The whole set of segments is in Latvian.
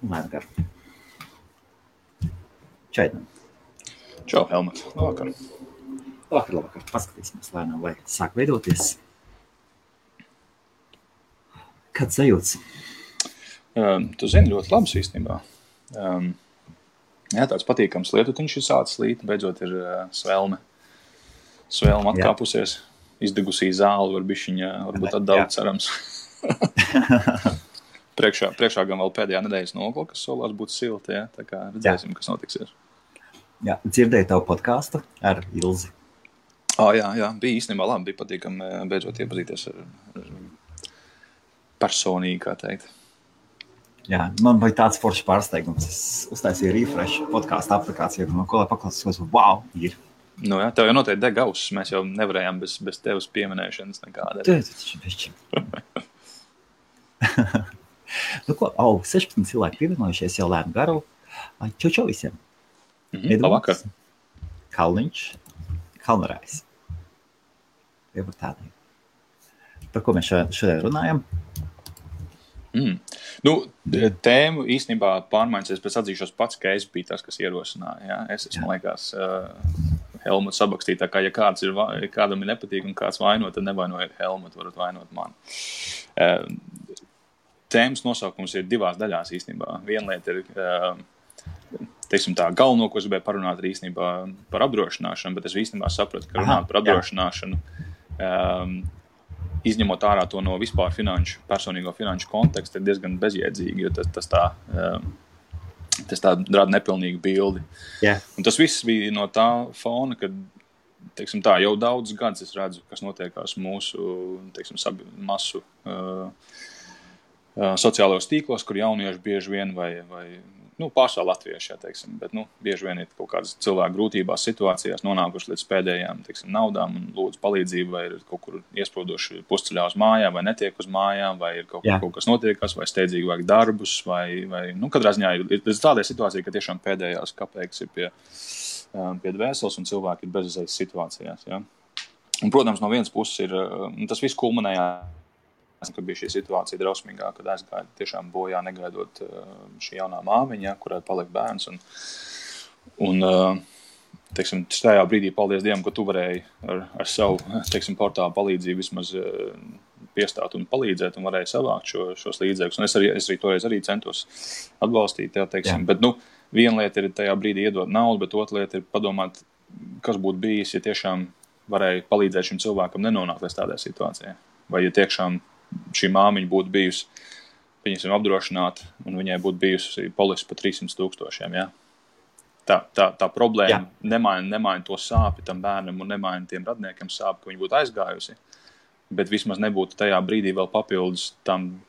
Lēnām garu. Čaidam. Čau, Helmut. Labvakar. Labvakar. Paskatīsimies lēnām, lai sāk veidoties. Kāds sajūts? Tu zini ļoti labs īstenībā. Jā, tāds patīkams lietutiņš ir sācis līt, beidzot ir svelme. Svelme atkāpusies, izdegusī zāli var bišķiņa, varbūt atdaudz cerams. priekšā gan vēl pēdējā nedēļas nogla, kas solās būt silta, ja? Tā kā redzēsim, kas notiksies. Jā, dzirdēju tavu podcastu ar Ilzi. Jā, bija īstenībā labi, bija patīkami beidzot iepazīties ar personīgi, kā teikt. Jā, man bija tāds foršs pārsteigums. Es uztaisīju refresh podcastu aplikāciju, no ko lai paklausītos, wow, ir. Nu jā, tev jau noteikti deg auss, mēs jau nevarējām bez tevas pieminēšanas nekādā. Nu ko, 16 cilvēki pievienojušies jau lēnu garu. Čau visiem. Labvakar. Kalniņš, Kalnarājs. Jau par tādiem. Par ko mēs šodien runājam? Nu, tēmu īstenībā pārmaiņas, es pēc atzīšos pats, ka es biju tas, kas ierosināja. Ja? Es man liekas, Helmut sabakstīja, tā kā, ja kādam ir nepatīk un kāds vainot, tad nevainojiet Helmut, varat vainot mani. Tēmas nosaukums ir divās daļās īstenībā. Viena lieta ir, teiksim tā, galveno, ko es gribēju parunāt ir īstenībā par apdrošināšanu, bet es īstenībā sapratu, ka runāt par apdrošināšanu, izņemot ārā to no vispār personīgo finanšu konteksta, ir diezgan bezjēdzīgi, jo tas tā rada nepilnīgu bildi. Yeah. Un tas viss bija no tā fona, kad, teiksim tā, jau daudz gadus es redzu, kas notiekās mūsu, teiksim, masu sociālajos tīklos, kur jaunieši bieži vien vai pārsvarā latvieši, jā, teiksim, bet, bieži vien ir kaut kādas cilvēku grūtībās situācijās nonākuši līdz pēdējām, teiksim, naudām un lūdzu palīdzību, vai ir kaut kur iesprūdoši pusceļā uz mājām, vai netiek uz mājām, vai ir kaut kas notiekās, vai steidzīgi vajag darbus, vai katrā ziņā ir tāda situācija, ka tiešām pēdējās kapeikas ir pie dvēseles un cilvēki ir bezizējas situācijās, jā. Un, protams, no vienas puses ir, tas viss kulminējās, ka bija šī situācija drausmīgā, kad aizgāja tiešām bojā negaidot šī jaunā māmiņa, kurai palika bērns. Un teiksim, tajā brīdī, paldies Dievam, ka tu varēji ar savu, teiksim, portālu palīdzību vismaz piestāt un palīdzēt un varēji savākt šos līdzekļus. Un es arī toreiz arī centos atbalstīt, teiksim. Bet, viena lieta ir tajā brīdī iedot naudu, bet otra lieta ir padomāt, kas būtu bijis, ja tiešām varēja palīdzēt šim cilvēkam nenonākt līdz tādai situācijai. Vai ja tiešām šī māmiņa būtu bijusi, viņasim apdrošināta, un viņai būtu bijusi polise pa 300,000, ja? Tā problēma nemaina to sāpi tam bērnam un nemaina tiem radniekiem sāpi, ka viņi būtu aizgājusi, bet vismaz nebūtu tajā brīdī vēl papildus tām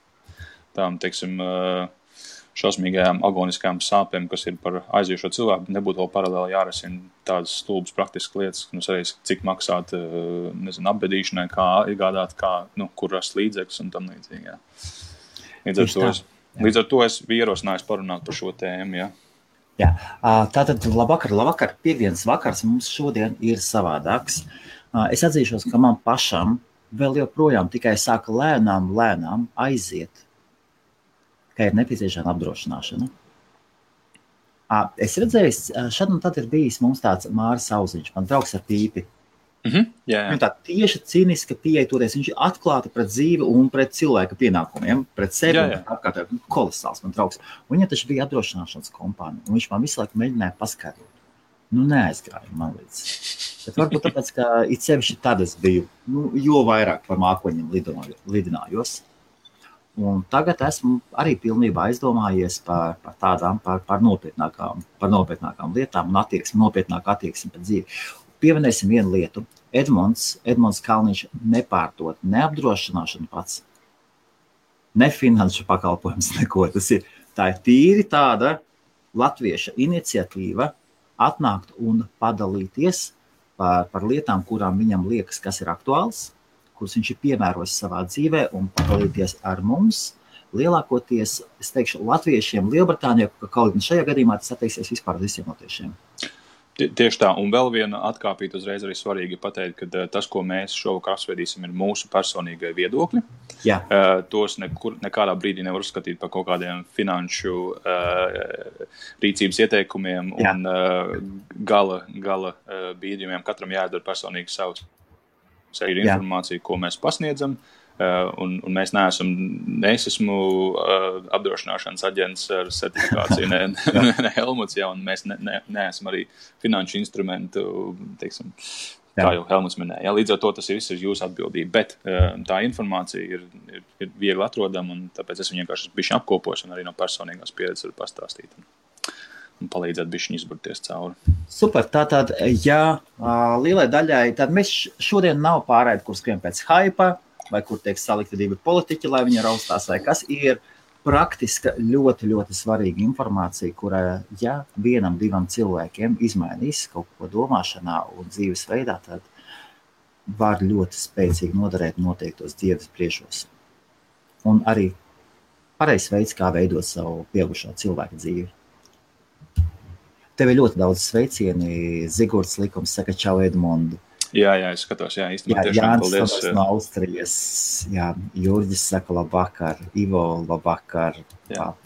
teiksim, šausmīgajām agoniskajām sāpēm, kas ir par aiziejušo cilvēku, nebūtu vēl paralēli jārisina tādas stulbas praktiskas lietas, arī cik maksāt, apbedīšanai, kā iegādāt, kur rast līdzekļus un tam līdzīgi. Jā. Līdz ar to es biju ierosinājis parunāt par šo tēmu. Jā. Jā. Tātad labvakar. Piektdienas vakars mums šodien ir savādāks. Es atzīšos, ka man pašam vēl joprojām tikai sāka lēnām aiziet, ka ir nepieciešama apdrošināšana. Es redzēju, šad un tad ir bijis mums tāds Māris Auziņš, man draugs ar pīpi. Jā. Viņa tā tieši cīniska pieeja toties, viņš ir atklāti pret dzīvi un pret cilvēka pienākumiem, pret sevi un apkārt, kolosāls man draugs. Un viņa taču bija apdrošināšanas kompānija, un viņš man visu laiku mēģināja paskaidrot. Neaizgāja man līdz. Bet varbūt tāpēc, ka it sevišķi tad es biju, jo vairāk par mākoņiem lidinājos. Un tagad esmu arī pilnībā aizdomājies par nopietnākām lietām un nopietnāku attieksmi pret dzīvi. Pieminēsim vienu lietu. Edmunds Kalniņš nepārdod ne apdrošināšanu pats, ne finanšu pakalpojums, neko. Tā ir tīri tāda latvieša iniciatīva atnākt un padalīties par lietām, kurām viņam liekas, kas ir aktuāls, kuras viņš ir piemērojis savā dzīvē un padalīties ar mums. Lielākoties, es teikšu, latviešiem Lielbritānijā, ka kaut gan šajā gadījumā tas attieksies vispār visiem latviešiem. Tieši tā, un vēl viena atkāpīt uzreiz arī svarīgi pateikt, ka tas, ko mēs šovakar apsvēdīsim, ir mūsu personīgai viedokļi. Jā. Tos nekādā brīdī nevar uzskatīt par kaut kādiem finanšu rīcības ieteikumiem un gala bīdījumiem. Katram jāizdara personīgi savs informācija, ko mēs pasniedzam. Un mēs es esmu apdrošināšanas aģents ar certifikāciju, ne Helmuts, un mēs neesam arī finanšu instrumentu, teiksim, kā jau Helmuts minēja. Līdz ar to tas viss ir jūsu atbildība, bet tā informācija ir viegli atrodama, un tāpēc es viņu vienkārši bišķi apkopošu un arī no personīgās pieredzes varu pastāstīt un palīdzēt bišķiņi izburties cauri. Super, tātad, lielai daļai, tad mēs šodien nav pārēdi, kur skrien pēc haipa, vai kur tiek salikti divi politiķi, lai viņi raustās, vai kas ir praktiska, ļoti, ļoti svarīga informācija, kura, vienam, divam cilvēkiem izmainīs kaut ko domāšanā un dzīves veidā, tad var ļoti spēcīgi noderēt noteiktos dzīves priešos. Un arī pareizs veids, kā veidot savu pieaugušā cilvēka dzīvi. Tev ir ļoti daudz sveicieni. Zigorts Likums saka čau Edmundu. Jā, es skatos, īstenībā tiešām paldies. Jānis no Austrijas, Jurģis saka labvakar, Ivo labvakar,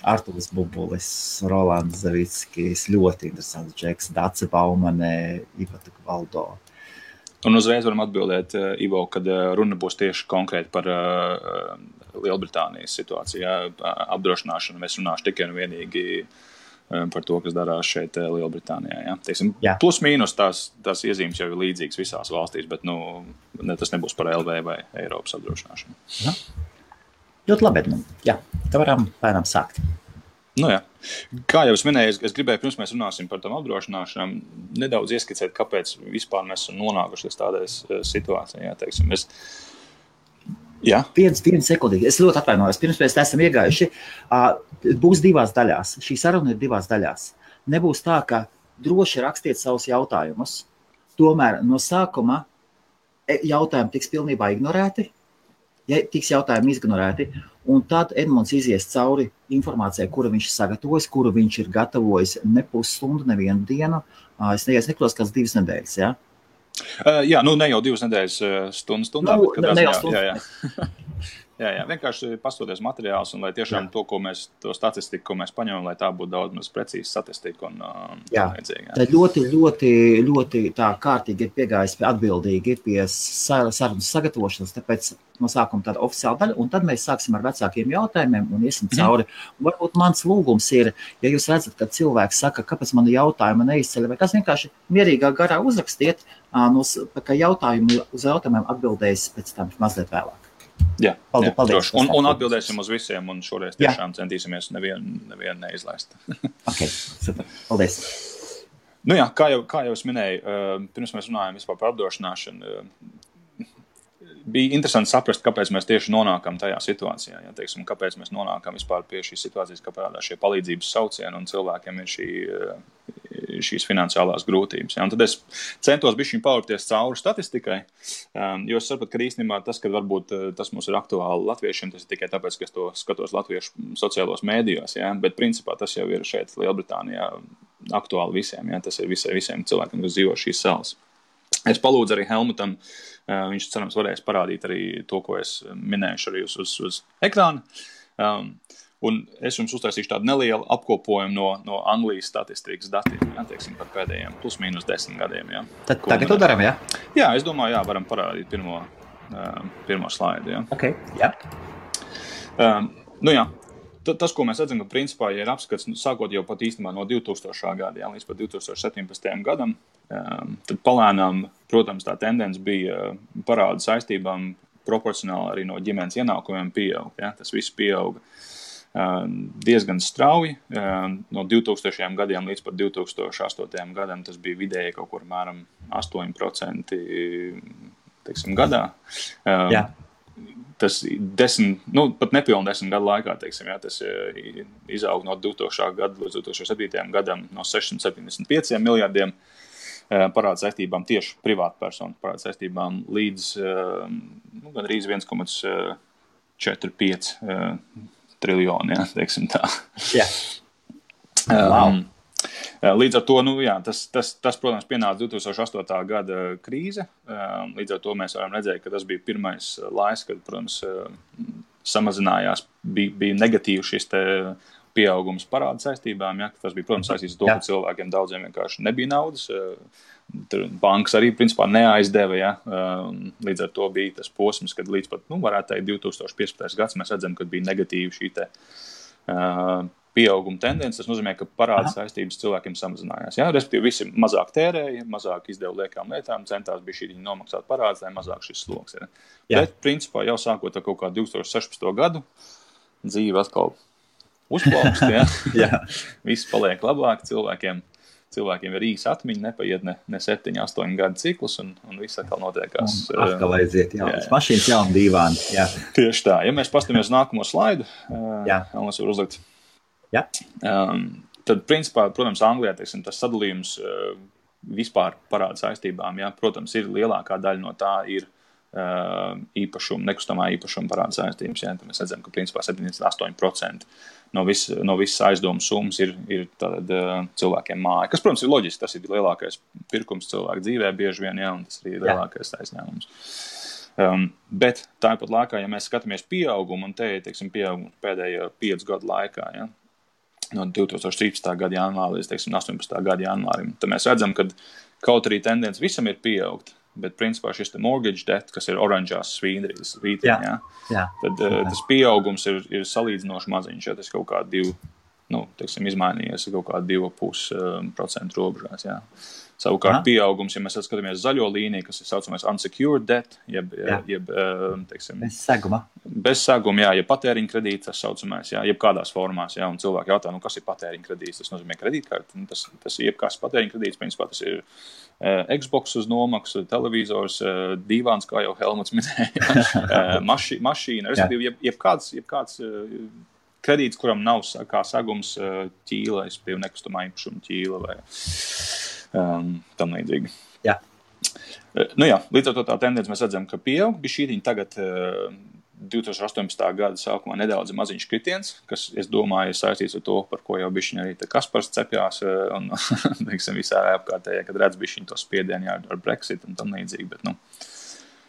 Artūrs Bubulis, Rolands Zavickis, ļoti interesants džeks, Dace Baumane, Ivata Valdo. Un uzreiz varam atbildēt, Ivo, kad runa būs tieši konkrēti par Lielbritānijas situāciju, apdrošināšanu. Mēs runāšu tikai un vienīgi par to, kas darās šeit Lielbritānijā. Teiksim, plus mīnus tās iezīmes jau ir līdzīgas visās valstīs, bet tas nebūs par LV vai Eiropas apdrošināšanu. Ļoti labi, Edmund. Tā varam pēnām sākt. Kā jau es minēju, es gribēju, pirms mēs runāsim par tam apdrošināšanām, nedaudz ieskicēt, kāpēc vispār mēs esam nonākuši līdz tādai situācijai. Teiksim, Vienu sekundīgi. Es ļoti atvainojos. Pirms mēs esam iegājuši. Būs divās daļās. Šī saruna ir divās daļās. Nebūs tā, ka droši rakstiet savus jautājumus. Tomēr no sākuma jautājumi tiks pilnībā ignorēti. Tiks jautājumi ignorēti. Un tad Edmunds izies cauri informācijai, kuru viņš sagatavojas, kuru viņš ir gatavojis ne pusstundu, nevienu dienu. Es nekļos kāds 2 nedēļas, ne jau 2 nedēļas stundā, bet vienkārši pastoties materiāls un lai tiešām to statistiku, ko mēs paņemam, lai tā būtu daudz maz precīzi statistika un vajadzīgi. Tā ļoti, ļoti, ļoti tā kārtīgi ir piegājis atbildīgi pie sarunas sagatavošanas, tāpēc no sākuma tāda oficiāla daļa, un tad mēs sāksim ar vecākiem jautājumiem un iesim cauri. Un varbūt mans lūgums ir, ja jūs redzat, ka cilvēks saka, kāpēc mani jautājuma neizceļ, vai kas vienkārši mierīgā garā uzrakstiet, ka uz jautājumiem atbildēs pēc tam mazliet vēlāk. Paldies. Un atbildēsim uz visiem, un šoreiz tiešām centīsimies nevienu neizlaist. Super. Paldies. Kā jau es minēju, pirms mēs runājam vispār par apdrošināšanu, bija interesanti saprast, kāpēc mēs tieši nonākam tajā situācijā. Teiksim, kāpēc mēs nonākam vispār pie šīs situācijas, kā parādās šie palīdzības saucieni un cilvēkiem ir šīs finansiālās grūtības. Un tad es centos bišķiņ paurties cauri statistikai, jo es sapratu, ka īstenībā tas, ka varbūt tas mums ir aktuāli latviešiem, tas ir tikai tāpēc, ka es to skatos latviešu sociālos mēdījos, bet principā tas jau ir šeit Lielbritānijā aktuāli visiem. Tas ir visiem cilvēkiem, kas dzīvo šīs salas. Es palūdzu arī Helmutam, viņš cerams varēs parādīt arī to, ko es minējuši arī uz ekrāna. Un es jums uztaisīšu tādu nelielu apkopojumu no Anglijas statistikas datiem, teiksim, par pēdējiem plus mīnus 10 gadiem. Tad tagad to daram, Jā, es domāju, varam parādīt pirmo slaidu, Tas, ko mēs redzam, ka principā, ja ir apskats, sākot jau pat īstenībā no 2000. gada, līdz pat 2017. gadam, tad palēnām, protams, tā tendence bija parāda saistībām proporcionāli arī no ģimenes ienākumiem pieaug. Tas viss pieauga diezgan strauji. No 2000. gadiem līdz pat 2008. gadam tas bija vidēji kaut kur mēram 8%, teiksim, gadā. Tas pat nepilni 10 gadu laikā, teiksim, tas izaug no 2000. gada līdz 2007. gadam no 675 miljardiem parāda saistībām tieši privātpersonu parāda saistībām līdz gandrīz 1,45 triljoni, teiksim tā. Wow. Līdz ar to, tas, protams, pienāca 2008. gada krīze. Līdz ar to mēs varam redzēt, ka tas bija pirmais laiks, kad, protams, samazinājās, bija negatīvs šis te pieaugums parāda saistībām. Ja? Tas bija, protams, saistīts ar to, ka cilvēkiem daudziem vienkārši nebija naudas. Bankas arī, principā, neaizdeva. Ja? Līdz ar to bija tas posms, kad līdz pat, varētu teikt, 2015. gads mēs redzam, kad bija negatīvi šī te pieauguma tendence. Tas nozīmē, ka parāda saistības cilvēkiem samazinājās. Ja? Respektīvi, visi mazāk tērēja, mazāk izdeva liekām lietām, centās bija šī nomaksāt parādus, lai mazāk šis sloks. Ja? Bet, principā, jau sākot ar kaut kā 2016. gadu, dzīve atkal uzplaukst. Ja? Viss paliek labāk, cilvēkiem ir īsa atmiņa, nepaiet ne 7, 8 gadu ciklus, un viss atkal notiekās. Atkal aiziet, jaunas mašīnas, jauna dīvāni. Jā. Tieši tā. Ja mēs pastamies nākamo slaidu, Almas var uzlikt. Jā. Tad, principā, protams, Anglijā, teiksim, tas sadalījums vispār parāda saistībām, ja? Protams, ir lielākā daļa no tā ir nekustamā īpašuma parāda saistības. Ja? Tad mēs redzam, ka, principā, 78% no visas aizdomu summas ir tātad cilvēkiem māja. Kas, protams, ir loģiski, tas ir lielākais pirkums cilvēku dzīvē bieži vien, ja? Un tas ir lielākais aizņēmums. Bet tāpat laikā, ja mēs skatāmies pieaugumu, un te ir, teiksim, pieaugumu pēdējo 5 gadu laikā, ja? No 2013. gada janvāra līdz, teiksim, 18. gada janvārim, tad mēs redzam, ka kaut arī tendence visam ir pieaugt, bet, principā, šis te mortgage debt, kas ir oranžās svītriņā, tad tas pieaugums ir salīdzinoši maziņš, ja tas kaut kā izmainījies kaut kā 2,5% robežās, jā. Savukārt pieaugums, ja mēs skatāmies zaļo līniju, kas ir saucamais unsecured debt, teiksim, bez seguma, jā, ja patēriņa kredīts, tas saucamais, jā, jeb kādās formās, jā, un cilvēki jautā, kas ir patēriņa kredīts, tas nozīmē kredītkarti, tas ir jebkāds patēriņa kredīts, principā tas ir Xbox uz nomaksu, televizors, dīvāns, kā jau Helmuts minēja, mašīna, respektīvi, jebkāds kredīts, kuram nav kā segums ķīla, respektīvi nekustamā īpašuma ķīla vai tam līdzīgi. Jā. Līdz ar to tā tendence mēs redzam, ka pieaug. Bišķītiņi tagad 2018. gada sākumā nedaudz maziņš kritiens, kas, es domāju, ir saistīts ar to, par ko jau bišķiņi arī Kaspars cepjās un, teiksim, visā apkārtējā, kad redz bišķiņi to spiedienu ar Brexit un tam līdzīgi. Bet,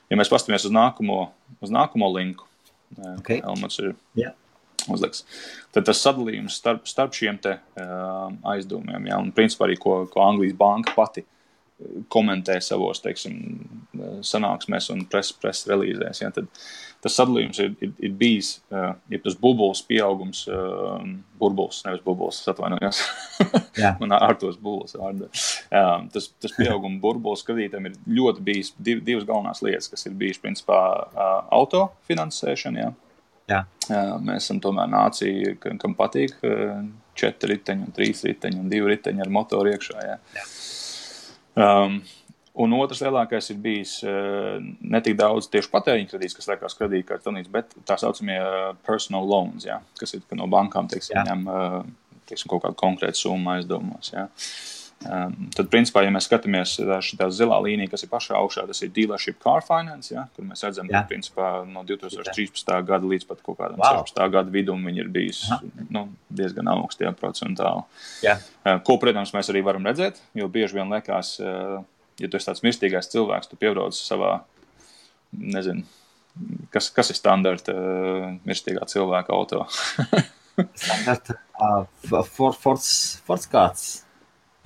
ja mēs pastamies uz nākamo linku, Elmats ir uzliks, tad tas sadalījums starp šiem te aizdevumiem, ja, un principā arī, ko Anglijas banka pati komentē savos, teiksim, sanāksmēs un press relīzēs, ja, tad tas sadalījums ir bijis, ja tas bubuls pieaugums, burbuls, nevis bubuls, atvainojos, man ārtos bubuls vārdā. Tas pieauguma burbuls kredītam ir ļoti bijis divas galvenās lietas, kas ir bijis, principā, autofinansēšana, ja. Jā. Mēs esam tomēr nācija, kam patīk 4 riteņi, 3 riteņi un 2 riteņi ar motoru iekšā. Jā. Un otrs lielākais ir bijis ne tik daudz tieši patēriņa kredīts, kas liekas kredītkartes, bet tā saucamie personal loans, jā, kas ir no bankām, ņem kaut kādu konkrētu summu aizdevumos. Jā. Tad, principā, ja mēs skatāmies šitā zilā līnija, kas ir pašā augšā, tas ir dealership car finance, ja, kur mēs redzam, ka, principā, no 2013. gada līdz pat kaut kādam 16. gada vidum viņi ir bijis diezgan augsti, ja, procentāli. Ko, protams, mēs arī varam redzēt, jo bieži vien liekas, ja tu esi tāds mirstīgais cilvēks, tu piebrauc savā, nezinu, kas ir standarta mirstīgā cilvēka auto? Standarta Fords kāds.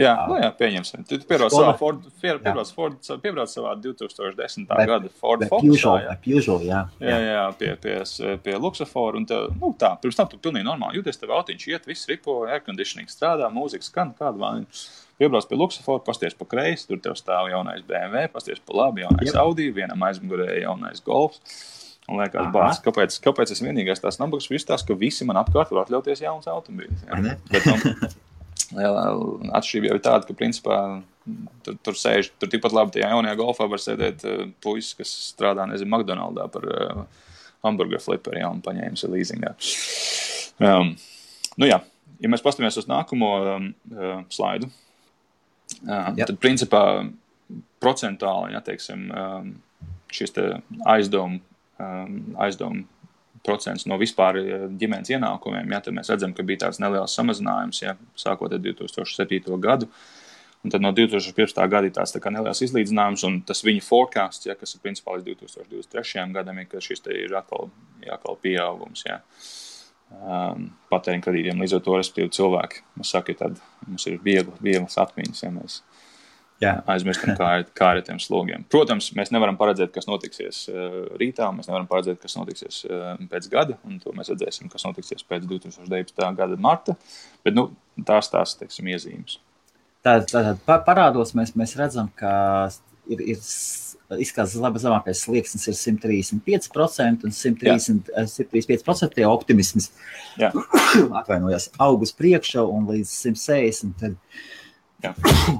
Jā, pieņemsim. Tu piebrauc savā 2010. gada Ford Focusā. Jā, pie Luxafora. Un pirms tam tu pilnīgi normāli jūties, tev autiņš iet, viss ripo, airconditioning strādā, mūzika skan, kāda vāni. Piebrauc pie Luxafora, pasties pa kreisi, tur tev stāv jaunais BMW, pasties pa labi, jaunais Audi, vienam aizmugurē jaunais Golfs. Un liekas, bāc, kāpēc es vienīgais tās nabagas izstāstu, ka visi man apkārt var atļauties jauns automobīļus. Bet, atšķirība jau ir tāda, ka, principā, tur tikpat labi tajā jaunajā Golfā var sēdēt puisis, kas strādā, nezinu, McDonaldā par hamburger fliperi, ja, un paņēmis leasingā. Ja mēs pastamies uz nākamo slaidu, tad, principā, procentāli, ja, teiksim, šis te aizdomu procents no vispār ģimenes ienākumiem, tad mēs redzam, ka bija tāds neliels samazinājums, sākot ar 2007. gadu. Un tad no 2015. gada ir tāds tā kā neliels izlīdzinājums, un tas viņa forecasts, kas ir principā līdz 2023. gadam, ka šis te ir atkal pieaugums, patēriņa kredītiem. Līdz ar to, respektīvi, cilvēki, mums ir vieglas atmiņas, mēs aizmirstam, kā ar tiem slogiem. Protams, mēs nevaram paredzēt, kas notiksies rītā, mēs nevaram paredzēt, kas notiksies pēc gada, un to mēs redzēsim, kas notiksies pēc 2019. gada marta, bet, tās, teiksim, iezīmes. Tātad parādos mēs redzam, ka ir izskatās zemākais slieksnis ir 135% un 135% tie optimisms atvainojos aug uz priekšu un līdz 160%. Tad...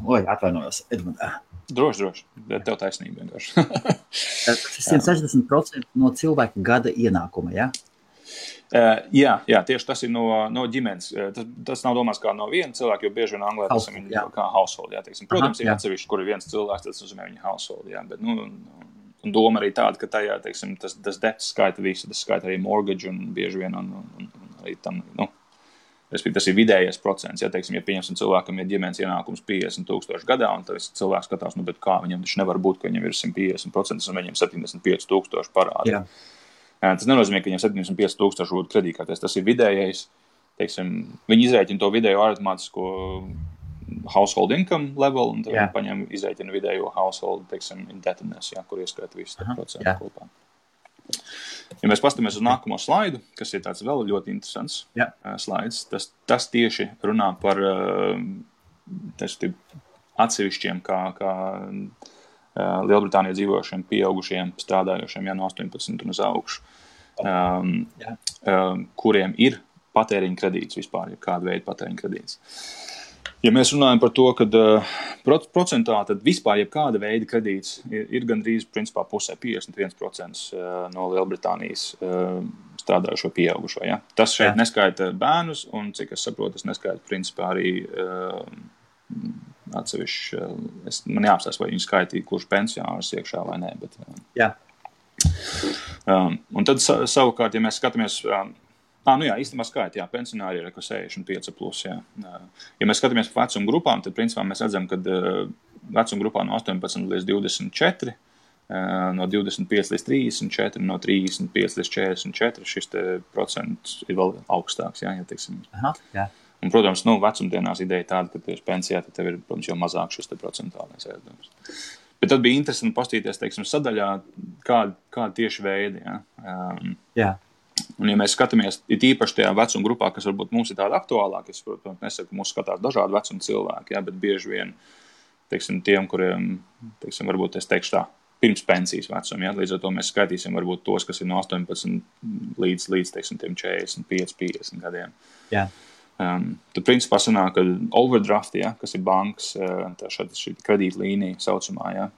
Oi, atvainojos, Edmund. Droši, tev taisnība vienkārši. Tas ir 160% no cilvēka gada ienākuma, Jā, tieši tas ir no ģimenes. Tas nav domās kā no viena cilvēka, jo bieži vien Anglē tas ir kā household, teiksim. Protams, ir atsevišķi, kur ir viens cilvēks, tas nozīmē viņa household, bet, un doma arī tāda, ka tajā, teiksim, tas debt skaita visu, tas skaita arī mortgage un bieži vien, un arī tam, respektīvi, tas ir vidējais procents, teiksim, ja pieņemsim cilvēkam ir ģimenes ienākums 50,000 gadā, un tas cilvēks skatās, bet kā viņam taču nevar būt, ka viņam ir 150% un viņam 75,000 parādi. Tas nenozīmē, ka viņam 75,000 būtu kredītkartēs. Tas ir vidējais, teiksim, viņi izrēķina to vidējo aritmātisko household income level, un tad viņi paņem izrēķina vidējo household, teiksim, indebtedness, kur ieskaita visu procentu kopā. Ja mēs pastamies uz nākamo slaidu, kas ir tāds vēl ļoti interesants slaids, tas tieši runā par atsevišķiem, kā Lielbritānijā dzīvojušiem, pieaugušiem, strādājošiem, no 18 un uz augšu, kuriem ir patēriņa kredīts vispār, kāda veida patēriņa kredīts. Ja mēs runājam par to, kad procentuāli, tad vispār jebkāda veida kredīts ir gandrīz, principā, pusē 51% no Lielbritānijas strādājušo pieaugušo. Tas šeit neskaita bērnus, un, cik es saprotu, tas neskaita, principā, arī atsevišķi, man jāapstāsta, vai viņi skaitīja, kurš pensionārs iekšā vai nē, bet... Un tad savukārt, ja mēs skatāmies... īstenībā skaita, pensionāri ir 65 plus, Ja mēs skatāmies par vecuma grupām, tad principā mēs redzam, ka vecuma grupā no 18 līdz 24, no 25 līdz 34, no 35 līdz 44, šis te procents ir vēl augstāks, teiksim. Un, protams, vecumdienās ideja tāda, ka tieši pensijā tad tev ir, protams, jau mazāk šis te procentuālais ēdums. Bet tad bija interesanti pastīties, teiksim, sadaļā, kāda tieši veidi, Un, ja mēs skatāmies, ir īpaši tajā vecuma grupā, kas varbūt mums ir tāda aktuālāka, es, protams, nesaku, ka mūs skatās dažādi vecuma cilvēki, bet bieži vien, teiksim, tiem, kuriem, teiksim, varbūt es teikšu tā, pirms pensijas vecuma, līdz ar to mēs skaitīsim varbūt tos, kas ir no 18 līdz teiksim, 45, 50 gadiem. Tad, principā, sanāk, ka overdraft, kas ir bankas, šī kredītlīnija saucamā,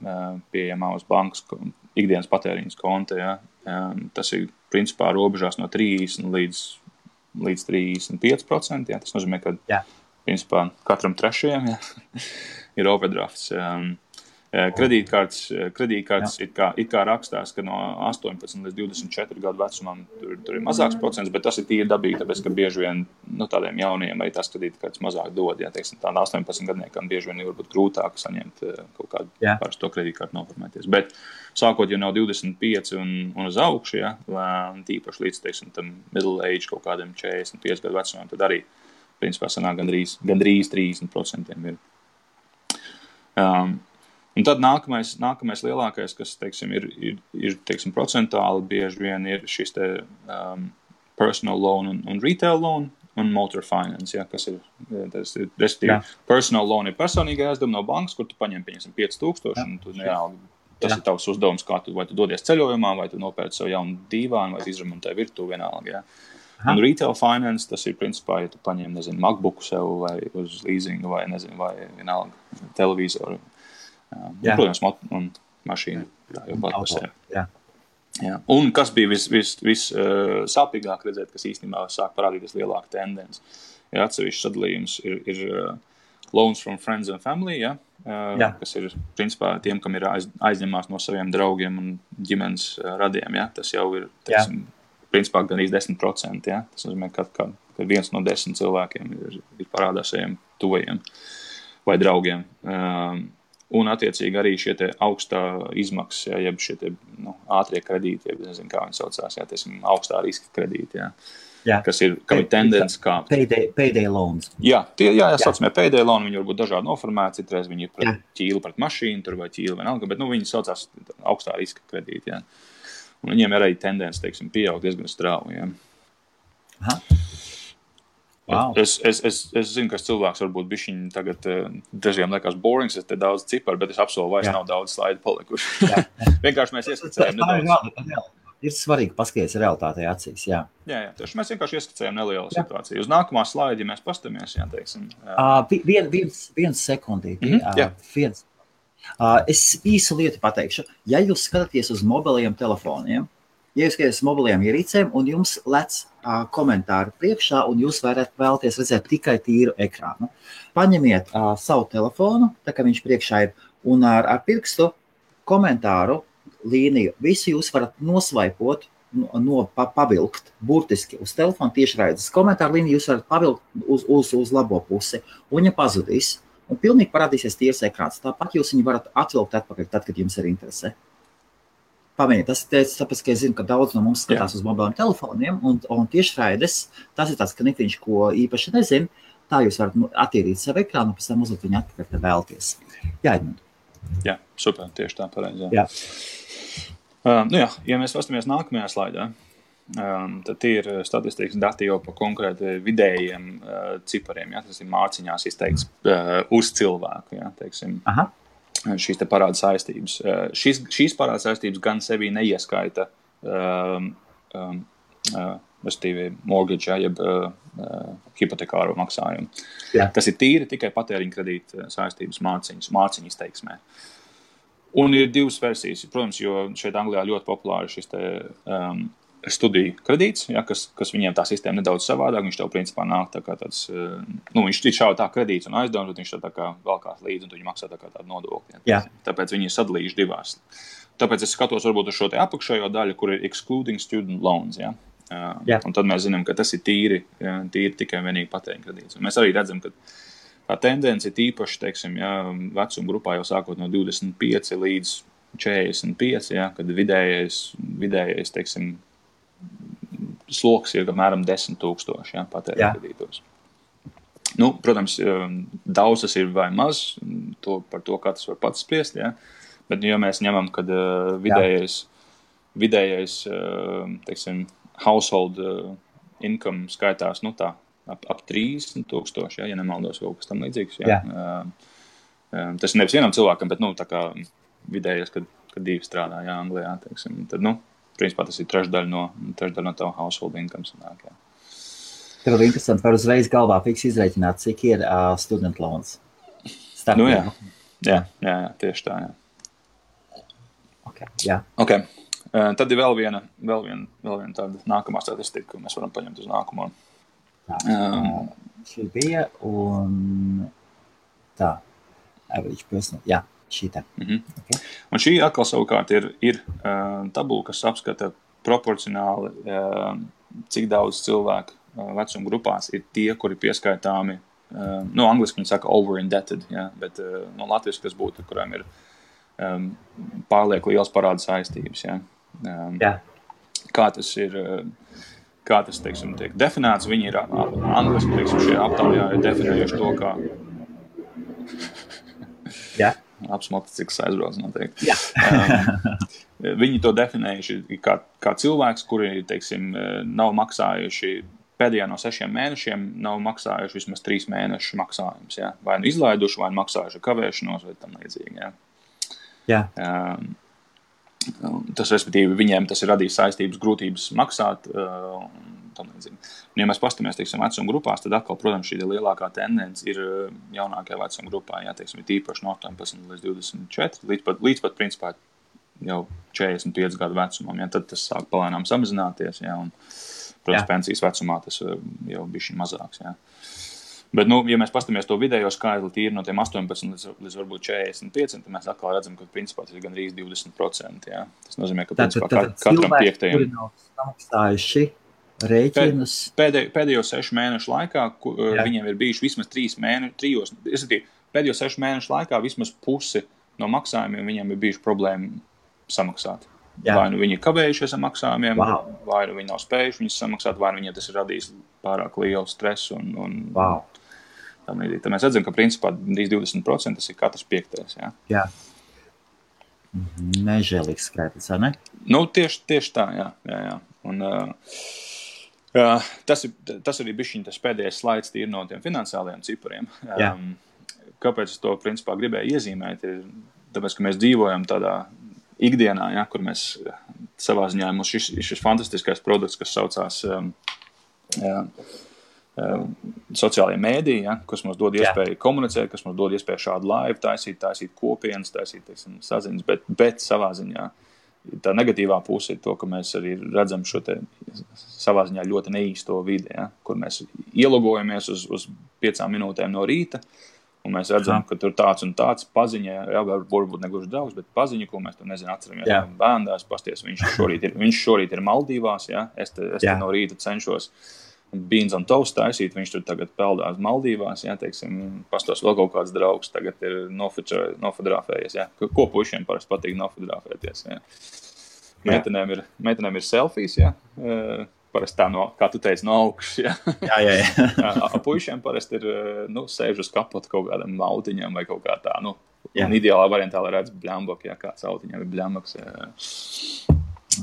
pieejamā uz bankas ikdienas patēriņas konta, tas ir, principā, robežās no 30 līdz 35%, Tas nozīmē, ka, principā, katram trešajam, ir overdrafts. Kredītkartes it kā rakstās, ka no 18 līdz 24 gadu vecumam tur ir mazāks procents, bet tas ir tīri dabīgi, tāpēc, ka bieži vien tādiem jauniem arī tās kredītkartes mazāk dod. Teiksim, tādā 18 gadniekam bieži vien ir varbūt grūtāk saņemt kaut kādu parasto kredītkartu noformēties. Bet sākot jau no 25 un uz augšu, tīpaši līdz, teiksim, tam middle age kaut kādiem 45 gadu vecumam, tad arī, principā, sanāk gandrīz 30% ir. Un tad nākamais lielākais, kas, teiksim, ir teiksim, procentuāli bieži vien ir šis te personal loan un retail loan un motor finance, kas ir, respektīvi, personal loan ir personīga aizdevuma no bankas, kur tu paņem, pieņemsim, 5,000, un tu tas ir tavs uzdevums, kā vai tu dodies ceļojumā, vai tu nopērci savu jaunu dīvānu, vai tu izremontē virtuvi vienalga, Un retail finance, tas ir, principā, ja tu paņem, nezinu, MacBooku sev, vai uz leasingu, vai, nezinu, vai vienalga televizoru, protams, un mašīna, jau pat par sevi. Un kas bija vis sāpīgāk redzēt, kas īstenībā sāk parādīties lielāka tendence. Atsevišķs sadalījums ir loans from friends and family, kas ir, principā, tiem, kam ir aizņemās no saviem draugiem un ģimenes radiem. Tas jau ir, teiksim, principā gan 10%. Ja? Tas nozīmē, ka 1 no 10 cilvēkiem ir parādā saviem tuvajiem vai draugiem. Un, attiecīgi, arī šie te augstā izmaksas, ja, jeb šie te, ātrie kredīti, jeb nezinu, kā viņi saucās, ja, tiesim, augstā riska kredīti, ja. Kam ir tendence kāpt. Payday loans. Jā, saucamie payday loan, viņi var būt dažādi noformēti, citreiz viņi ir pret ķīlu, pret mašīnu, tur vai ķīlu vienalga, bet viņi saucās augstā riska kredīti, ja. Un viņiem ir arī tendence, teiksim, pieaugt diezgan strauji, ja. Aha. Wow. Es zinu, ka cilvēks varbūt bišķiņ tagad dažiem liekas borings, es te daudz ciparu, bet es apsolu vairs nav daudz slaidu palikuši. Vienkārši mēs ieskicējam nedaudz. Ir svarīgi paskatīties realitātei acīs, jā. Jā, tieši mēs vienkārši ieskicējam nelielu situāciju. Uz nākamā slaidi, ja mēs pastamies, jā, teiksim. Viens sekundīti. Es īsu lietu pateikšu. Ja jūs skatāties uz mobiliem telefoniem, ja jūs skatāties uz mobiliem ierīcēm un jums lec komentāri priekšā un jūs vēlaties redzēt tikai tīru ekrānu, paņemiet savu telefonu, tā kā viņš priekšā ir, un ar pirkstu komentāru līniju. Visu jūs varat nosvaipot, pavilkt burtiski uz telefonu tiešraides. Komentāru līniju jūs varat pavilkt uz labo pusi, un viņa pazudīs. Un pilnīgi parādīsies tīrs ekrāns. Tāpat jūs viņu varat atvilkt atpakaļ, tad, kad jums ir interese. Pamēģiniet, tas ir tāpēc, ka es zinu, ka daudz no mums skatās uz mobiliem telefoniem, un tiešraides, tas ir tāds knifiņš, ko īpaši nezinu. Tā jūs varat attīrīt savu ekrānu, un pēc tam uzlikt viņu atpakaļ, kad vēlaties. Jā, Edmund. Jā, super, tieši tā pareizi. Jā. Ja mēs pastamies nākamajā slaidā, tad tie ir statistikas dati jau par konkrēti vidējiem cipariem, ja, tas ir mārciņās izteikts uz cilvēku, ja, teiksim, šīs te parāda saistības. Šīs parāda saistības gan sevī neieskaita mortgage, ja, jeb hipotekāro maksājumu. Jā. Tas ir tīri tikai patēriņa kredīta saistības mārciņu izteiksmē. Un ir divas versijas, protams, jo šeit Anglijā ļoti populāri šis te studiju kredīts, ja, kas viņiem tā sistēma nedaudz savādāk, viņš tev principā nāk tā kā tāds, viņš šauj tā kredīts un aizdevums, bet viņš tā kā valkās līdzi un tu viņi maksā tā kā tādu nodokli. Ja. Tāpēc viņi ir sadalījuši divās. Tāpēc es skatos varbūt uz šo te apakšējo daļu, kur ir excluding student loans, ja. Un tad mēs zinām, ka tas ir tīri tikai vienīgi patēriņa kredīts. Un mēs arī redzam, ka tā tendence ir īpaši, teiksim, ja, vecuma grupā jau sākot no 25 līdz 45, ja, kad vidējais, teiksim, sloks ir apmēram 10,000, ja, patēriņa kredītos. Protams, daudz tas ir vai maz, par to katrs var pats spriest, ja, bet ja mēs ņemam, kad vidējais, teiksim, household income skaitās, ap 30,000, ja nemaldos kaut kas tam līdzīgs. Ja. Tas ir nevis vienam cilvēkam, bet, tā kā vidējais, kad divi strādā, ja, Anglijā, teiksim, tad, principā tas ir trešdaļa no tava household income sanāk, ja. Tev ir interesanti, var uzreiz galvā fiks izreikināt, cik ir student loans. Jā, tieši tā, jā. Okay. Tad ir vēl viena tāda nākamā statistika, ko mēs varam paņemt uz nākamo. Šī bija un tā, average person, jā, šī tā. Okay. Un šī atkal savukārt ir tabula, kas apskata proporcionāli, cik daudz cilvēku vecuma grupās ir tie, kuri pieskaitāmi, angliski viņi saka over-indebted, ja, bet latviski tas būtu, kurām ir pārlieku liels parāda saistības, ja. Kā tas, teiksim, tiek definēts, viņi ir angliski, teiksim, šie aptaujā ir definējuši to, kā apsmalticīgs aizbrauc noteikti. Viņi to definējuši kā cilvēks, kuri, teiksim, nav maksājuši pēdējā no 6 mēnešiem, nav maksājuši vismaz 3 mēnešu maksājums, ja? Vai izlaiduši, vai maksājuši kavēšanos, vai tam līdzīgi, ja. Tas, respektīvi, viņiem tas ir radījis saistības grūtības maksāt tam līdzīgi. Un, ja mēs pastamies, teiksim, vecuma grupās, tad atkal, protams, šī lielākā tendence ir jaunākajā vecuma grupā, ja, teiksim, ir tīpaši no 18 līdz 24, līdz pat principā jau 45 gadu vecumam, ja, tad tas sāk palēnām samazināties, ja, un, protams, pensijas vecumā tas jau bišķi mazāks, ja. Bet, ja mēs pastamies to vidējo skaitli tīri no tiem 18 līdz varbūt 45, tad mēs atkal redzam, ka principā tas ir gandrīz 20%. Jā. Tas nozīmē, ka principā katram piektajam... Kuri nav samaksājuši rēķinus... Pēdējo 6 mēnešu laikā viņiem ir bijuši vismaz 3 mēneši, pēdējo 6 mēnešu laikā vismaz pusi no maksājumiem viņiem ir bijuši problēma samaksāt. Jā. Vai nu viņi ir kavējušies ar maksājumiem, vai nu viņi nav spējuši viņus samaksāt, vai nu viņiem tas ir radījis pārāk lielu stresu. Tad mēs redzam, ka principā 20% tas ir katrs piektais. Jā. Nežēlīgs skaitlis, vai ne? Tieši tā, jā. Un, tas arī bišķiņ tas pēdējais slaids tīri no tiem finansiālajiem cipariem. Kāpēc es to principā gribēju iezīmēt, ir tāpēc, ka mēs dzīvojam tādā ikdienā, kur mēs savā ziņā mums šis fantastiskais produkts, kas saucās sociālajie mēdīji, kas mums dod iespēju komunicēt, kas mums dod iespēju šādu laivu taisīt kopienas, teiksim, saziņas, bet savā ziņā tā negatīvā puse ir to, ka mēs arī redzam šo te savā ziņā ļoti neīsto vidi, kur mēs ielogojamies uz 5 minūtēm no rīta, un mēs redzam, ka tur tāds un tāds paziņa, varbūt negluži draugs, bet paziņa, ko mēs tur atceramies. Bērndās, pasties, viņš šorīt ir Maldīvās, es te no rīta cenšos beans on toast taisīt, viņš tur tagad peldās Maldīvās, teiksim, pastos vēl kaut kāds draugs, tagad ir nofotografējies, ko puišiem parasti patīk nofotografēties, Meitenēm ir selfies, parasti tā, kā tu teici, no augšas, Puišiem parasti ir, sēž uz kapotu kaut kādam autiņam vai kaut kā tā, un ideālā variantā, lai redz bļambok, kāds autiņam ir bļambaks,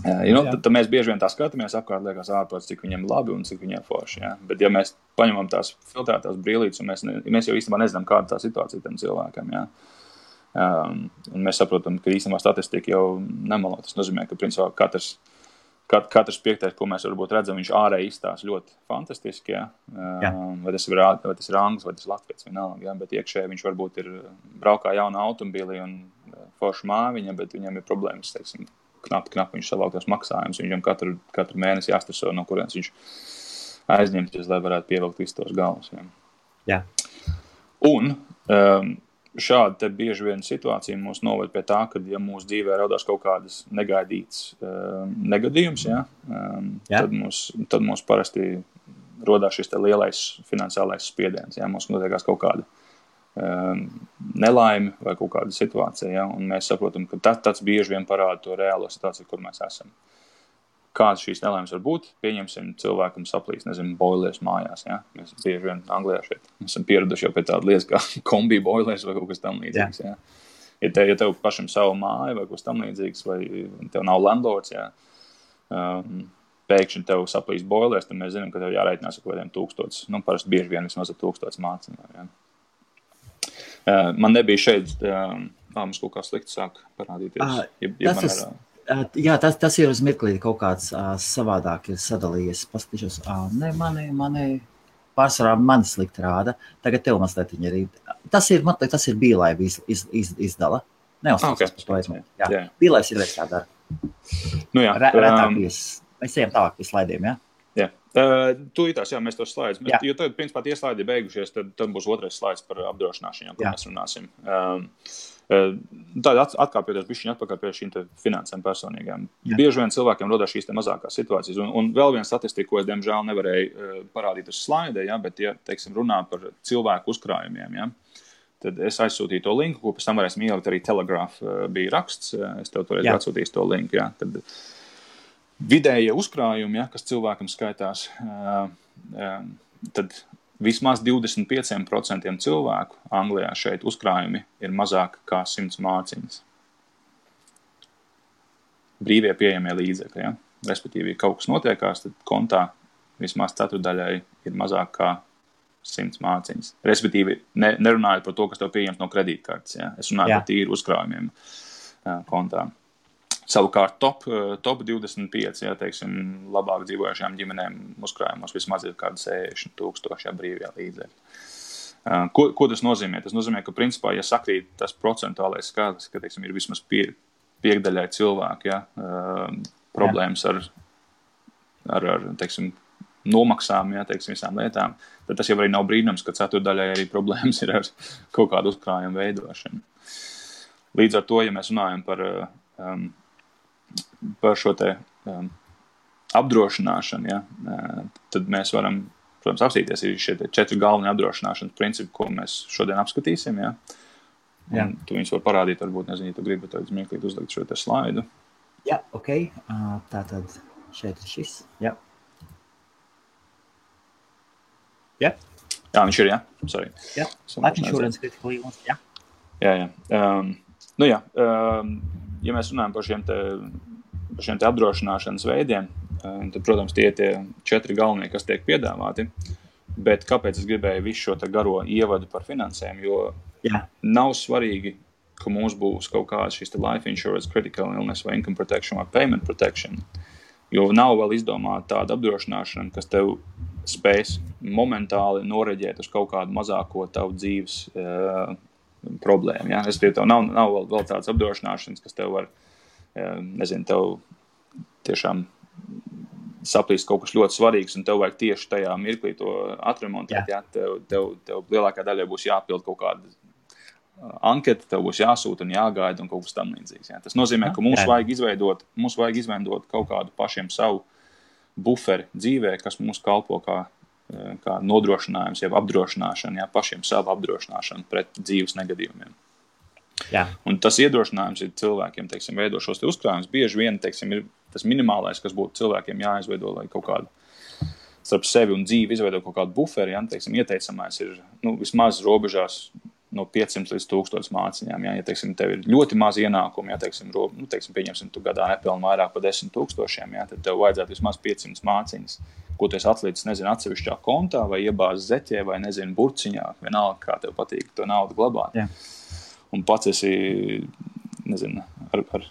tad mēs bieži vien tā skatāmies apkārt, liekas ārpēc, cik viņiem labi un cik viņiem forši, Bet ja mēs paņemam tās filtrētās brīlītes, un mēs jau īstenībā nezinām, kāda tā situācija tam cilvēkam, un mēs saprotam, ka īstenībā statistika jau nemelo. Tas nozīmē, ka principā katrs piektais, ko mēs varbūt redzam, viņš ārēji izstās ļoti fantastiski, vai tas ir anglis, vai tas ir latviets, vienalga, bet iekšēji viņš varbūt ir braukā jauna automobīlī un forša māviņa, bet viņam ir problēmas, teiksim, knapi viņš savāktos maksājumus, viņam katru mēnesi jāstreso, no kurienes viņš aizņemties, lai varētu pievilkt visus tos galvus. Jā. Un šāda te bieži vien situācija mūs noved pie tā, ka, ja mūsu dzīvē radās kaut kādas negaidītas negadījums, tad mums parasti rodās šis te lielais finansiālais spiediens, mums notiekās kaut kāda nelaime vai kaut kāda situācija, un mēs saprotam, ka tas bieži vien parāda to reālo situāciju, kur mēs esam. Kādas šīs nelaimes var būt? Pieņemsim, cilvēkam saplīs, boilers mājās, Mēs bieži vien Anglijā šeit esam pieraduši jau pie tāda lietas kā kombi boilers vai kaut kas tam līdzīgs, Ja tev pašam savu māju vai kaut kas tam līdzīgs, vai tev nav landlords, pēkšņi tev saplīs boilers, tad mēs zinām, ka tev jārēķinās ar kaut kādiem 1000, parasti bieži vien vismaz ar 1000 mācinām, Man nebija šeit, mums kaut kā slikti sāk parādīties. Tas ir uz mirklī kaut kāds savādāk ir sadalījies. Paskatīšos, mani pārsvarā mani slikti rāda. Tagad tev mazliet viņi ir. Tas ir Bīlaiva izdala. Neuzstāsties par to aizmēt. Bīlaivs ir veids tā dara. Retāk mēs ejam tālāk pie slaidiem, Tūlītās, mēs tos slaidus. Jo tad, principā, tie slaidi beigušies, tad būs otrais slaids par apdrošināšanu, ko mēs runāsim. Tāda atkāpjoties bišķiņ atpakaļ pie šīm finansēm personīgām. Bieži vien cilvēkiem rodās šīs mazākās situācijas. Un vēl viena statistika, ko es, diemžēl, nevarēju parādīt uz slaidē, bet, teiksim, runā par cilvēku uzkrājumiem, tad es aizsūtīju to linku, ko pēc tam varēsim ielikt arī Telegraph bija raksts. Es tev toreiz atsūtīju to linku, Tad vidējie uzkrājumi, kas cilvēkam skaitās, tad vismaz 25% cilvēku Anglijā šeit uzkrājumi ir mazāk kā 100 mārciņas. Brīvie pieejamie līdzekļi, Respektīvi, kaut kas notiekās, tad kontā vismaz ceturdaļai ir mazāk kā 100 mārciņas. Respektīvi, nerunājot par to, kas tev pieejams no kredītkartes, Es runāju par tīru uzkrājumiem kontā. Savukārt top 25, teiksim, labāk dzīvojušajām ģimenēm uzkrājumos vismaz ir kādi 60,000 brīvie līdzekļi. Ko tas nozīmē? Tas nozīmē, ka principā, ja sakrīt tas procentuālais skaitlis, ka, teiksim, ir vismaz piekdaļai cilvēku, problēmas ar teiksim, nomaksām, jā, teiksim, visām lietām, tad tas jau arī nav brīnums, ka ceturdaļai arī problēmas ir ar kaut kādu uzkrājumu veidošanu. Līdz ar to, ja mēs runājam par šo te apdrošināšanu, ja, tad mēs varam, protams, apstīties ir šie 4 galvenie apdrošināšanas principi, ko mēs šodien apskatīsim, ja. Un tu viņus var parādīt, varbūt, nezinu, ja tu gribi tad mirklīt uzlikt šo te slaidu. Jā, ok. Tātad šeit ir šis. Jā. Jā. Jā, viņš ir, jā. Sorry. Jā. Life insurance critical illness, jā. Jā. Ja mēs runājam par šiem te apdrošināšanas veidiem, tad, protams, tie 4 galvenie, kas tiek piedāvāti, bet kāpēc es gribēju visu šo te garo ievadu par finansēm, jo nav svarīgi, ka mums būs kaut kāds šis te life insurance, critical illness vai income protection vai payment protection, jo nav vēl izdomāta tāda apdrošināšana, kas tev spēs momentāli noreģēt uz kaut kādu mazāko tavu dzīves problēmu. Ja? Tev nav vēl tādas apdrošināšanas, kas tev var, nezinu, tev tiešām saplīst kaut kas ļoti svarīgs, un tev vajag tieši tajā mirklī to atremontēt. Ja? Tev lielākā daļa būs jāpild kaut kāda anketa, tev būs jāsūta un jāgaida un kaut kas tam līdzīgs. Ja? Tas nozīmē, ka mums vajag izveidot kaut kādu pašiem savu buferi dzīvē, kas mums kalpo kā nodrošinājums, jeb apdrošināšana, ja, pašiem savu apdrošināšanu pret dzīves negadījumiem. Jā. Un tas iedrošinājums ir cilvēkiem, teiksim, veido šos te uzkrājumus. Bieži vien, teiksim, ir tas minimālais, kas būtu cilvēkiem jāizveido, lai kaut kādu starp sevi un dzīvi izveido kaut kādu buferi, ja, teiksim, ieteicamais ir, vismaz robežās no 500 līdz 1000 māciņām. Ja, teiksim, tev ir ļoti maz ienākumi, ja, teiksim, pieņemsim, tu gadā nepelni vairāk par 10 000, ja, tad tev vajadzētu vismaz 500 māciņas, ko tu esi atlicis, nezinu, atsevišķā kontā vai iebāzi zeķē vai, nezinu, burciņā, vienalga, kā tev patīk to naudu glabāt. Jā. Un pats esi, nezinu, ar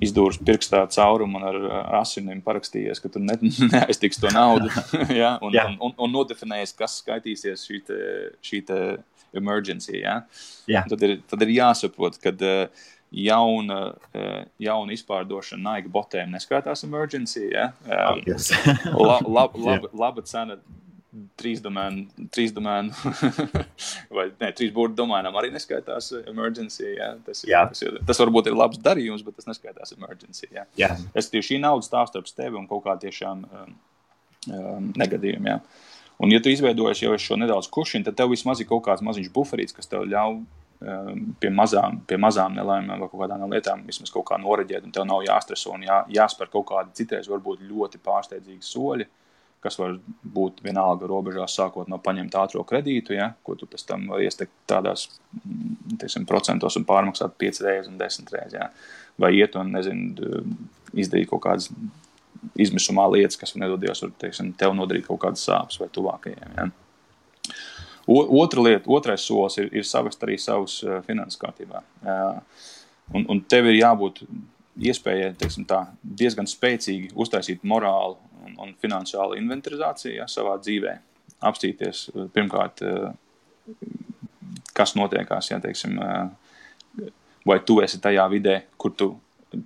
izdūrus pirkstā caurumu un ar asinim parakstījies, ka tu neaiztiks to naudu, ja, un nodefinējies, kas skaitīsies šī te emergency, ja. Tad ir jāsaprot, kad jauna izpārdošana Nike botēm neskaitās emergency, ja. Laba cena 3 domēnu vai 3 burtu domēnām arī neskaitās emergency, ja. Tas varbūt ir labs darījums, bet tas neskaitās emergency, ja. Šī nauda stāv starp tevi un kaut kā tiešām negadījumi, ja. Un, ja tu izveidojies jau šo nedaudz kušinu, tad tev vismaz ir kaut kāds maziņš buferīts, kas tev ļauj pie mazām nelaimēm vai kaut kādām lietām vismaz kaut kā noreģēt, un tev nav jāstreso un jāspēr kaut kādi citreiz varbūt ļoti pārsteidzīgi soļi, kas var būt vienalga robežās sākot no paņemt ātro kredītu, ja, ko tu pēc tam var iestekt tādās, teiksim, procentos un pārmaksāt 5 reizes un 10 reizes, ja. Vai iet un, nezinu, izdarīt kaut kādas izmisumā lietas, kas nedodies, var, teiksim, tev nodarīt kaut kādas sāpes vai tuvākajiem. Ja. Otrais solis ir savest arī savus finanses kārtībā. Un tev ir jābūt iespējai, teiksim tā, diezgan spēcīgi uztaisīt morālu un finansiālu inventarizāciju, ja, savā dzīvē. Apstīties pirmkārt, kas notiekās, ja, teiksim, vai tu esi tajā vidē, kur tu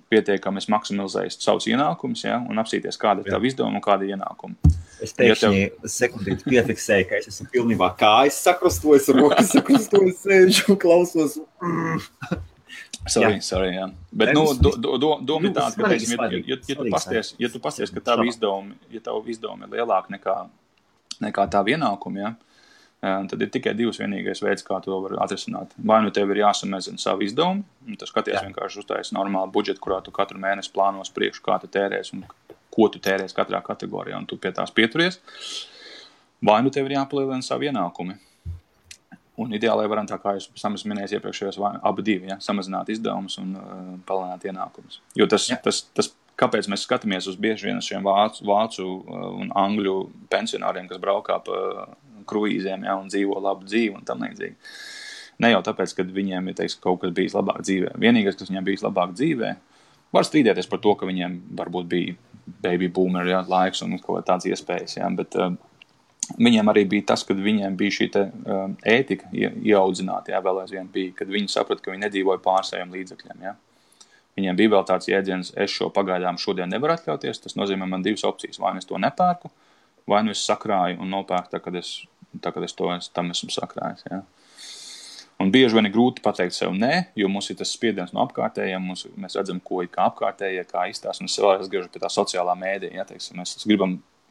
pietiekami maksimizējis savus ienākumus, ja, un apsīties, kāda ir tava izdevuma un kāda ir ienākuma. Es pēkšņi sekundīti piefiksēju, ka es esmu pilnībā kājas sakrustojis, rokas sakrustojis, sēžu un klausos. Sorry, jā. Bet, doma ir tāda, ka, teiksim, ja tu pasties, ka tavu izdevumi ir lielāki nekā tavu ienākumu, ja, tad ir tikai divs vienīgais veids, kā to var atrisināt. Vai nu tev ir jāsamazina savu izdevumu, un tu skaties vienkārši uztaisi normālu budžetu, kurā tu katru mēnesi plānos priekšu, kā tu tērēs un ko tu tērēs katrā kategorijā, un tu pie tās pieturies. Vai nu tev ir jāpalielina savu ienākumi. Un ideāli varam tā, kā jūs minējāt iepriekšējos, abi divi, ja, samazināt izdevumus un palielināt ienākumus. Jo tas, kāpēc mēs skatāmies uz bieži vien šiem vācu un angļu pensionāriem, kas braukā pa kruīzēm, ja, un dzīvo labu dzīvi un tam līdzīgi. Ne jau tāpēc, ka viņiem ir, teiksim, kaut kas bijis labāk dzīvē. Vienīgais, kas viņiem bijis labāk dzīvē, var strīdēties par to, ka viņiem varbūt bija baby boomer, ja, laiks un kaut tāds iespējas, ja, bet viņiem arī bija tas, kad viņiem bija šī te ētika ieaudzināta, ja, vēl aizvien bija, kad viņi saprata, ka viņi nedzīvoja pār saviem līdzekļiem, ja. Viņiem bija vēl tāds jēdziens, es šo pagaidām šodien nevaru atļauties, tas nozīmē man divas opcijas, vai es to nepērku, vai nu es sakrāju un nopērku tā, kad es tam esmu sakrājis. Ja. Un bieži vien ir grūti pateikt sev nē, jo mums ir tas spiediens no apkārtējiem, mēs redzam, ko ir kā apkārtējie, kā izstās, un es vēl atgriežu pie tā sociālā mēdīja, ja, teiksim, mēs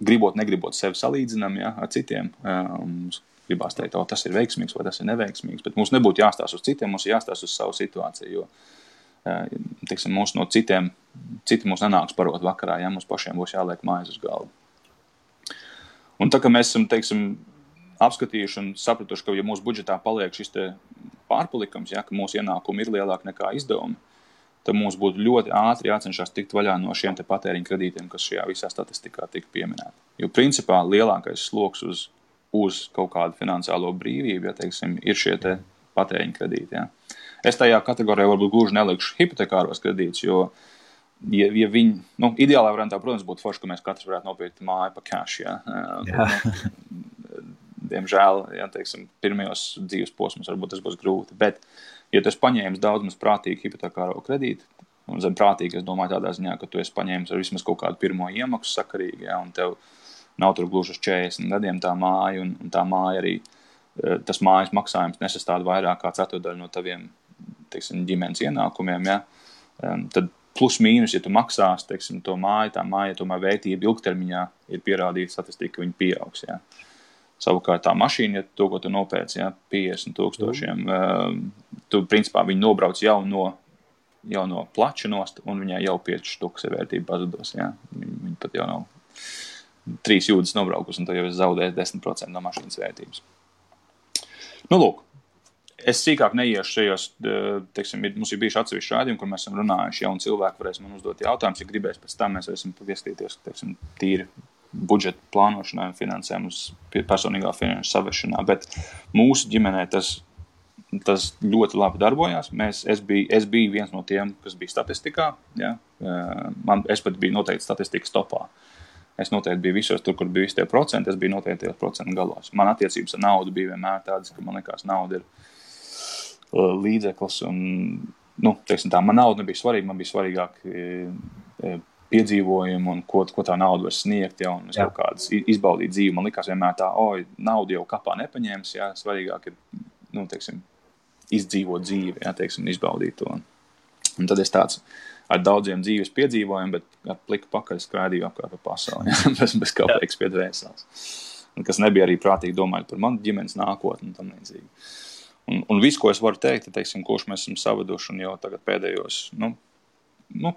gribot, negribot sevi salīdzinām, ja, ar citiem, mums gribās teikt, tas ir veiksmīgs vai tas ir neveiksmīgs, bet mums nebūtu jāstās uz citiem, mums ir jāstās uz savu situāciju, jo, teiksim, mums no citi mums nenāks parot vakarā, ja, mums pašiem būs jāliek mājas uz galvu. Un tā, ka mēs esam, teiksim, apskatījuši un sapratuši, ka, ja mūsu budžetā paliek šis te pārpalikums, ja, ka mūsu ienākumi ir lielāki nekā izdevumi, tad mums būtu ļoti ātri jācenšas tikt vaļā no šiem te patēriņa kredītiem, kas šajā visā statistikā tika pieminēti. Jo principā lielākais sloks uz kaut kādu finansiālo brīvību, ja, teiksim, ir šie te patēriņa kredīti. Ja. Es tajā kategorijā varbūt gluži nelikšu hipotekāros kredītus, jo ja viņi, ideālā variantā, protams, būtu forši, ka mēs katrs varētu nopirkt māju pa cash, ja. Diemžēl, ja, teiksim, pirmajos dzīves posmos varbūt tas būs grūti, bet, ja tu esi paņēmis daudz maz prātīgi hipotekāro kredītu, un zem prātīgi, es domāju tādā ziņā, ka tu esi paņēmis ar vismaz kaut kādu pirmo iemaksu sakarīgi, ja, un tev nav tur gluži uz 40 gadiem tā māja, un tā māja arī, tas mājas maksājums nesastāda vairāk kā ceturdaļu no taviem, teiksim, ģimenes ienākumiem, ja, tad plus mīnus, ja tu maksās, teiksim, to māju, tā māja, tomēr vērtība ilgtermiņā ir pierādīta statistika, ka viņi pieaugs, ja. Savukārt tā mašīna, ja to, ko tu nopēc, ja, 50,000, tu principā viņu nobrauc jau no plača nost, un viņai jau 5 štukas ir vērtība pazudos. Ja. Viņi pat jau nav 3 jūdzes nobraukus, un tu jau esi zaudējis 10% no mašīnas vērtības. Lūk, es sīkāk neiešu šajos, teiksim, mums ir bijuši atsevišķi rādījumi, kur mēs esam runājuši, ja, un cilvēki varēs man uzdot jautājumus, ja gribēs pēc tam mēs esam pieskatīties, teiksim, tīri budžeta plānošanā un finansēm uz personīgā finanšu savešanā, bet mūsu ģimenē tas ļoti labi darbojās. Es biju viens no tiem, kas bija statistikā, ja? Es pat biju noteikti statistikas topā. Es noteikti biju visos tur, kur bija visi tie procenti, es biju noteikti tajos procentu galos. Man attiecības ar naudu bija vienmēr tādas, ka man likās nauda ir līdzeklis un, teiksim tā, man nauda nebija svarīga, man bija svarīgāk piedzīvojumu un ko tā nauda var sniegt, ja, un es kaut kādas izbaudīt dzīvi. Man likās vienmēr tā, naudu jau kapā nepaņēmis, ja, svarīgāk ir, teiksim, izdzīvot dzīvi, ja, teiksim, izbaudīt to. Un tad es tāds ar daudziem dzīves piedzīvojumiem, bet ar pliku pakaļ skrādīju apkārt pa pasauli, ja, bez kāpēc pie dvēseles. Un kas nebija arī prātīgi domājot par manu ģimenes nākotni un tam līdzīgi. Un viss, ko es varu teikt, teiksim, kurš mēs esam savaduši un jau tagad pēdējos,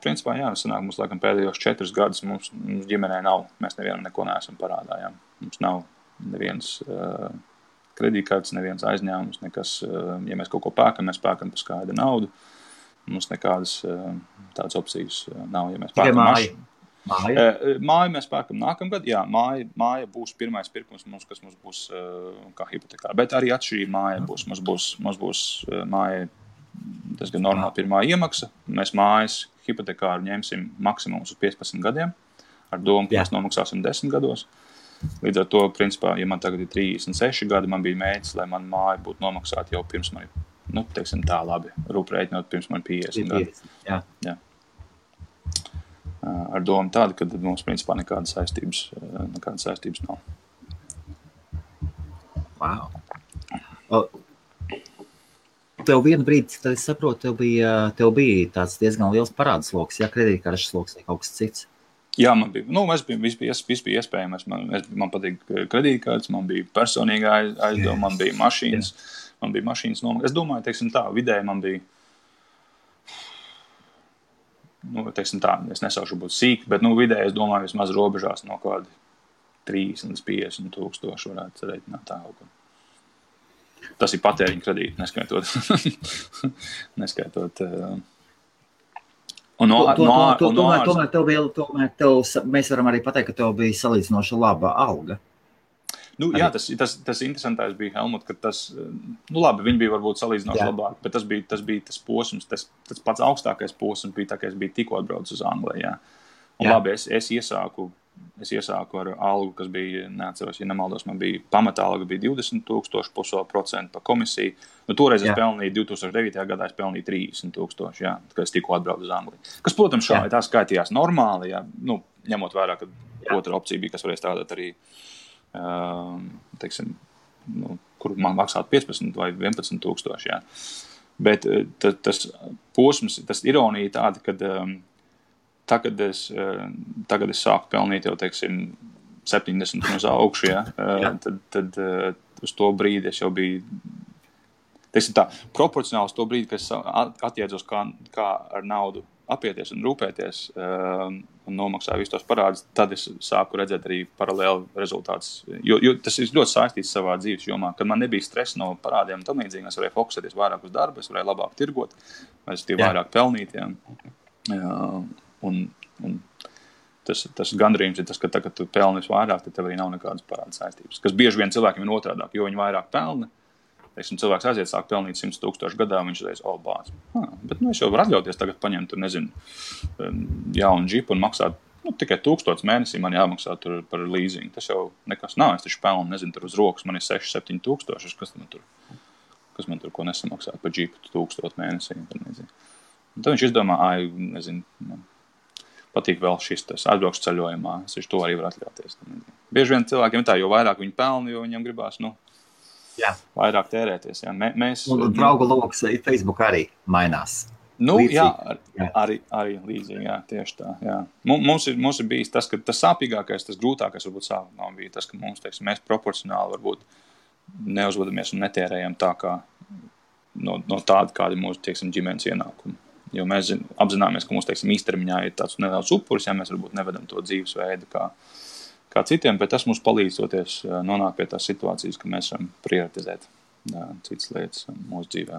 principā, jā, sanāk, mums laikam pēdējos 4 gadus mums ģimenē nav, mēs nevienam neko neesam parādā, jā. Mums nav neviens kredītkartes, neviens aizņēmums, nekas, ja mēs kaut ko pērkam, mēs pērkam par skaidru naudu, mums nekādas tādas opcijas nav, ja mēs pērkam māju mēs pērkam nākamgad, jā, māja būs pirmais pirkums mums, kas mums būs kā hipotekāra, bet arī atšķirība māja būs, mums būs māja diezgan normāla pirmā iemaksa, mēs mājas hipotekāru ņemsim maksimums uz 15 gadiem, ar domu, ka mēs nomaksāsim 10 gados. Līdz ar to, principā, ja man tagad ir 36 gadi, man bija mērķis, lai man māja būtu nomaksāta jau pirms man, teiksim tā labi, rūprēķinot pirms man 50 gadi. Jā. Ar domu tādu, ka mums, principā, nekādas saistības nav. Wow. Tev vienu brīdi, tad es saprotu, tev bija tāds diezgan liels parādsloks, ja kredītkartes sloks vai kaut kas cits. Jā, man bija, viss bija iespējams. Man patīk kredītkartes, man bija personīgā aizdevuma, man bija mašīnas nomaksas. Es domāju, teiksim tā, vidēji man bija, teiksim tā, es nesaušu būt sīk, bet, vidēji es domāju, vismaz robežās no kādi 30 līdz 50 tūkstoši varētu reiķināt tā kaut ko. Tas ir patēriņa kredīti, neskaitot. Mēs varam arī pateikt, ka tev bija salīdzinoši laba alga. Jā, tas interesantais bija, Helmut, ka tas, labi, viņi bija varbūt salīdzinoši labāk, bet tas bija tas posms, tas pats augstākais posms bija tā, ka es biju tikko atbraucis uz Angliju, jā. Un labi, es iesāku es iesāku ar algu, kas bija, neatceros, ja nemaldos, man bija pamata alga bija 20,000 plus vēl procentu par komisiju. Nu, toreiz es pelnīju 2009. Gadā, es pelnīju 30,000, jā, kad es tikko atbraucu uz Angliju. Kas, protams, šādi tā skaitījās normāli, jā, nu, ņemot vērā, ka otra opcija bija, kas varēja strādāt arī, teiksim, nu, kur man maksātu 15 vai 11,000, jā. Bet tas posms, tas ironija tāda, kad tagad es sāku pelnīt jau, teiksim, 70 uz augšu, ja? tad uz to brīdi es jau biju, teiksim tā, proporcionāli uz to brīdi, kad es atjēdzos, kā ar naudu apieties un rūpēties un nomaksāju visus tos parādus, tad es sāku redzēt arī paralēli rezultātus. Jo tas ir ļoti saistīts savā dzīves jomā, kad man nebija stresa no parādiem un tam līdzīgi, es varēju fokusēties vairāk uz darbu, es varēju labāk tirgot, es tie vairāk pelnīt, un tas gandrījums ir tas, ka tagad tu pelni vairāk, tad tev arī nav nekādas parāda saistības. Kas bieži vien cilvēkiem ir otrādāk, jo viņi vairāk pelna. Teiksim, cilvēks aiziet sāk pelnīt 100,000 gadā, viņš reiz, bāc. Bet es jau varu atļauties tagad paņemt, tur, nezinu, jaunu džipu un maksāt, tikai 1000 mēnesī man jāmaksā tur par leasing. Tas jau nekas nav, es taču pelnu, nezinu, tur uz rokas man ir 6-7 tūkstoši, kas man tur ko nesamaksāt par džipu 1000 mēnesī. Un tad viņš izdomā, nezinu, man patīk vēl šis tas atbraukšu ceļojumā, es to arī var atļauties. Bieži vien cilvēkiem ir tā, jo vairāk viņi pelna, jo viņam gribās, vairāk tērēties. Jā. Un draugu loks Facebook arī mainās. Arī līdzīgi, jā, tieši tā. Jā. Mums ir bijis tas, ka tas sāpīgākais, tas grūtākais varbūt sākumā bija tas, ka mums, teiksim, mēs proporcionāli varbūt neuzvedamies un netērējam tā kā no tāda, kādi mūsu, teiksim, ģimenes ienākumi. Jo mēs apzināmies, ka mums, teiksim, īstermiņā ir tāds nedaudz upuris, ja mēs varbūt nevedam to dzīvesveidu kā citiem, bet tas mums palīdzoties nonākt pie tās situācijas, ka mēs varam prioritizēt citas lietas mūsu dzīvē.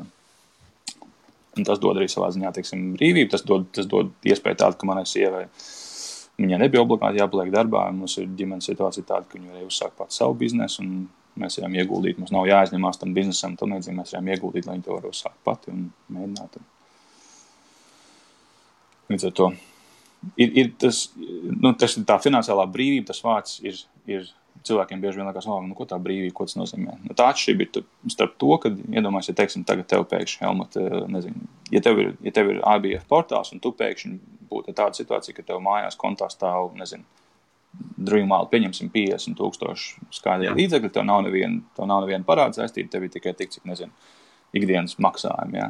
Un tas dod arī savā ziņā, teiksim, brīvību, tas dod iespēju tādu, ka manai sievai viņai nebija obligāti jāpaliek darbā, mums ir ģimenes situācija tāda, ka viņa varēja uzsākt pats savu biznesu, un mēs varam ieguldīt, mums nav jāaizņemās tam biznesam, tam līdzīgi mēs varam ieguldīt, lai viņi to var uzsākt pati un mēģināt. Līdz ar to ir tas ir tā finansiālā brīvība, tas vārds ir cilvēkiem bieži vien liekas, ko tā brīvība, ko tas nozīmē. Tā atšķirība ir starp to, kad iedomājies, ja teiksim, tagad tev pēkšņi, Helmut, nezinu, ja tev ir IBF portāls un tu pēkšņi būtu tāda situācija, ka tev mājās kontā stāv, nezinu, drīmāli pieņemsim 50,000 skaidrie līdzekļi, tev nav neviena parāda saistība, tev ir tikai tik, cik, nezinu, ikdienas maksājumi, jā.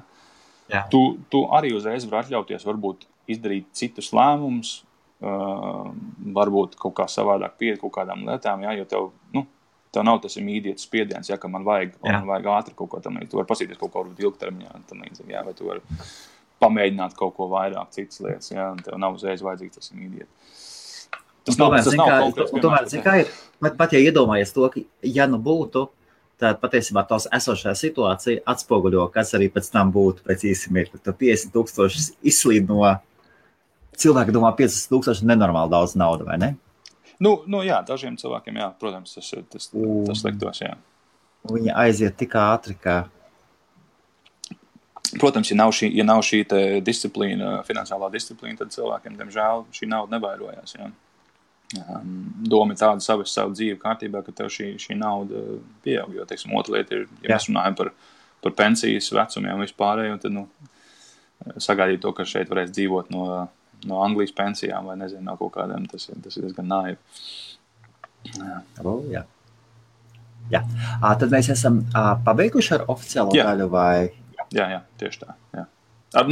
Jā. Tu arī uzreiz var atļauties, varbūt izdarīt citus lēmumus, varbūt kaut kā savādāk pieeja kaut kādām lietām, jo tev nav tas imīdietas spiediens, ka man vajag ātri kaut ko tam līdzi. Tu vari pasīties kaut ko ilgtermiņā, tam līdzīgi, vai tu vari pamēģināt kaut ko vairāk citas lietas, un tev nav uzreiz vajadzīgs tas imīdietas. Tas nav konkrēts piemērs. Tomēr, ir, pat ja iedomājies to, ka ja būtu, tad patiesībā tos esošā situācija atspoguļo, kas arī pēc tam būtu pēc īsi mirkli. Tad 50,000 izslīd no cilvēki domā 50,000 nenormāli daudz naudu, vai ne? Jā, dažiem cilvēkiem, jā, protams, tas liktos, jā. Viņi aiziet tik ātri, ka... Protams, ja nav šī te disciplīna, finansiālā disciplīna, tad cilvēkiem, diemžēl, šī nauda nevairojās, jā. Doma ir tāda savu dzīvi kārtībā, ka tev šī nauda pieaug, jo, teiksim, otra lieta ir, ja mēs runājam par pensijas vecumiem vispārēju, tad, sagaidīt to, ka šeit varēs dzīvot no Anglijas pensijām vai nezinu, no kaut kādiem, tas ir diezgan naivi. Jā. Tad mēs esam pabeiguši ar oficiālo daļu vai? Jā, tieši tā. Jā. Ar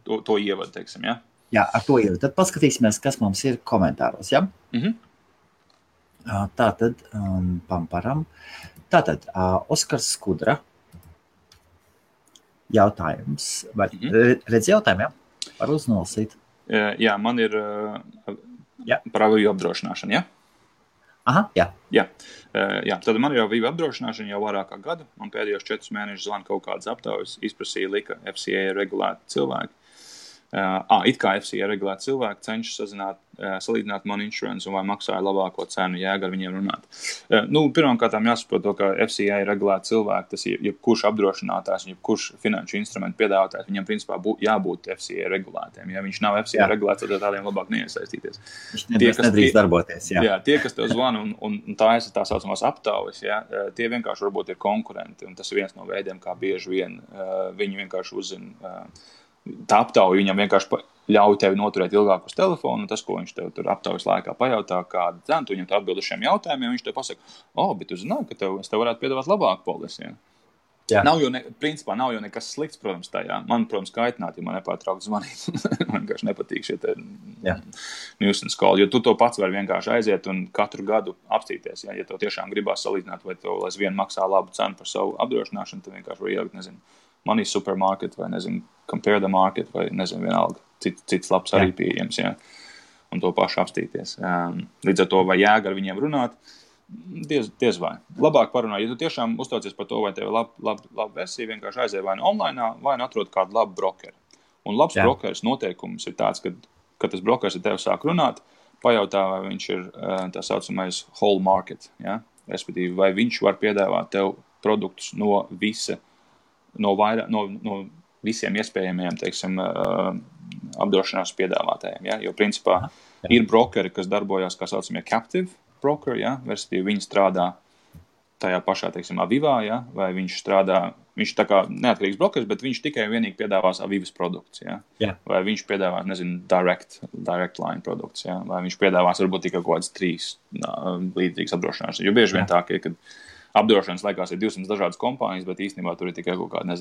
to ievadu, teiksim, jā? Jā, ar to ievadu. Tad paskatīsimies, kas mums ir komentāros, jā? Tātad, pamparam. Tātad, Oskars Skudra. Jautājums. Redz jautājumu, jā? Var uznolasīt. Jā, man ir par avīju apdrošināšanu, jā? Aha, jā. Jā, tad man ir avīju apdrošināšana jau vairāk kā gadu. Man pēdējos 4 mēnešus zvana kaut kādas aptaujas, izprasīja lika FCA regulēti cilvēki. It kā FCA regulēti cilvēki cenšas salīdzināt man insurance un vai maksāja labāko cenu, jēga ar viņiem runāt. Pirmkārt jāsaprot to, ka FCA regulēti cilvēki, tas jebkurš apdrošinātājs, jebkurš finanšu instrumentu piedāvātājs, viņam principā jābūt FCA regulētiem. Ja viņš nav FCA regulēts, tad tādiem labāk neiesaistīties. Viņš nedrīkst darboties. Jā, tie, kas tev zvana un tā saucamās aptaujas, tie vienkārši varbūt ir konkurenti, un tas ir viens no veidiem, kā bieži vien viņi vienkārši uzzina. Tā aptauja viņam vienkārši ļauj tevi noturēt ilgāk uz telefonu, un tas, ko viņš tev tur aptaujas laikā pajautā, kādu cenu, tu viņam atbild uz šiem jautājumiem, viņš tev pasaka, bet tu zināji, ka es tev varētu piedāvāt labāku polisi. Ja? Principā nav jau nekas slikts, protams, tajā. Man, protams, kaitināt, ja man nepārtraukt zvanīt. Man vienkārši nepatīk šie nuisance call, jo tu to pats vari vienkārši aiziet un katru gadu apstīties. Ja tev tiešām gribās salīdzināt, vai tev aizvien maksā labu cenu par savu apdrošināšanu, tad vienkārši var ielikt, Money Supermarket vai, Compare the Market vai, vienalga, cits labs arī pieejams, un to pašu apstīties. Līdz ar to, vai jēga ar viņiem runāt, diez vai. Labāk parunāt, ja tu tiešām uztraucies par to, vai tev laba versija, vienkārši aizēj vai online, vai atrod kādu labu brokeru. Un labs brokeris noteikums ir tāds, ka tas brokeris ar tevi sāk runāt, pajautā, vai viņš ir tā saucamais whole market, respektīvi, vai viņš var piedāvāt tev produktus no visiem iespējamiem, apdrošināšanas piedāvātājiem. Jo, principā, ir brokeri, kas darbojās, kā saucamie captive brokeri, respektīvi, viņi strādā tajā pašā, Avivā, vai viņš tā kā neatkarīgs brokeris, bet viņš tikai vienīgi piedāvās Avivas produktus, vai viņš piedāvās, direct line produktus, vai viņš piedāvās varbūt tikai kaut kāds 3 līdzīgas apdrošināšanas. Jo bieži vien tā, kad apdrošināšanas laikās ir 200 dažādas kompānijas, bet īstenībā tur ir tikai kaut kāda,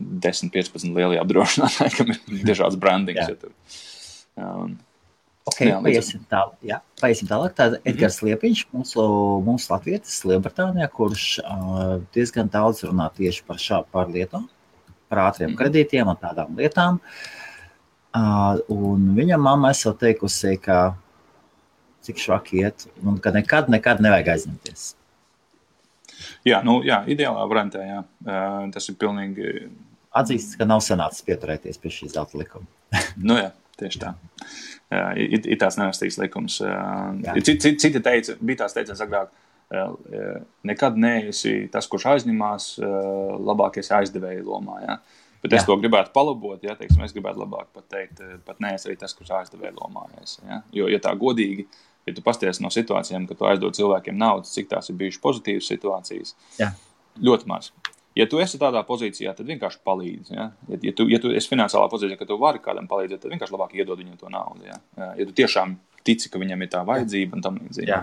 10-15 lielie apdrošinātāji, kam ir dažāds brandings. Paiesim tālāk. Tāda Edgars Liepiņš, mūsu latvietis Lielbritānijā, kurš diezgan daudz runā tieši par lietām, par ātriem kredītiem un tādām lietām. Un viņam mamma esot teikusi, ka cik švaki iet, un ka nekad nevajag aizņemties. Ideālā variantā, tas ir pilnīgi... Atzīstas, ka nav sanācis pieturēties pie šīs zelta likuma. Tieši tā. Ir tāds nevestīgs likums. Citi teica, bija tās teiciens agrāk, nekad neesi tas, kurš aizņemās, labākies aizdevēja lomā, Bet es to gribētu palabot, es gribētu labāk pat teikt, pat neesi arī tas, kurš aizdevēja lomā. Jo, ja tā godīgi, ja tu pasties no situācijām, ka tu aizdod cilvēkiem naudas, cik tās ir bijušas pozitīvas situācijas, ļoti maz. Ja tu esi tādā pozīcijā, tad vienkārši palīdzi. Ja tu esi finansiālā pozīcijā, ka tu vari kādam palīdzēt, tad vienkārši labāk iedod viņam to naudu. Ja tu tiešām tici, ka viņam ir tā vajadzība un tam līdzīgi.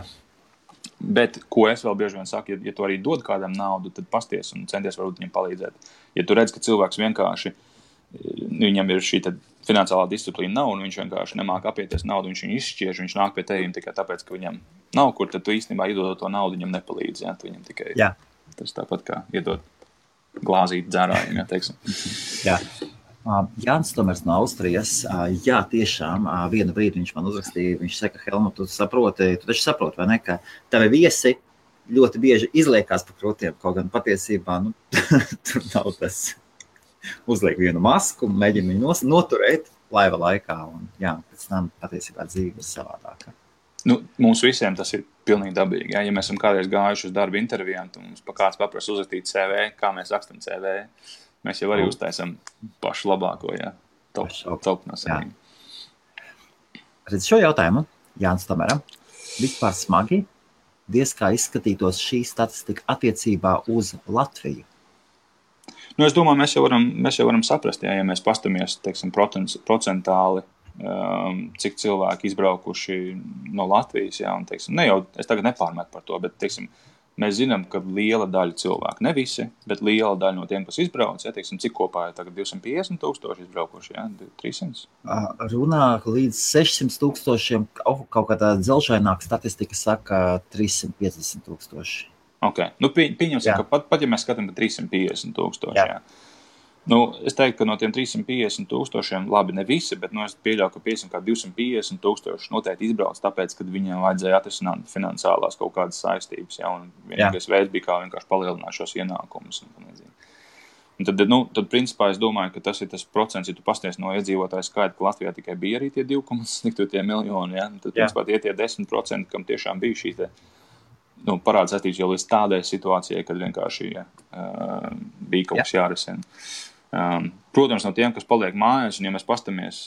Bet, ko es vēl bieži vien saku, ja tu arī dod kādam naudu, tad pasties un centies varbūt viņam palīdzēt. Ja tu redz, ka cilvēks vienkārši, viņam ir šī finansiālā disciplīna nav, un viņš vienkārši nemāk apieties naudu, viņš viņu izšķiež, viņš nāk pie tevim tikai tāpēc, ka viņam nav kur, tad tu īstenībā iedodot to naudu, viņam nepalīdz. Tu viņam tikai tas tāpat kā iedot glāzīt dzērājiem, teiksim. Jānis Tomers no Austrijas, tiešām, vienu brīdi viņš man uzrakstīja, viņš saka, Helmut, tu taču saproti, vai ne, ka tavi viesi ļoti bieži izliekās pa krūtiem, kaut gan patiesībā, tur nav tas uzliek vienu masku, mēģina viņu noturēt laiva laikā, un pēc tam patiesībā dzīve ir savādākā. Mums visiem tas ir pilnīgi dabīgi. Ja mēs esam kādreiz gājuši uz darba intervijām, tad mums kāds paprasa uzrakstīt CV, kā mēs rakstam CV, mēs jau arī uztaisam pašu labāko, top no saviem. Redz šo jautājumu, Jānis Tomeram, vispār smagi, diez kā izskatītos šī statistika attiecībā uz Latviju? Es domāju, mēs jau varam saprast, ja mēs pastamies, procentāli, cik cilvēki izbraukuši no Latvijas, un, es tagad nepārmetu par to, bet, mēs zinām, ka liela daļa cilvēku, ne visi, bet liela daļa no tiem, kas izbrauc, cik kopā ir tagad 250,000 izbraukuši, 300? Runā līdz 600,000, kaut kādā dzelžaināka statistika saka 350,000. Ok, pieņemsim, ka pat ja mēs skatām par 350,000, es teiktu, ka no tiem 350,000, labi, ne visi, bet es pieļauju, ka 250,000 noteikti izbrauc, tāpēc, kad viņiem vajadzēja atrisināt finansiālās kaut kādas saistības, un vienīgais veids bija kā vienkārši palielināt šos ienākumus. Un tad principā es domāju, ka tas ir tas procents, ja tu pasties no iedzīvotāju skaita, ka Latvijā tikai bija arī tie 2,2 miljoni, ja? Tad principā tie 10%, kam tiešām bija šī te parāda saistības jau līdz tādai situācijai, kad vienkārši bija kaut kas jārisina. Protams, no tiem, kas paliek mājās, un ja mēs pastamies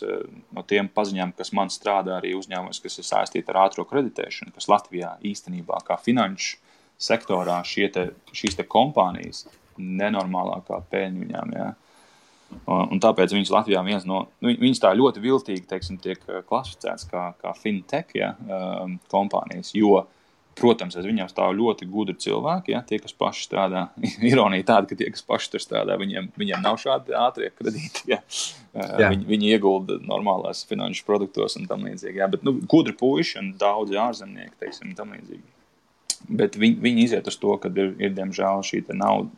no tiem paziņām, kas man strādā arī uzņēmumos, kas ir saistīti ar ātro kreditēšanu, kas Latvijā īstenībā kā finanšu sektorā šīs te kompānijas nenormālākā peļņa viņām, jā. Un tāpēc viņas Latvijā viņas tā ļoti viltīgi, teiksim, tiek klasificēts kā fintech, jā, kompānijas, jo protams, aiz viņiem stāv ļoti gudri cilvēki, ja, tie, kas paši strādā. Ironija tāda, ka tie, kas paši tur strādā, viņiem nav šādi ātrie kredīti. Ja. Viņi iegulda normālās finanšu produktos un tam līdzīgi. Ja. Bet gudri puiši un daudzi ārzemnieki, teiksim, tam līdzīgi. Bet viņi iziet uz to, kad ir diemžēl šī te nauda,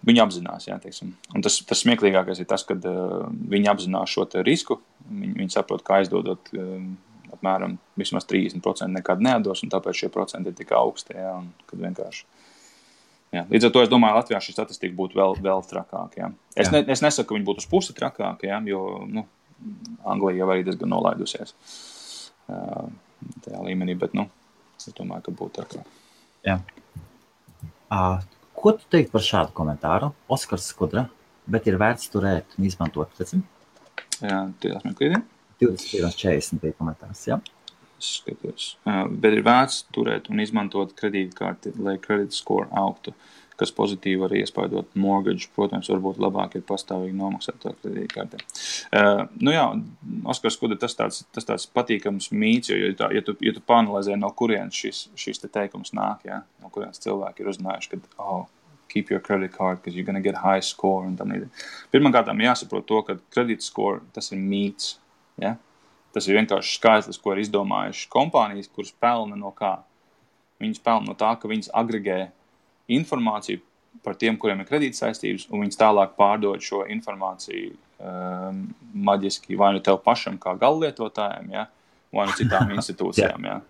viņi apzinās, ja, teiksim. Un tas smieklīgākais ir tas, kad viņi apzinās šo te risku, viņi saprot, kā aizdodot apmēram vismaz 30% nekad neatdos, un tāpēc šie procenti ir tik augsti, jā, un kad vienkārši. Jā. Līdz ar to es domāju, Latvijā šī statistika būtu vēl trakāka, jā. Es nesaku, ka viņi būtu uz pusi trakāka, jā, jo, Anglija jau arī diezgan nolaidusies tajā līmenī, bet, es domāju, ka būtu trakāk. Jā. Ko tu teikt par šādu komentāru? Oskars Skudra, bet ir vērts turēt un izmantot, redzim? Jā, tie meklīdien. 21.40 bija komentārs, jā? Skatos. Bet ir vērts turēt un izmantot kredītkarti, lai credit score augtu, kas pozitīvi var iespaidot mortgage. Protams, varbūt labāk ir pastāvīgi nomaksāt to kredītkarti. Jā, Oskars Skudra, tas tāds patīkams mīts, jo ja tu panalizē, no kurienes šis te teikums nāk, jā, no kurienes cilvēki ir uzzinājuši, ka, keep your credit card, because you're gonna get high score un tam līdzīgi. Pirmkārtām jāsaprot to, ka credit score, tas ir mīts. Ja? Tas ir vienkārši skaitlis, ko ir izdomājuši kompānijas, kuras pelna no kā. Viņas pelna no tā, ka viņas agregē informāciju par tiem, kuriem ir kredītsaistības, un viņas tālāk pārdod šo informāciju maģiski vai nu tev pašam kā gallietotājiem, ja? Vai nu citām institūcijām. Ja?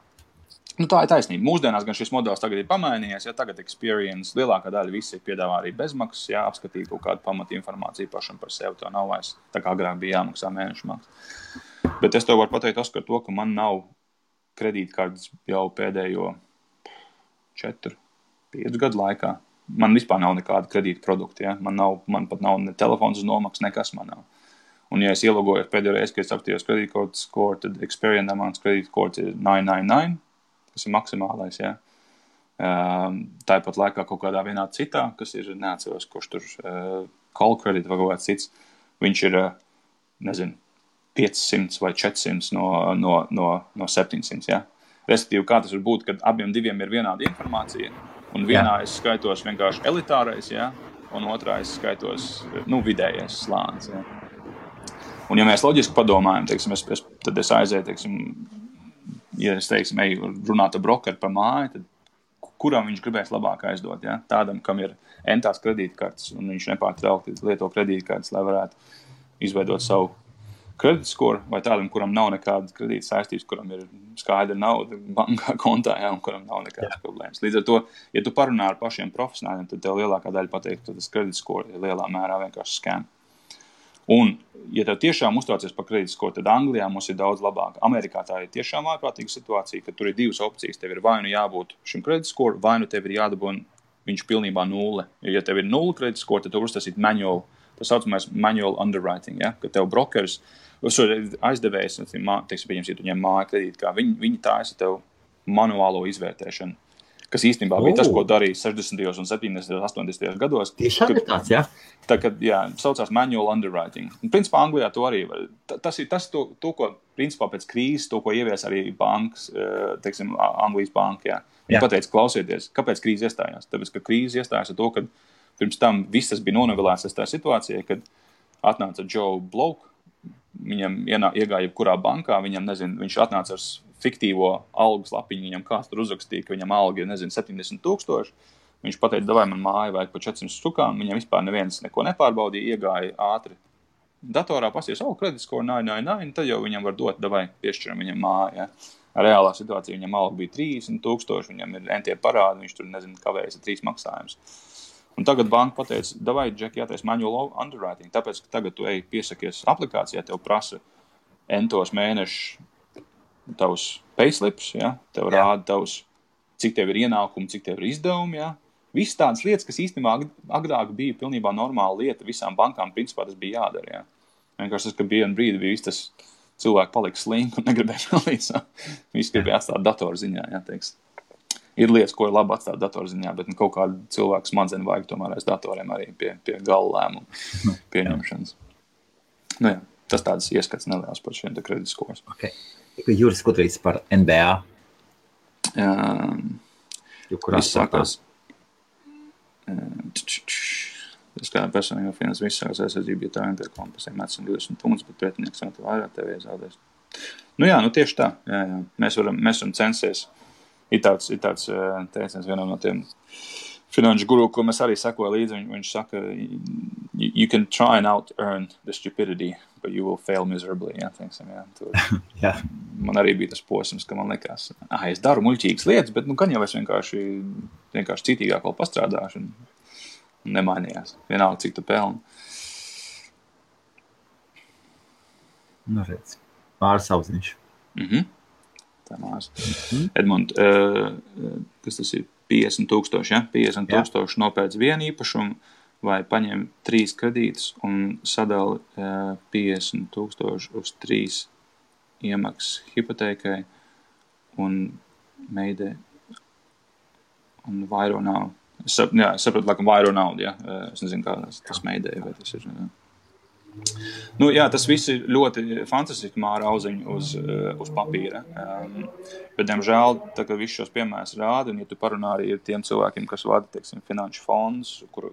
Tā ir taisnība. Mūsdienās gan šis modelis tagad ir pamainījies, ja tagad Experience lielākā daļa visi piedāvā arī bezmaksas, ja apskatīt kaut kādu pamatu informāciju pašam par sevi, to nav vairs, tā kā agrāk bija jāmaksā mēnešu maksas. Bet es tev varu pateikt, Oskar, to, ka man nav kredītkartes jau pēdējo 4-5 gadu laikā. Man vispār nav nekāda kredīta produkta, ja? Man pat nav ne telefons uz nomaksas, nekas man nav. Un ja es ielogojos pēdējo reizi, kad es apstījos kredītkartes score, tad Experience amount kredītkartes ir 999. kas ir maksimālais, jā. Tāpat laikā kaut kādā vienā citā, kas ir, neatceros, kurš tur call credit vai kaut kāds cits, viņš ir, 500 vai 400 no 700, jā. Respektīvi, kā tas var būt, kad abiem diviem ir vienāda informācija, un vienā es skaitos vienkārši elitārais, jā, un otrā es skaitos, vidējais slānis, jā. Un ja mēs loģiski padomājam, teiksim, tad es aizēju, teiksim, ja es, teiksim, eju runāt ar brokeru par māju, tad kuram viņš gribēs labāk aizdot, ja? Tādam, kam ir entās kredītkartes, un viņš nepārtraukti lieto kredītkartes, lai varētu izveidot savu kredītskoru, vai tādam, kuram nav nekādas kredīta saistības, kuram ir skaidra nauda bankā kontā, ja? Un kuram nav nekādas problēmas. Līdz ar to, ja tu parunā ar pašiem profesionāļiem, tad tev lielākā daļa pateikt, ka tas kredītskori ir lielā mērā vienkārši scam. Un, ja tev tiešām uztraucies par kredītskoru, tad Anglijā mums ir daudz labāk. Amerikā tā ir tiešām ārprātīga situācija, ka tur ir divas opcijas. Tev ir vai nu jābūt šim kredītskoru, vai nu tev ir jādabūna viņš pilnībā nulle. Ja tev ir nulle kredītskoru, tad tev uztasīt manual, tas saucamais manual underwriting, ja? Ka tev brokers, aizdevējs, teiksim, ja tu ņem māju kredīti, kā viņi taisa tev manuālo izvērtēšanu. Kas īstenībā bija tas, ko darīja 60. un 70. 80. gados. Tiešām ir tāds, jā? Tā, kad, saucās manual underwriting. Un, principā, Anglijā to arī var. Tas ir to, ko, principā, pēc krīzes, to, ko ievies arī bankas, teiksim, Anglijas banka, jā. Viņi pateica, klausieties, kāpēc krīze iestājās? Tāpēc, ka krīze iestājās ar to, ka pirms tam visas bija nonovelēts tā situācija, kad atnāca Joe Bloke, viņam iegāja jebkurā bankā, viņš atnāca ar fiktīvo algas lapiņu, viņam kāds tur uzrakstīja, ka viņam alga ir, 70,000. Viņš pateica, davai man māju vajag par 400 stukām, viņam vispār neviens neko nepārbaudīja, iegāja ātri datorā, pasies, kreditskoru, tad jau viņam var dot, davai piešķiram viņam māju, ja. Reālā situācija viņam alga bija 30,000, viņam ir entie parādi, viņš tur, kavējas ar 3 maksājumus. Un tagad banka pateica, davai, Džek, jātais manual underwriting, tāpēc, ka tagad tu piesakies aplikācijā, tev prasa entos mēnešus tavus payslips, ja? Tev rāda tavus, cik tev ir ienākumi, cik tev ir izdevumi, ja? Viss tādas lietas, kas īstenībā agrāk bija pilnībā normāla lieta, visām bankām principā tas bija jādara, ja? Vienkārši tas, ka bija un brīdi bija tas cilvēki palika slinki un negribēja palīdzēt. Visi gribēja atstāt datorziņā, ja, teiks. Ir lietas, ko ir labi atstāt datorziņā, bet kaut kādu cilvēku smadzeņu vajag tomēr aiz datoriem arī pie gala lēmumu pieņemšanas. Nu jā, tas tāds ieskats neliels par šiem kreditskos. Okay. Juris Kudrīts par NBA. Viss sākās. Tas kā personīgā finanses viss sākās aizsardzība, ja tā vienkārši kompasiem mets un 20 punktus, bet pretinieks vēl vairāk tev iezādēs. Nu jā, nu tieši tā. Jā. Mēs varam censties. Ir tāds teiciens vienam no tiem finanšu guru, ko mēs arī sekoja līdzi. Viņš saka, you can try and out-earn the stupidity, but you will fail miserably. Jā, teiksim, jā. Jā. Man arī bija tas posms, ka man likās, es daru muļķīgas lietas, bet gan jau es vienkārši citīgāk vēl pastrādāšu un nemainījās. Vienalga, cik tu pelni. Nu, redz. Māris Auziņš. Mārs. Edmund, kas tas ir 50,000, ja? 50,000 nopēc vienu īpašumu vai paņem 3 kredītus un sadali 50,000 uz 3 iemaksas hipotēkai un meidē un vairo naudu. Es sapratu, laikam vairo naudu, ja? Es nezinu, kā tas meidē, vai tas ir... Nu, jā, tas viss ir ļoti fantastiski Māra Auziņa uz papīra. Bet, diemžēl, tā kā viss šos piemērs rāda, un ja tu parunā arī ar tiem cilvēkiem, kas vada, teiksim, finanšu fondus, kur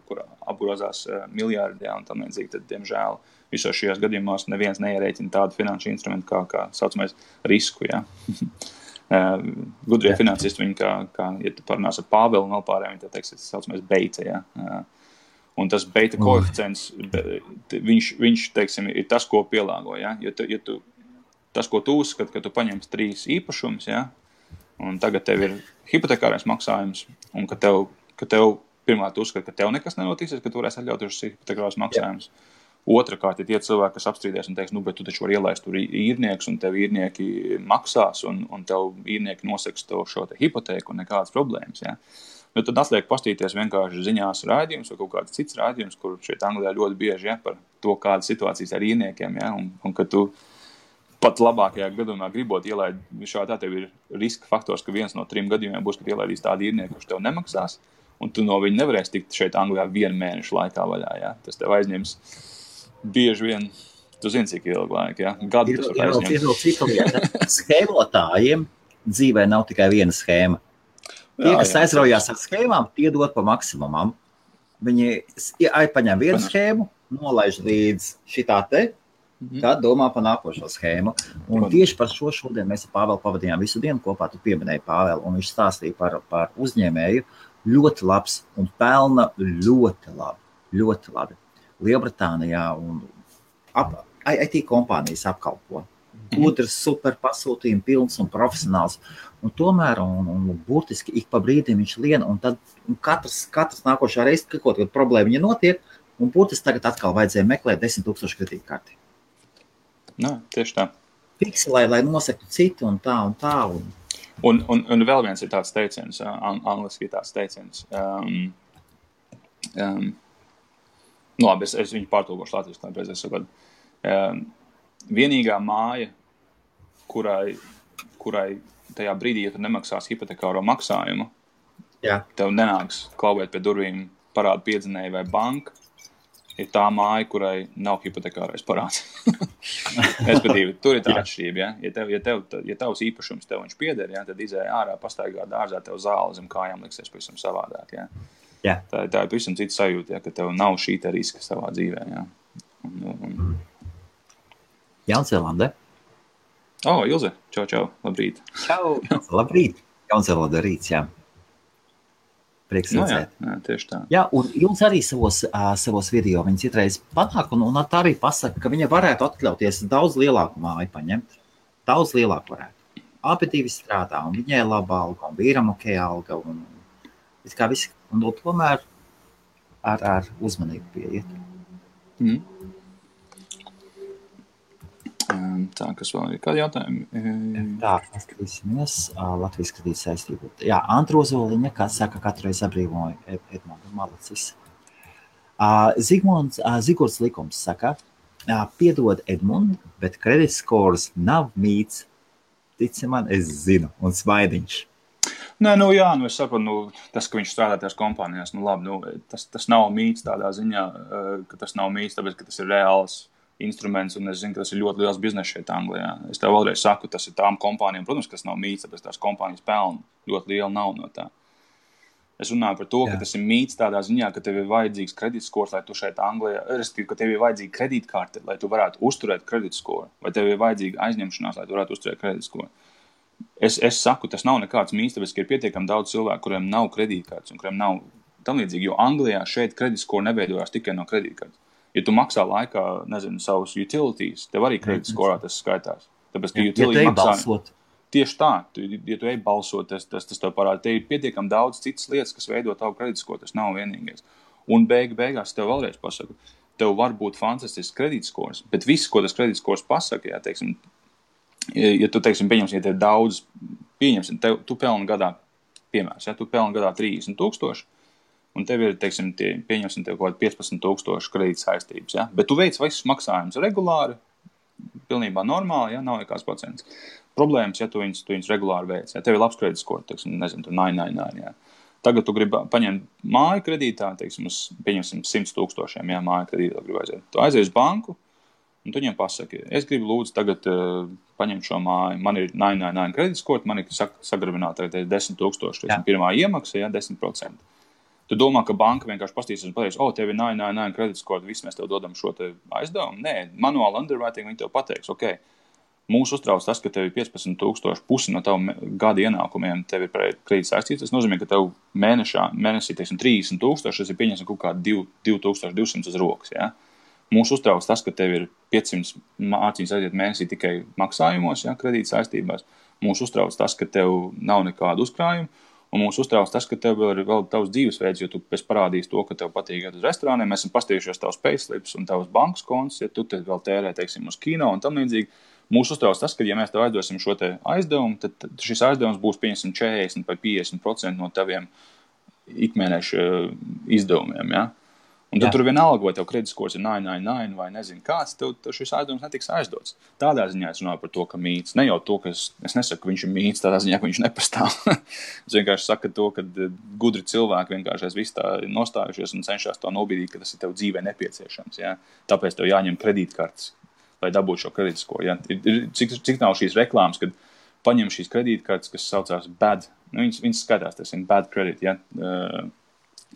apgrozās miljārdi, jā, un tam līdzīgi, tad, diemžēl, visos šajos gadījumos neviens neierēķina tādu finanšu instrumentu kā saucamais risku, jā. Gudrie finansisti, viņi kā, ja tu parunās ar Pāvelu un vēl pārējiem, viņi teiks, tas saucamais beita, jā. Un tas beita koeficients, viņš, teiksim, ir tas, ko pielāgo, ja? Tas, ko tu uzskati, ka tu paņemsi 3 īpašumus, ja? Un tagad tev ir hipotekārais maksājums, un ka tev pirmā tu uzskati, ka tev nekas nenotiksies, ka tu varēsi atļauties šis hipotekārais maksājums. Otrakārt, ja tie cilvēki, kas apstrīdēs un teiks, bet tu taču var ielaist tur īrnieks, un tev īrnieki maksās, un tev īrnieki noseks to šo te hipotēku un nekādas problēmas, ja? Nu, tad atliek pastīties vienkārši ziņās raidījums vai kaut kāds cits raidījums, kur šeit Anglijā ļoti bieži, ja, par to, kādas situācijas ar īrniekiem, ja, un ka tu pat labākajā gadījumā gribot ielaid, šādā tev ir riska faktors, ka viens no 3 gadījumiem būs, ka ielaidīs tādu īrnieku, kurš tev nemaksās, un tu no viņa nevarēsi tikt šeit Anglijā 1 mēnešu laikā vaļā, ja. Tas tev aizņems bieži vien, tu zini, cik ilgu laiku, ja, gadu tas var aizņemt. Ir vēl cita lieta. Schēmotājiem dzīvē nav tikai viena schēma. Tie, kas aizraujās ar schēmām, tie dod pa maksimumam. Viņi paņem vienu schēmu, nolaiž līdz šitā te, tad domā par nākošo schēmu. Un tieši par šo šodien mēs ar Pāvelu pavadījām visu dienu kopā, tu pieminēji Pāvelu, un viņš stāstīja par uzņēmēju ļoti labs un pelna ļoti labi. Lielbritānijā un IT kompānijas apkalpo. Gudrs, super pasūtījumi, pilns un profesionāls. Un tomēr, un burtiski ik pa brīdim viņš lien, un tad katrs nākošā reize, kaut problēma viņa notiek, un burtiski tagad atkal vajadzēja meklēt 10,000 kredītkarti. Nā, tieši tā. Fiksi, lai nosektu citu un tā. Un vēl viens ir tāds teiciens, angliski ir tāds teiciens. Labi, es viņu pārtulkošu latviešu, lai pēc es saprotu. Vienīgā māja, kurai tajā brīdī, ja tu nemaksās hipotekāro maksājumu, tev nenāks klauvēt pie durvīm parādu piedzinēju vai banka, ir tā māja, kurai nav hipotekārais parāds. Respektīvi, tur ir tā atšķirība, ja? Ja tavs īpašums tev viņš pieder, ja? Tad izēja ārā, pastaigā dārzā, tev zāle zem kājām liksies pavisam savādāk, ja? Tā ir pavisam cita sajūta, ja? Ka tev nav šī te riska savā dzīvē, ja? Jaunzēlandē. Ilze, čau, labrīt. Čau, labrīt. Jaunzēlandē rīts, jā. Prieks redzēt. Jā, tieši tā. Jā, un Ilze arī savos video viņas citreiz panāk, un tā arī pasaka, ka viņa varētu atļauties daudz lielāku māju paņemt. Daudz lielāku varētu. Abi divi strādā, un viņai laba alga, un vīram ok alga, un kā visi. Un tomēr ar uzmanību pieiet. Tā, kas vēl ir? Kādi jautājumi? Tā, paskatīsimies. Latvijas kredīta saistību. Jā, Antra Ozoliņa, kā saka, katru reizi abrīvoja Edmundu Malacis. Zigords Likums saka, piedod Edmundu, bet credit scores nav mīts. Tici man, es zinu, un smaidiņš. Nē, es saprotu, tas, ka viņš strādā tajās kompānijās, labi, tas nav mīts tādā ziņā, ka tas nav mīts, tāpēc, ka tas ir reāls instruments, un es zinu, ka tas ir ļoti liels bizness šeit Anglijā. Es tev vēlreiz saku, tas ir tām kompānijām, protams, kas nav mīts, tāpēc tās kompānijas pelna ļoti liela naudu no tā. Es runāju par to, ka tas ir mīts tādā ziņā, ka tev ir vajadzīgs kredītskors, lai tu šeit Anglijā, respektīvi, ka tev ir vajadzīga kredītkarte, lai tu varētu uzturēt kredītskoru, vai tev ir vajadzīga aizņemšanās, lai tu varētu uzturēt kredītskoru. Es saku, tas nav nekāds mīts, tāpēc, ka ir pietiekami daudz cilvēku, kuriem nav kredītkartes un kuriem nav tam līdzīgi, jo Anglijā šeit kredītskoru neveidojās tikai no kredītkartes. Ja tu maksā laikā, savus utilities, tev arī kredītskorā tas skaitās. Tāpēc, ka utility maksā... Tieši tā, ja tu ej balsot, tas tev parāda. Te ir pietiekami daudz citas lietas, kas veido tavu kredītskoru, tas nav vienīgais. Un beigās tev vēlreiz pasaku, tev var būt fantastisks kredītskors, bet viss, ko tas kredītskors pasaka, ja tu, pieņemsim, ja tev daudz, tu pelni gadā, piemērs, tu pelni gadā 30,000, un tev ir, pieņemsim, tev kaut 15,000 kredīta saistības, ja? Bet tu veic visus maksājumus regulāri, pilnībā normāli, ja? Nav nekāds procents. Problēmas, ja tu viņus regulāri veic, ja tev ir labs kredītskors, tur 999, ja? Tagad tu gribi paņemt māju kredītā, pieņemsim 100,000, ja māju kredītā gribi aiziet. Tu aizies uz banku, un tu viņiem pasaki, es gribu lūdzu tagad paņemt šo māju, man ir 999 kredītskors, man ir sagrabināta 10,000, pirmā iemaksa, ja 10%. Tu domā, ka banka vienkārši pastīsies un pateiks, tev ir 999 kredītskors, viss mēs tev dodam šo te aizdevumu. Nē, manuāli underwriting viņi tev pateiks, mūs uztrauc tas, ka tev ir 15,000, pusi no tavu gada ienākumiem, tev ir kredīts saistīts. Tas nozīmē, ka tev mēnesī 30,000, tas ir pieņemsim kaut kā 2,200 uz rokas. Ja? Mūs uztrauc tas, ka tev ir 500 mārciņas aiziet mēnesī tikai maksājumos, ja, kredīts saistībās. Mūs uztrauc tas, ka tev nav nekādu uzkrājumu. Un mūs uztrauc tas, ka tev ir vēl tavs dzīvesveids, jo tu pēc parādīs to, ka tev patīk iet uz restorāniem. Mēs esam pastījušies tavs payslips un tavs bankas konts, ja tu te vēl tērē, uz kino un tam līdzīgi. Mūs uztrauc tas, ka, ja mēs tev aizdosim šo te aizdevumu, tad šis aizdevums būs 40 vai 50% no taviem ikmēneša izdevumiem, ja? Un tad tur vienalga, vai tev kredītskors ir 999 vai nezinu kāds, tev šis aizdevums netiks aizdots. Tādā ziņā es runāju par to, ka mīts. Ne jau to, ka es nesaku, ka viņš ir mīts, tādā ziņā, ka viņš nepastāv. Es vienkārši saku to, ka gudri cilvēki vienkārši viss tā nostājušies un cenšas to nobīdīt, ka tas ir tev dzīvē nepieciešams. Ja? Tāpēc tev jāņem kredītkartes, lai dabūtu šo kredītskoru. Ja? Cik nav šīs reklāmas, kad paņem šīs kredītkartes, kas saucās bad, viņas skatās, tas ir bad credit, ja?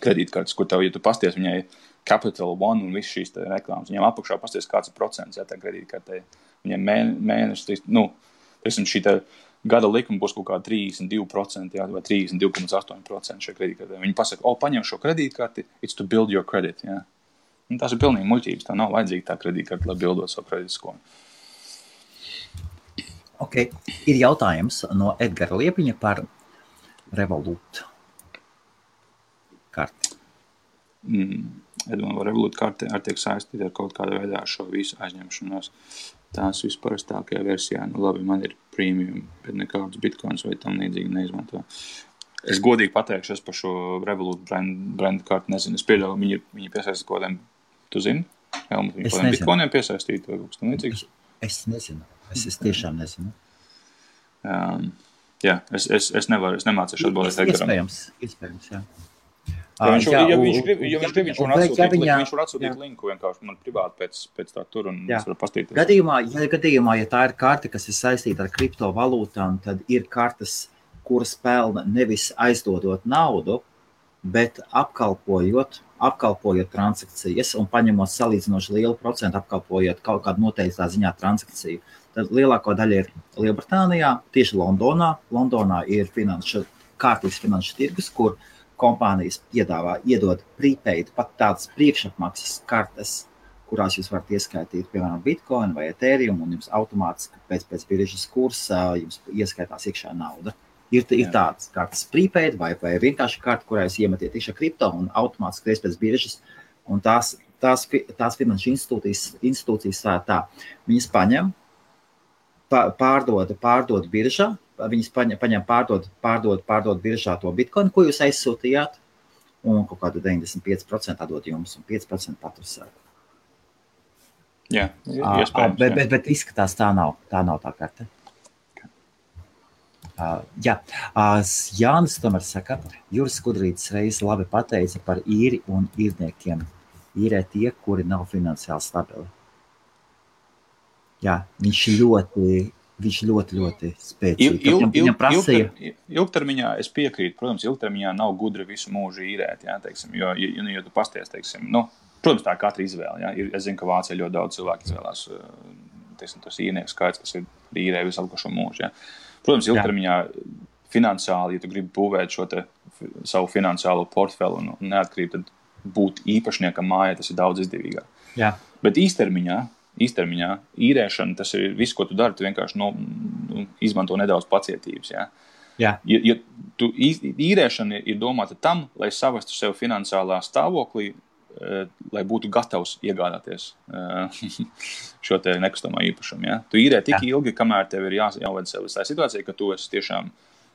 Kredītkartes, kur tev, ja tu pasties, viņai Capital One un viss šīs reklāmas, viņiem apakšā pasties kāds ir procents, ja, tā kredītkartei. Viņiem mēneši, šī gada likuma būs kaut kā 32%, ja, vai 32,8% šajā kredītkartei. Viņi pasaka, paņem šo kredītkarti, it's to build your credit, ja. Un tās ir pilnīgi muļķības, tā nav vajadzīga tā kredītkarte, lai bildot savu kredītskoru. Ok, ir jautājums no Edgara Liepiņa par Revolut karti. Vai Revolut karte ar tiek saistīta ar kaut kādā veidā ar šo visu aizņemšanos. Tās visparastākajā versijā, labi, man ir premium, bet nekādus bitcoins vai tam līdzīgi neizmanto. Es godīgi pateikšu, es par šo Revolut brand karti nezinu. Es pieļauju, viņi piesaista kaut kādiem, tu zini? Helmut, viņi kādiem bitcoiniem piesaistīt vai kaut kas tam līdzīgs? Es nezinu. Es tiešām nezinu. Jā, es nemācīšu atbildēt Edgaram. Iespējams, jā. Viņš var atsūtīt linku vienkārši man privāti pēc tā tur un es varu pastīties. Gadījumā, ja tā ir karte, kas ir saistīta ar kriptovalūtām, tad ir kartes, kuras pelna nevis aizdodot naudu, bet apkalpojot transakcijas un paņemot salīdzinoši lielu procentu, apkalpojot kaut kādu noteiktā ziņā transakciju. Tad lielāko daļa ir Lielbritānijā, tieši Londonā. Londonā ir kārtīgs finanšu tirgus, kur kompānijas iedod prepaid, pat tādas priekšapmaksas kartes, kurās jūs varat ieskaitīt, piemēram, Bitcoin vai Ethereum, un jums automātiski pēc biržas kursa jums ieskaitās iekšā nauda. Ir tāds kartes prepaid vai vienkārši karta, kurā jūs iemetiet iekšā kripto un automātiski reiz pēc biržas. Un tās finanšu institūcijas tā, viņas paņem, pārdod biržā, viņas paņem pārdod biržā to bitcoin, ko jūs aizsūtījāt, un kaut kādu 95% atdod jums un 5% patursēt. Jā, iespējams. Bet izskatās tā nav tā karte. Jānis tomēr saka, Juris Skudrītis reiz labi pateica par īri un īrniekiem. Īrē tie, kuri nav finansiāli stabili. Jā, viņš ļoti spēcīgi. Ilgtermiņā es piekrītu, protams, ilgtermiņā nav gudri visu mūžu īrēt, jā, teiksim, jo tu pasties, teiksim, protams, tā katra izvēle, jā, es zinu, ka Vācijā ļoti daudz cilvēku izvēlās, teiksim, tos īrnieku skaits, kas ir īrē visu atlikušo mūžu, jā. Protams, ilgtermiņā finansiāli, ja tu gribi būvēt šo te savu finansiālo portfeli un neatkarību, tad būt īpašniekam mājā, tas ir daudz izdevīgāk. Jā. Bet īstermiņā īrēšana, tas ir viss, ko tu dari, tu vienkārši izmanto nedaudz pacietības. Jā. Jā. Ja īrēšana ir domāta tam, lai savestu sev finansiālā stāvoklī, lai būtu gatavs iegādāties šo te nekustamā īpašumu. Ja? Tu īrē tik ilgi, kamēr tev ir jāved sev uz tā situācija, ka tu esi tiešām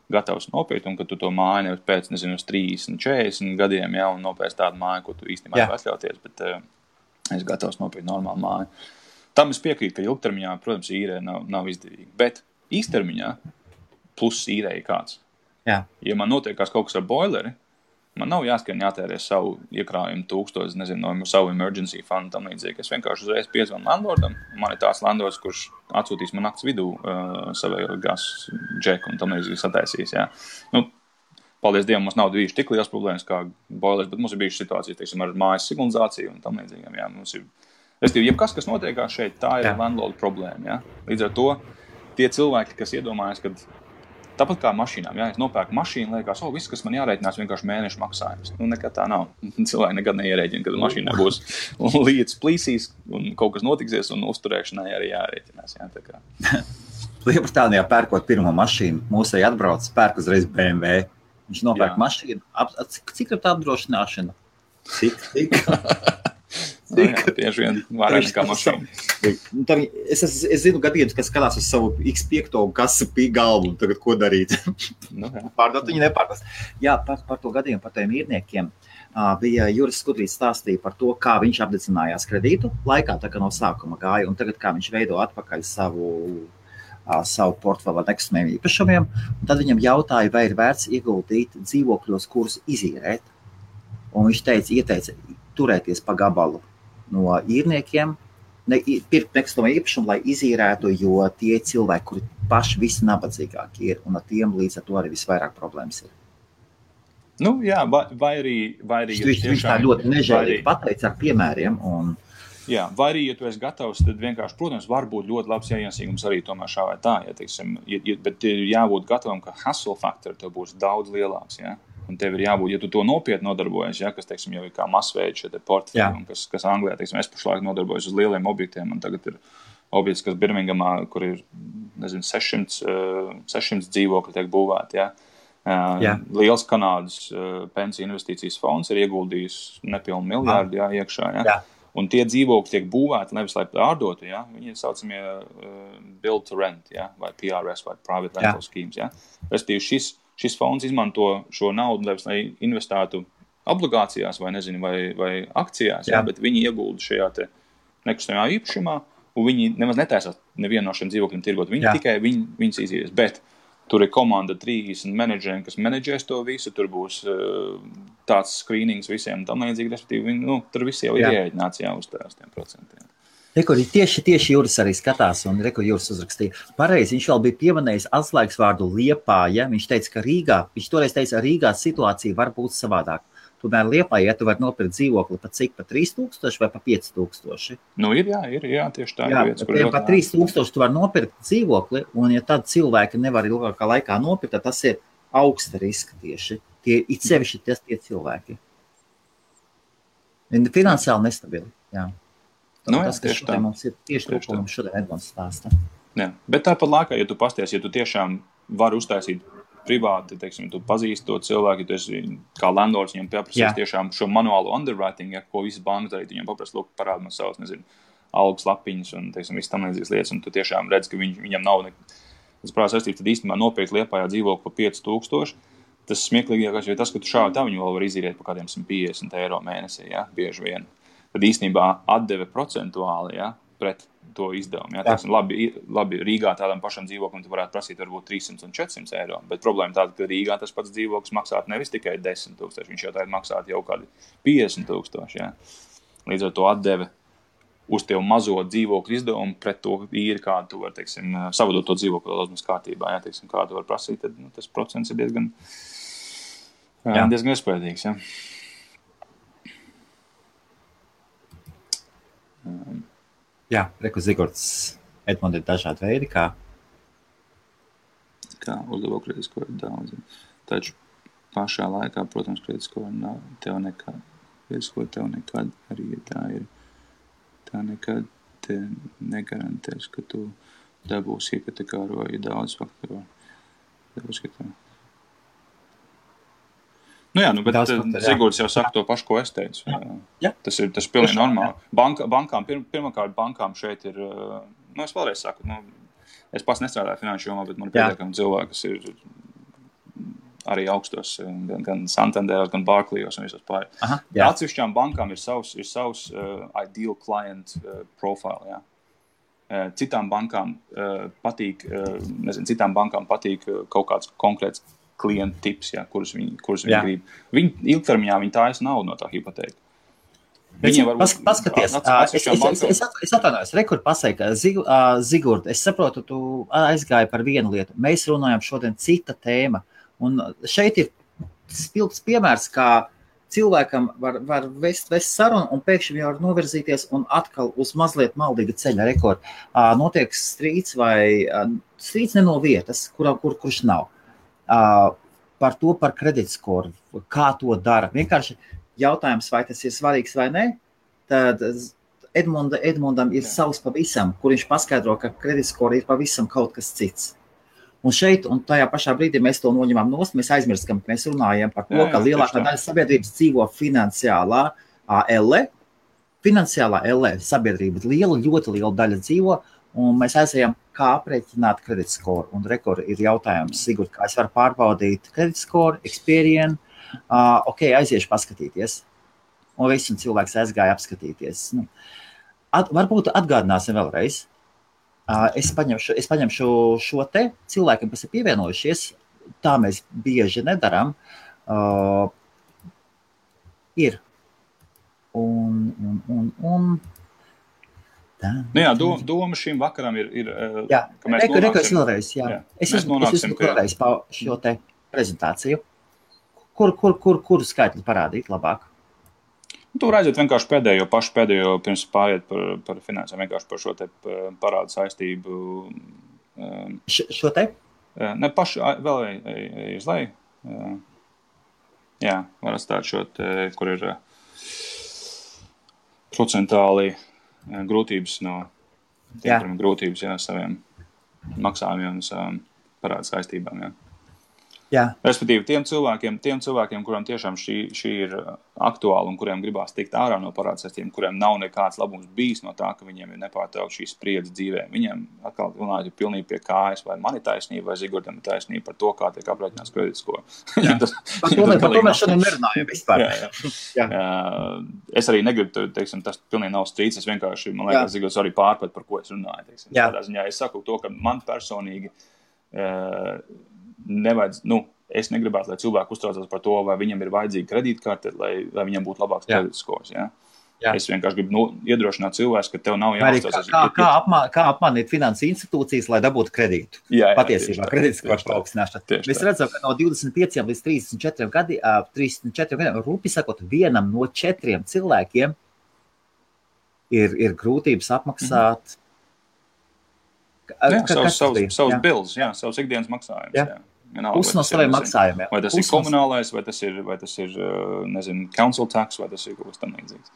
gatavs nopirkt un ka tu to māju nevis pēc, uz 30, 40 gadiem, ja, un nopērc tādu māju, ko tu īstenībā nevar atļauties, bet es gatavs nopirkt normālu māju. Tam es piekrītu, ka ilgtermiņā, protams, īrē nav izdevīgi, bet īstermiņā pluss īrē ir kāds. Jā. Ja man notiekās kaut kas ar boileri, man nav jātērē savu iekrājumu 1000, no savu emergency fundu tam līdzīgi. Es vienkārši uzreiz piezvanu landlordam. Man ir tāds landlords, kurš atsūtīs man nakts vidū savējo gasu džeku un tam līdzīgi sataisīs. Jā. Paldies Dievam, mums nav bijuši tik liels problēmas kā boilers, bet mums ir bijušas situācijas, teiksim, ar mājas signalizāciju un tam līdzīgiem. Jā. Mums ir, jebkas, kas notiekās šeit, tā ir landlorda problēma. Jā. Līdz ar to tie cilvēki, kas iedomājas, kad tāpat kā mašīnām, ja es nopērku mašīnu, liekas, viss, kas man jārēķinās, vienkārši mēnešu maksājums. Nekad tā nav. Cilvēki nekad neierēķina, kad mašīnā būs lietas plīsīs un kaut kas notiksies un uzturēšanai arī jārēķinās. Jā, tā kā. Lielbritānijā pērkot pirmo mašīnu, mūsai atbrauc, pērk uzreiz BMW. Viņš nopērk mašīnu. Cik ir tā apdrošināšana? Cik? Tieši vien vairāk nekā mašīna. Es zinu gadījumus, kas skatās uz savu X5 kasu galvu un tagad ko darīt. Pārdot viņi nepārdot. Jā, par to gadījumu, par tiem īrniekiem bija Juris Skudrītis stāstīja par to, kā viņš apdedzinājās kredītu laikā, tā kā no sākuma gāja, un tagad kā viņš veido atpakaļ savu portfeli ar nekustamiem īpašumiem. Un tad viņam jautāja, vai ir vērts ieguldīt dzīvokļos, kurus izīrēt. Un viņš ieteica turēties pa gabalu no īrniekiem, pirkt nekustamo īpašumu, lai izīrētu, jo tie cilvēki, kuri paši visi nabadzīgāki ir, un ar tiem līdz ar to arī visvairāk problēmas ir. Jā, vai arī viņš tā ļoti nežēlīgi pateica ar piemēriem. Jā, vai arī, ja tu esi gatavs, tad vienkārši, protams, var būt ļoti labs ienesīgums arī tomēr šā vai tā, bet ir jābūt gatavam, ka hustle faktori tev būs daudz lielāks, jā. Un tev ir jābūt, ja tu to nopietni nodarbojies, ja, kas, teiksim, jau ir kā masveida šie portfeļi, un kas Anglijā, teiksim, es pašlaik nodarbojos uz lieliem objektiem, un tagad ir objekts, kas Birmingamā, kur ir, 600 dzīvokļi tiek būvēti, ja. Liels Kanādas pensiju investīcijas fonds ir ieguldījis nepilnu miljārdu, ja, iekšā, ja. Jā. Un tie dzīvokļi tiek būvēti, nevis lai pārdotu, ja, viņi ir saucamie build to rent, ja, vai PRS, vai private rental schemes, ja. Respektīvi, šis fonds izmanto šo naudu, lai investētu obligācijās vai akcijās, jā, bet viņi iegulda šajā te nekustamajā īpašumā, un viņi nemaz netaisās nevienu no šiem dzīvokļiem tirgot. Viņi tikai viņas izies, bet tur ir komanda 30 menedžeriem, kas menedžēs to visu, tur būs tāds screenings visiem tam līdzīgi, respektīvi, tur visi jau ir ierēķināts uz tiem procentiem. Tieši Juris arī skatās, un Juris uzrakstīja. Pareizi, viņš vēl bija pieminējis atslēgas vārdu Liepāja. Viņš teica, ka viņš toreiz teica, Rīgā situācija var būt savādāk. Tomēr Liepājā, ja tu vari nopirkt dzīvokli pa cik, pa 3000 vai pa 5000? Ir, tieši tā. Jā, pa 3000 tu vari nopirkt dzīvokli, un ja tad cilvēki nevar ilgākā laikā nopirkt, tad tas ir augsta riska tieši. It sevišķi tie cilvēki. Finansiāli nestabili, jā. Tas, kas šodien mums ir tieši to, ko mums šodien Edmunds stāsta. Jā, bet tāpat laikā, ja tu pasties, ja tu tiešām vari uztaisīt privāti, teiksim, tu pazīsti to cilvēku, ja tu esi kā landlords, viņam pieprasīs tiešām šo manuālo underwriting, ko visas bankas darīt, viņam paprasti, lūk, parāda man savus, nezinu, algas lapiņas un, teiksim, viss tam līdzīgas lietas, un tu tiešām redz, ka viņam nav tas prāvā saistības, tad īstenībā nopirkt Liepājā dzīvokli pa 5000. Tas smieklīgākais ir tas, ka tu šādi tā viņu vēl var izīrēt par kādiem 150 eiro mēnesī, ja, bieži vien. Tad īstenībā atdeve procentuāli, ja, pret to izdevumu. Ja. Teiksim, labi, Rīgā tādam pašam dzīvoklim tu varētu prasīt varbūt 300 un 400 eiro, bet problēma tāda, ka Rīgā tas pats dzīvoklis maksātu nevis tikai 10 000, viņš jau tagad maksātu jau kādi 50 000. Ja. Līdz ar to atdeve uz tev mazo dzīvokļu izdevumu pret to īri, kādu tu var, teiksim, savadot to dzīvokļu daudz kārtībā, ja, teiksim, kādu var prasīt, tad tas procents ir diezgan iespējīgs. Ja. Jā, reku Zigorts, Edmund, ir dažādi veidi, kā uzlabo kreditskoru daudz. Taču pašā laikā, protams, kreditskoru nav tev nekad. Kreditskoru tev nekad arī tā nekad te negarantēs, ka tu dabūsi iepatekāroji daudz faktoru. Nu jā, bet Zigords jau saka to pašu, ko es teicu. Jā. Tas ir pilnīgi normāli. Bankām šeit ir, es vēlreiz saku, es pats nestrādāju finanšu jomā, bet man pietiekami cilvēki, kas ir arī augstos, gan Santanderos, gan Barclays un visos pārējos. Atsevišķām bankām ir savs ideal client profile, jā. Citām bankām patīk, citām bankām patīk kaut kāds konkrēts klienta tips, ja, kurus viņi grib. Ilgtermiņā viņi tājas naudu no tā hipotēka. Paskaties, es atvainojos, rekur pasaka, Zigurd, es saprotu, tu aizgāji par vienu lietu. Mēs runājam šodien cita tēma. Un šeit ir spilgts piemērs, kā cilvēkam var vest sarunu un pēkšņi jau var novirzīties un atkal uz mazliet maldīga ceļa rekordu. Notiek strīds vai strīds ne no vietas, kurš nav. Par kreditskoru, kā to dara. Vienkārši jautājums, vai tas ir svarīgs vai ne, tad Edmundam ir savs pavisam, kur viņš paskaidro, ka kreditskora ir pavisam kaut kas cits. Un šeit, un tajā pašā brīdī mēs to noņemam nost, mēs aizmirskam, ka mēs runājam par to, ka lielākā daļa sabiedrības dzīvo finansiālā elle. Finansiālā elle sabiedrība ļoti liela daļa dzīvo, un mēs aizējam, kā aprēķināt kreditskoru. Un rekord ir jautājums, Sigurd, kā es varu pārbaudīt kreditskoru, Experian, aiziešu paskatīties. Un visi cilvēks aizgāja apskatīties. Varbūt atgādināsim vēlreiz. Es paņemšu šo te cilvēkiem, kas ir pievienojušies, tā mēs bieži nedaram, ir. Doma šim vakaram ir ka mēs nonāksim. Es esmu vēlreiz pa šo te prezentāciju. Kur skaitli parādīt labāk? Tu redzat vienkārši pēdējo pirms pāriet par finansēm, vienkārši par šo te parādu saistību. Šo te? Ne, pašu vēl uz leju. Jā, var atstāt šo te, kur ir procentāli grūtības no tiem, grūtības, saviem maksājumiem un savām parādu saistībām, Respektīvi, tiem cilvēkiem, kuriem tiešām šī ir aktuāla un kuriem gribās tikt ārā no parādu saistībām, kuriem nav nekāds labums bijis no tā, ka viņiem ir nepārtraukti šī spriedze dzīvē. Viņiem atkal runājot pilnīgi pie kājas, vai man ir taisnība, vai Zigurdam ir taisnība par to, kā tiek aprēķināts kreditskoru. Par to mēs šodien nerunājam vispār. Es arī negribu, teiksim, tas pilnīgi nav strīds, es vienkārši, man liekas, Zigurds arī pārprat, par ko es runāju. Teiksim. Tādā ziņā es saku to, ka man personīgi es negribētu, lai cilvēki uztraucās par to, vai viņam ir vajadzīga kredītkarte, lai viņam būtu labāks kreditskors. Es vienkārši gribu iedrošināt cilvēkus, ka tev nav jāuztraucās. Kā apmānīt finansu institūcijas, lai dabūtu kredītu? Patiesībā kreditskors paaugstināšana. Mēs redzam, ka no 25 līdz 34 gadiem, rūpi sakot, vienam no 4 cilvēkiem ir grūtības apmaksāt. Savus bildes, savus ikdienas maksājumus. Pusi no saviem maksājumiem. Vai tas ir komunālais, vai tas ir nezinu, council tax, vai tas ir kaut kas tam līdzīgs.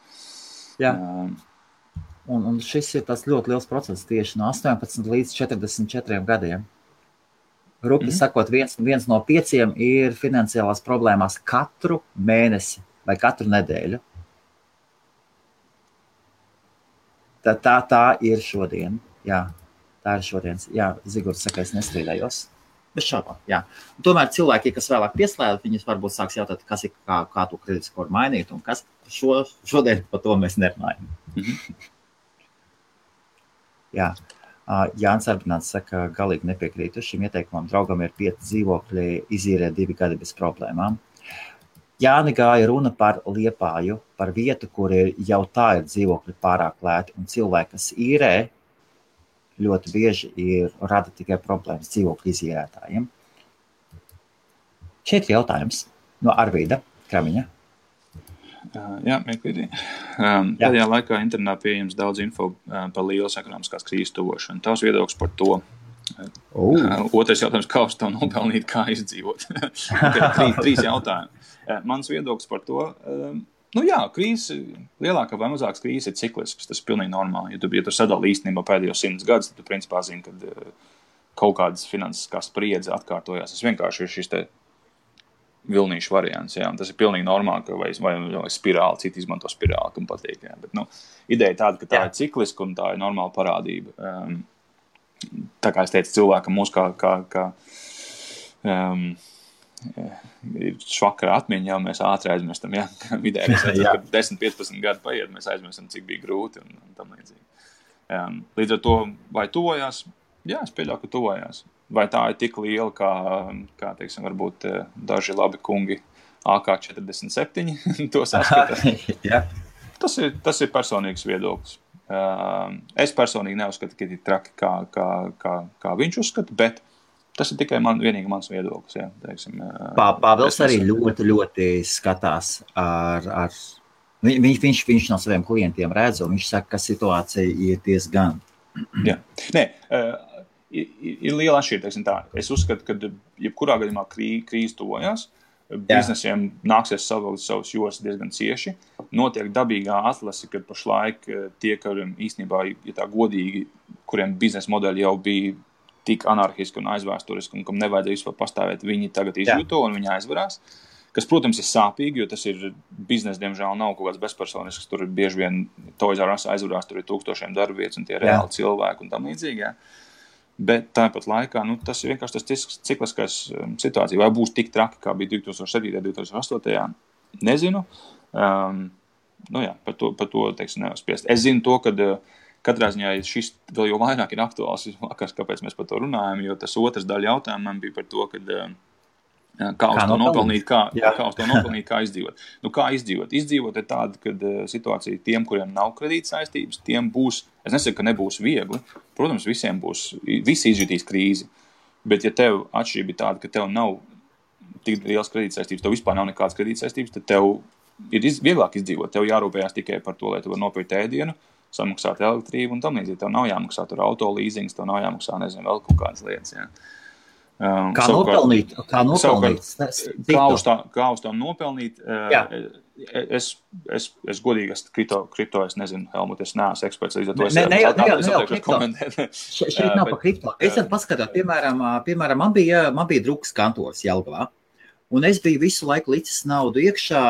Un šis ir tas ļoti liels process tieši no 18 līdz 44 gadiem. Rupi sakot, viens no 5 ir finansiālās problēmās katru mēnesi vai katru nedēļu. Tā ir šodien. Jā, tā ir šodien. Jā, Zigords saka, es nestrīdējos. Bez šaubām, jā. Un tomēr cilvēki, kas vēlāk pieslēdz, viņus varbūt sāks jautāt, kas ir, kā to kreditskoru mainīt, un kas šodien par to mēs nerunājam. Jā. Jānis Arbināts saka, galīgi nepiekrītu šim ieteikumam. Draugam ir 5 dzīvokļi, izīrē 2 gadi bez problēmām. Jāni gāja runa par Liepāju, par vietu, kur jau tā ir dzīvokļi pārāk lēti, un cilvēki, kas īrē, ļoti bieži rada tikai problēmas dzīvokļu izīrētājiem. Šeit ir jautājums no Arvīda Kramiņa. Jā, mieklīgi. Pēdējā laikā internetā pieejams daudz info par lielas ekonomiskās krīzes tuvošanu. Tavs viedoklis par to. Otrais jautājums, kā uz to nopelnīt, kā izdzīvot. 3 jautājumi. Mans viedoklis par to. Krīze, lielākā vai mazākas krīze ir ciklisks, tas ir pilnīgi normāli. Ja tu sadali īstenībā pēdējos 100 gadus, tad tu principā zini, ka kaut kādas finansiskās spriedze atkārtojās. Tas vienkārši ir šis te vilnīšu variants, jā, un tas ir pilnīgi normāli, ka vai spirāli, citi izmanto spirāli, kam patīk, jā, bet, ideja tāda, ka tā ir cikliska un tā ir normāla parādība. Tā kā es teicu, cilvēkam mūs kā ir švakara atmiņa, jau mēs ātri aizmirstam, jā, vidēji, kad 10-15 gadi paiet, mēs aizmirstam, cik bija grūti un tam līdzīgi. Līdz ar to, vai tuvojās? Jā, es pieļauju, ka tuvojās. Vai tā ir tik liela, kā teiksim, varbūt daži labi kungi AK-47 to saskata? Tas ir personīgs viedoklis. Es personīgi neuzskatu, ka ir traki, kā viņš uzskata, bet tas ir tikai vienīgi mans viedoklis. Jā, teiksim, Pāvils arī ļoti skatās viņš no saviem klientiem redz, un viņš saka, ka situācija ir diezgan. Jā. Nē, ir liela atšķirība, teiksim tā. Es uzskatu, ka jebkurā gadījumā krīze tuvojās, biznesiem nāksies savilkt savus jostas diezgan cieši. Notiek dabīgā atlase, kad pašlaik tie, kuriem īstenībā, ja tā godīgi, kuriem biznesa modeļi jau bija tik anarhiski un aizvēsturiski, un kam nevajadzēja vispār pastāvēt, viņi tagad izjūto un viņi aizvarās. Kas, protams, ir sāpīgi, jo tas ir biznesa, diemžēl, nav kaut kāds bezpersonisks, tur ir bieži vien Toys R Us aizvarās, tur ir 1000 darbvietas un tie reāli cilvēki un tam līdzīgi. Jā. Bet tāpat laikā, tas ir vienkārši tas cikliskais situācija. Vai būs tik traki, kā bija 2007. 2008. Nezinu. Par to teiksim, nevar spriest. Es zinu to, ka katrā ziņā šis vēl jau vairāk ir aktuāls, kāpēc mēs par to runājam, jo tas otrs daļa jautājumam bija par to, kā uz to nopelnīt, kā izdzīvot. Kā izdzīvot? Izdzīvot ir tāda, kad situācija tiem, kuriem nav kredīt saistības, tiem būs, es nesaku, ka nebūs viegli. Protams, visi izjutīs krīzi. Bet ja tev atšķirība ir tāda, ka tev nav tik liels kredīt saistības, tev vispār nav nekādas kredīt saistības, tad tev ir vieglāk izdzīvot. Tev jārūpējās tikai par to, lai tu var nopirkt ēdienu, samaksāt elektrību un tam līdzīgi. Tev nav jāmaksā tur auto līzings, tev nav jāmaksā, nezinu, vēl kaut kādas lietas, jā. Kā nopelnīt? Kā uz to nopelnīt? Es godīgi kripto, es nezinu, Helmut, es neesmu eksperts, līdz ar to es komentēt. Šeit nav pa kripto. Es tad paskatāt, piemēram, man bija drukas kantors Jelgavā, un es biju visu laiku licis naudu iekšā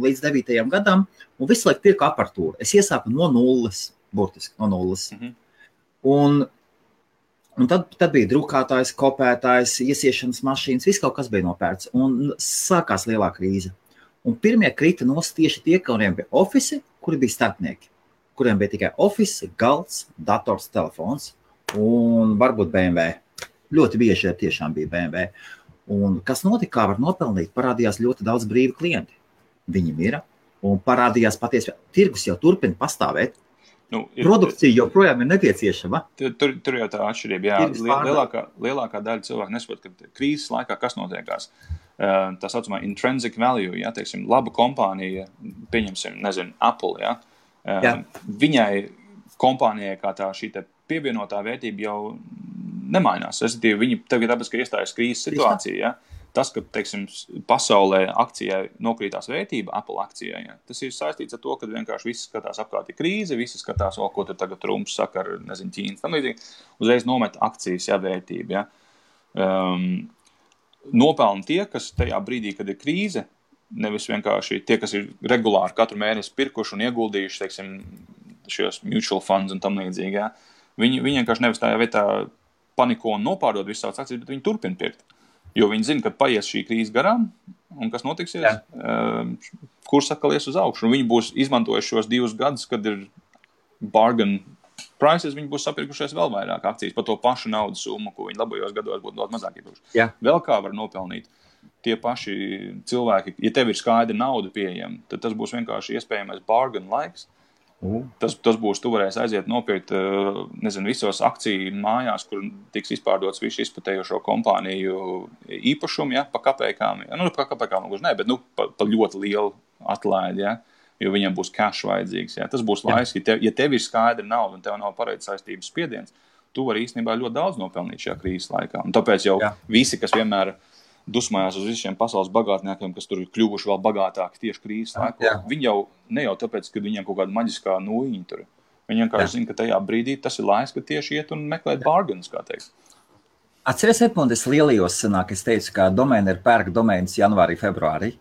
līdz 9. gadam, un visu laiku pirku aparatūru. Es iesāku no nulles, burtiski no nulles. Un tad bija drukātājs, kopētājs, iesiešanas mašīnas, viss kaut kas bija nopērts. Un sākās lielā krīze. Un pirmie krita nost tieši tie, kuriem bija ofisi, kuri bija starpnieki. Kuriem bija tikai ofisi, galds, dators, telefons un varbūt BMW. Ļoti bieži tiešām bija BMW. Un kas notika, kā var nopelnīt, parādījās ļoti daudz brīvi klienti. Viņi mira un parādījās patiesi. Tirgus jau turpina pastāvēt. Produkcija joprojām ir nepieciešama. Tur jau tā atšķirība. Jā, lielākā daļa cilvēku nesaprot, ka krīzes laikā kas notiekās. Tā saucamā intrinsic value, jā, teiksim, laba kompānija, pieņemsim, nezinu, Apple, jā. Viņai kompānijai kā tā šī te pievienotā vērtība jau nemainās. Respektīvi, viņi tagad tāpēc, ka iestājas krīzes situācija, jā. Tas, ka, teiksim, pasaulē akcijai nokrītās vērtība, Apple akcijai, ja, tas ir saistīts ar to, ka vienkārši visi skatās apkārt ir krīze, visi skatās, ko tur tagad Trumps saka ar, nezinu, Ķīnas, tam līdzīgi, uzreiz nomet akcijas, ja, vērtība, ja. Nopelna tie, kas tajā brīdī, kad ir krīze, nevis vienkārši tie, kas ir regulāri katru mēnesi pirkuši un ieguldījuši, teiksim, šos mutual funds un tam līdzīgi, jā. Viņi vienkārši nevis tajā vietā paniko un nopārdod visu savas akcijas, bet viņi turpina pirkt. Jo viņi zina, ka paies šī krīze garām, un kas notiksies, kurs atkal ies uz augšu. Un viņi būs izmantojuši šos 2 gadus, kad ir bargain prices, viņi būs sapirkušies vēl vairāk akcijas par to pašu naudas summu, ko viņi labajos gados būtu daudz mazāk iepirkuši. Vēl kā var nopelnīt tie paši cilvēki, ja tev ir skaidra nauda pieejama, tad tas būs vienkārši iespējamais bargain laiks. Tas būs, tu varēsi aiziet nopirkt, nezinu, visos akciju mājās, kur tiks izpārdots visu izplatējošo kompāniju īpašumu, ja, pa kapēkām. Ja. Nu, pa kapēkām gluži ne, bet pa ļoti lielu atlaidi, ja, jo viņam būs cash vajadzīgs. Ja. Tas būs laiks, ja tev ir skaidra nauda un tev nav pareiz saistības spiediens, tu vari īstenībā ļoti daudz nopelnīt šajā krīzes laikā. Un tāpēc jau visi, kas vienmēr dusmājās uz visiem pasaules bagātniekiem, kas tur ir kļuvuši vēl bagātāki tieši krīzes laikā. Viņi jau ne jau tāpēc, ka viņiem kaut kāda maģiskā nūjiņa tur. Viņi vienkārši zina, ka tajā brīdī tas ir laiks, ka tieši iet un meklēt bargains, kā teikt. Atceries, Edmund, es lielījos sanāk, es teicu, ka domēni ir pērk domēnis janvārī, februārī.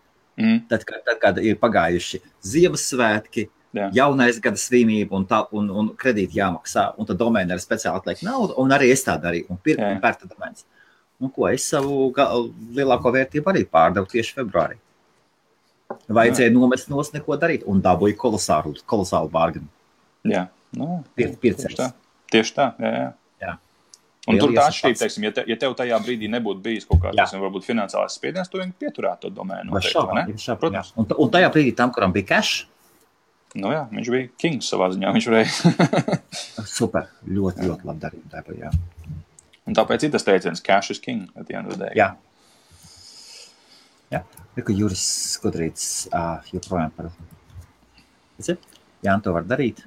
Tad, kad ir pagājuši Ziemassvētki, jaunais gada svinība un kredīti jāmaksā, un tad domēni ir speciāli atliek naudu, un arī es tā darīju, un pirku un pērta domēnis. Nu, ko es savu lielāko vērtību arī pārdevu tieši februārī. Vajadzēja nomest nos neko darīt, un dabūju kolosālu bargainu. Jā, tieši tā, jā. Un tur tā atšķirība, teiksim, ja tev tajā brīdī nebūtu bijis kaut kāds, varbūt finansiālais spiediens, tu vienkārši pieturētu to domēnu. Protams. Un tajā brīdī tam, kuram bija cash? Nu jā, viņš bija kings savā ziņā, viņš varēja. Super, ļoti labi darīt tāpēc, jā. Un tāpēc ir tas teiciens, cash is king, at the end of the day. Jā. Ka Juris Skudrīts joprojām par... Jā, to var darīt.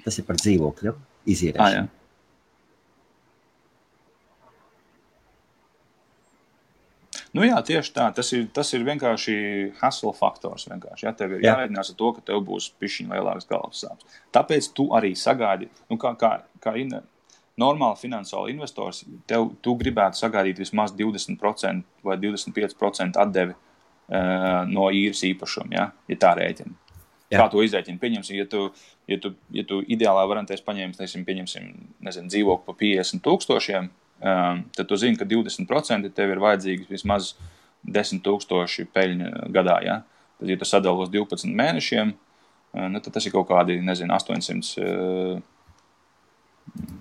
Tas ir par dzīvokļu izīrēšanu. Nu jā, tieši tā. Tas ir vienkārši hustle faktors. Vienkārši. Ja, tev ir jārēķinās ar to, ka tev būs pišķiņ lielāks galvas sāpes. Tāpēc tu arī sagaidi, nu kā normāli finansiāli investors, tu gribētu sagaidīt vismaz 20% vai 25% atdevi no īres īpašuma, ja tā rēķina. Kā to izrēķina? Pieņemsim, ja tu ideālā variantēs pieņemsim, dzīvokli pa 50,000, tad tu zini, ka 20% tev ir vajadzīgi vismaz 10,000 peļņa gadā, ja? Tad, ja tu sadali uz 12 mēnešiem, tad tas ir kaut kādi, 800...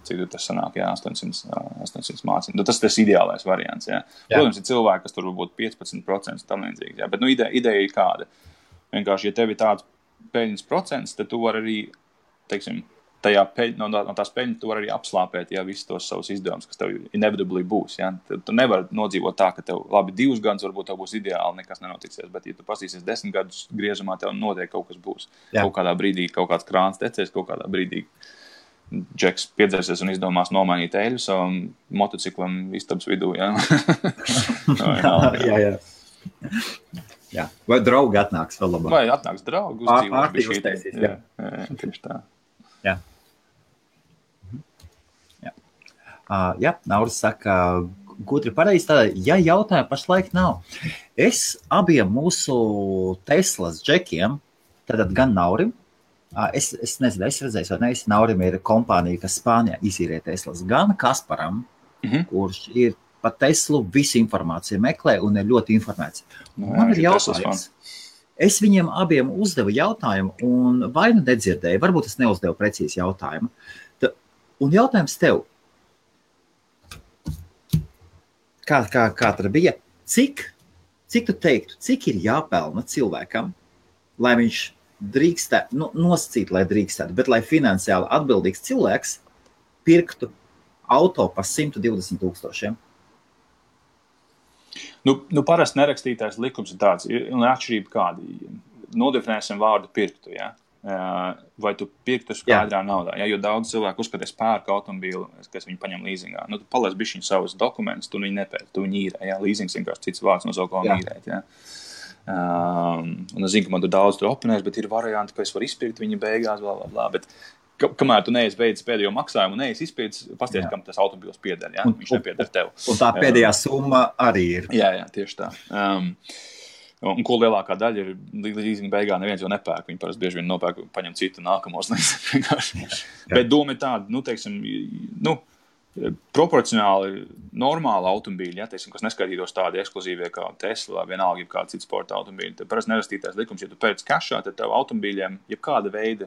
Cik tas sanāk, 800 mācību. Tas ir ideālais variants, jā. Protams, ir cilvēki, kas tur varbūt 15% tam līdzīgi, jā. Bet, ideja ir kāda. Vienkārši, ja tev ir tāds peļņas procents, tad tu vari arī, teiksim, no tās peļņas tu vari arī apslāpēt, jā, visus tos savus izdevumus, kas tev inevitably būs, jā. Tu nevari nodzīvot tā, ka tev, labi, 2 gadus varbūt tev būs ideāli, nekas nenotiksies, bet, ja tu pasīsies 10 gadus griezumā, tev noteikti kaut kas būs. Kaut kādā brīdī kaut kāds krāns tecēs, kaut kādā brīdī Džeks piedzersies un izdomās nomainīt eļu savam motociklam istabas vidū, jā. Jā. Vai draugi atnāks vēl labāk? Vai atnāks draugi uzdzīvot bišķīt. Jā, tieši tā. Jā. Jā, Nauris saka, gudri pareizi tādā, ja jautājumu pašlaik nav. Es abiem mūsu Teslas džekiem, tad gan Naurim, Es nezinu, es redzēju, vai ne, Naurim ir kompānija, kas Spānijā izīrē Teslas, gan Kasparam, kurš ir par Teslu visu informāciju meklē un ir ļoti informēts. Man ir jautājums. Es viņiem abiem uzdevu jautājumu un vai nu nedzirdēju, varbūt es neuzdevu precīzi jautājumu. Un jautājums tev, kā tad bija, cik tu teiktu, cik ir jāpelna cilvēkam, lai viņš drīkstētu, nosacīt, lai drīkstētu, bet lai finansiāli atbildīgs cilvēks pirktu auto par 120,000. Parasti nerakstītais likums ir tāds, un atšķirība kādi. Nodefinēsim vārdu pirktu, ja? Vai tu pirktu skaidrā naudā, ja? Jo daudz cilvēku uzskatās pērka automobīlu, kas viņi paņem līzingā. Tu paliec bišķiņ savus dokumentus, tu viņu nepērk, tu viņu īrē, ja? Līzings vienkārši cits vārds no savu ko īrēt, ja? Un es zinu, ka man tur daudz tur oponēs, bet ir varianti, ka es varu izpirkt viņa beigās, bet kamēr tu neesi beidzis pēdējo maksājumu un neesi izpildījis, pasties, kam tas automobils pieder, ja? Viņš nepieder tev. Un tā pēdējā summa arī ir. Jā, tieši tā. Un ko lielākā daļa ir līdz beigā neviens jau nepērk. Viņi parasti bieži vien nopērk, paņem citu nākamos. Bet doma ir tāda, teiksim, proporcionāli normāli automobīļi, ja, teiksim, kas neskaitītos tādi ekskluzīvie kā Tesla vai vienalga, ja kāda cita sporta automobīļi. Tad parasti nerastītais likums, ja tu pēc kašā, tad tev automobīļiem, ja kāda veida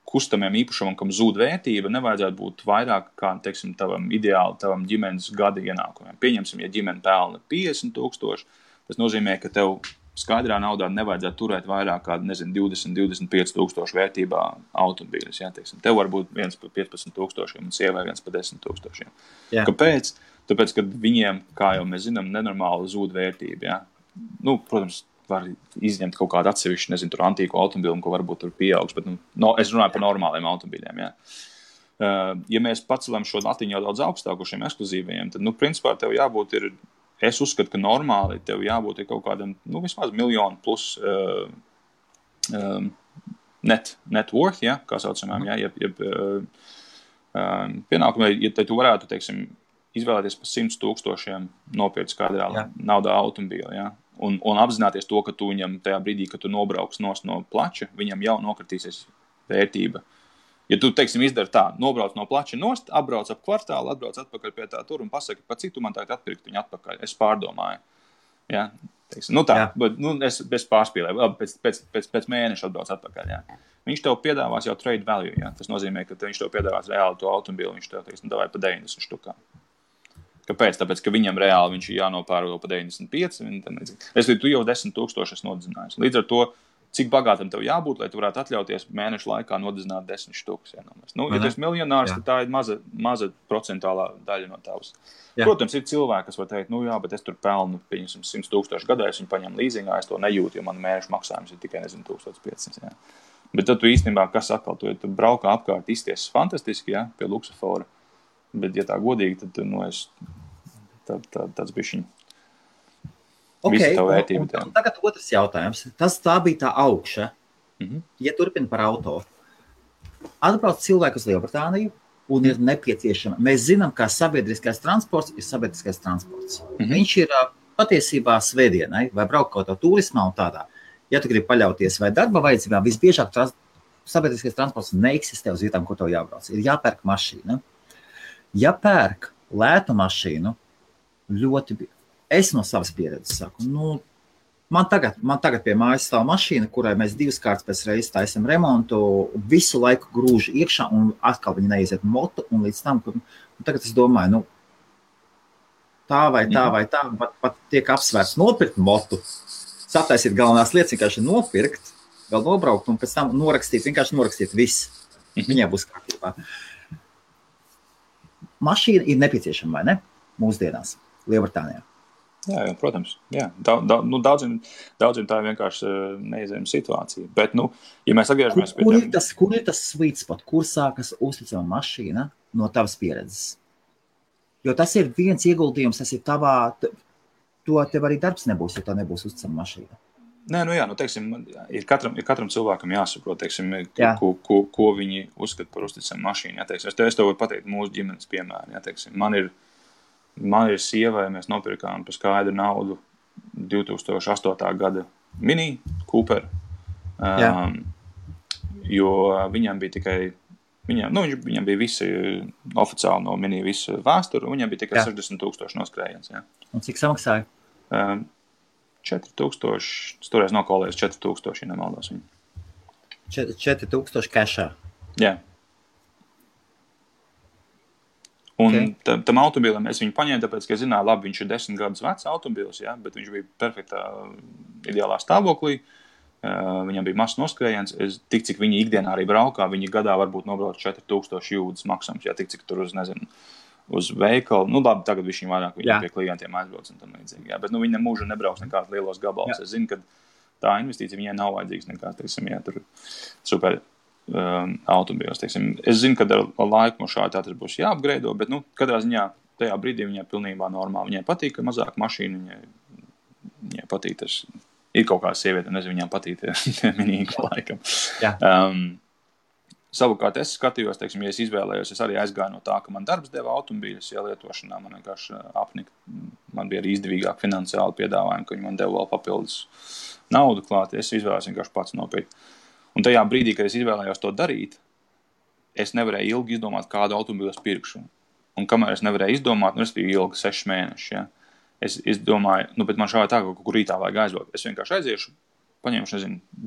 kustamiem īpašumam, kam zūd vērtība, nevajadzētu būt vairāk kā, teiksim, tavam ģimenes gada ienākumiem. Pieņemsim, ja ģimene pelna 50,000, tas nozīmē, ka tev skaidrā naudā nevajadzētu turēt vairāk kā, 20-25,000 vērtībā automobīļus. Ja, teiksim. Tev var būt viens par 15,000 un sievai viens par 10,000. Ja. Kāpēc? Tāpēc, ka viņiem, kā jau mēs zinām, nenormāli zūd vērtība. Ja. Protams, var izņemt kaut kādu atsevišķu, tur antīku automobīlu, ko varbūt tur pieaugs, bet es runāju par normāliem automobīļiem. Ja. Ja mēs pacelam šo latiņu jau daudz augstāku šiem ekskluzīvajiem, tad, principā, tev jābūt es uzskatu, ka normāli tev jābūt kaut kādam, vismaz 1 miljonu plus net worth, ja, kā saucamām, ja, pienākumā, ja tu varētu, teiksim, izvēlēties par 100,000 nopirkt skaidrā naudā automobīlu, ja. Un apzināties to, ka tu viņam tajā brīdī, kad tu nobrauks no plača, viņam jau nokritīsies vērtība. Ja tu, teiksim, izdari tā, nobrauc no plača nost, apbrauc ap kvartālu, atbrauc atpakaļ pie tā tur un pasaki, pa cik tu man tagad atpirkt viņu atpakaļ. Es pārdomāju. Ja? Teiksim, bet es bez pārspīlēju, pēc mēneša atbrauc atpakaļ. Ja? Viņš tev piedāvās jau trade value. Ja? Tas nozīmē, ka viņš tev piedāvās reāli to automobīlu, viņš tev, teiksim, davāja pa 90 štukā. Kāpēc? Tāpēc, ka viņam reāli viņš ir jānopērko pa 95. Es līdz tu jau 10,000 esi nodzinājis. Līdz ar to, cik bagātam tev jābūt, lai tu varētu atļauties mēnešu laikā nodzināt 10 štukas. Ja tu esi miljonārs, tad tā ir maza procentālā daļa no tavas. Jā. Protams, ir cilvēki, kas var teikt, bet es tur pelnu 100,000 gadā, es viņu paņemu līzingā, es to nejūtu, jo man mēnešu maksājums ir tikai 1,500. Ja. Bet tad tu īstenībā, kas atkal, tu braukā apkārt izties fantastiski, ja, pie luksofora. Bet, ja tā godīgi, tad tāds bišķiņ. Okay, un tagad otrs jautājums. Tā bija tā augša. Ja turpina par auto. Atbrauc cilvēku uz Lielbritāniju un ir nepieciešama. Mēs zinām, ka sabiedriskais transports ir sabiedriskais transports. Viņš ir patiesībā svētdienai vai braukt kaut kā turismā un tādā. Ja tu gribi paļauties vai darba vajadzībā, visbiežāk sabiedriskais transports neeksistē uz vietām, kur tev jābrauc. Ir jāpērk mašīna. Ja pērk lētu mašīnu, es no savas pieredzes saku, man tagad pie mājas stāv mašīna, kurai mēs 2 kārtas pēc reizes taisam remontu, visu laiku grūž iekšā un atkal viņi neiziet motu, un līdz tam, tagad es domāju, tā vai tā, pat tiek apsvērts nopirkt motu, sataisīt galvenās lietas, vienkārši nopirkt, vēl nobraukt un pēc tam vienkārši norakstīt viss. Viņai būs kārtībā. Mašīna ir nepieciešama, vai ne? Mūsdienās, Lielbritānijā. Jā, protams. Jā. Daudziem tā ir vienkārši neizējama situācija. Bet, ja mēs atgriežamies pie tiem... Kur ir tas sweet spot? Kur sākas uzticama mašīna no tavas pieredzes? Jo tas ir viens ieguldījums, tas ir tavā... Tev arī darbs nebūs, ja tā nebūs uzticama mašīna. Nē, teiksim, ir katram cilvēkam jāsaprot, teiksim, ko viņi uzskata par uzticamu mašīnu. Ja, teiksim, es tev varu pateikt mūsu ģimenes piemēru. Ja, teiksim, man ir sievai, mēs nopirkām par skaidru naudu 2008. gada Mini Cooper, jo viņam bija tikai, viņam bija visi oficiāli no Mini visu vēsturu, viņam bija tikai 60,000 noskrējiens. Ja. Un cik samaksāja? 4,000, toreiz nokolējas 4,000, ja nemaldos viņu. 4,000 kešā? Jā. Un tam automobīlam es viņu paņēmu, tāpēc, ka es zināju, labi, viņš ir 10 gadus vecs automobīls, ja, bet viņš bija perfektā, ideālā stāvoklī. Viņam bija mazs noskrējiens. Tik, cik viņi ikdienā arī braukā, viņi gadā varbūt nobrauc 4,000 jūdzes maksājums, ja, tik, cik tur uz veikalu. Labi, tagad viņš vairāk pie klientiem aizbrauc un tam līdzīgi. Jā, bet viņi mūžu nebrauks nekāds lielos gabalus. Es zinu, ka tā investīcija viņai nav vajadzīgs nekāds, teiksim, ja tur super automobīls, teiksim. Es zinu, ka ar laiku mums šādi tas būs jāapgreido, bet, katrā ziņā tajā brīdī viņai pilnībā normāli. Viņai patīk, ka mazāk mašīna, viņai patīk tas, ir kaut kāda sieviete, nezinu, viņām patīk tie minīgi laikam. Savukārt es skatījos, teiksim, ja es izvēlējos, es arī aizgāju no tā, ka man darbs deva automobīļus, ja lietošanā man vienkārši apnika. Man bija arī izdevīgāk finansiāli piedāvājumi, ka viņi man deva vēl papildus naudu klāt. Es izvēlējos vienkārši pats nopirkt. Un tajā brīdī, kad es izvēlējos to darīt, es nevarēju ilgi izdomāt, kādu automobīlu es pirkšu. Un kamēr es nevarēju izdomāt, es biju ilgi 6 mēneši, ja. Es domāju, bet man šādi tā, ka kaut kur rītā vajag aizbraukt. Es vienkārši aiziešu, paņemšu,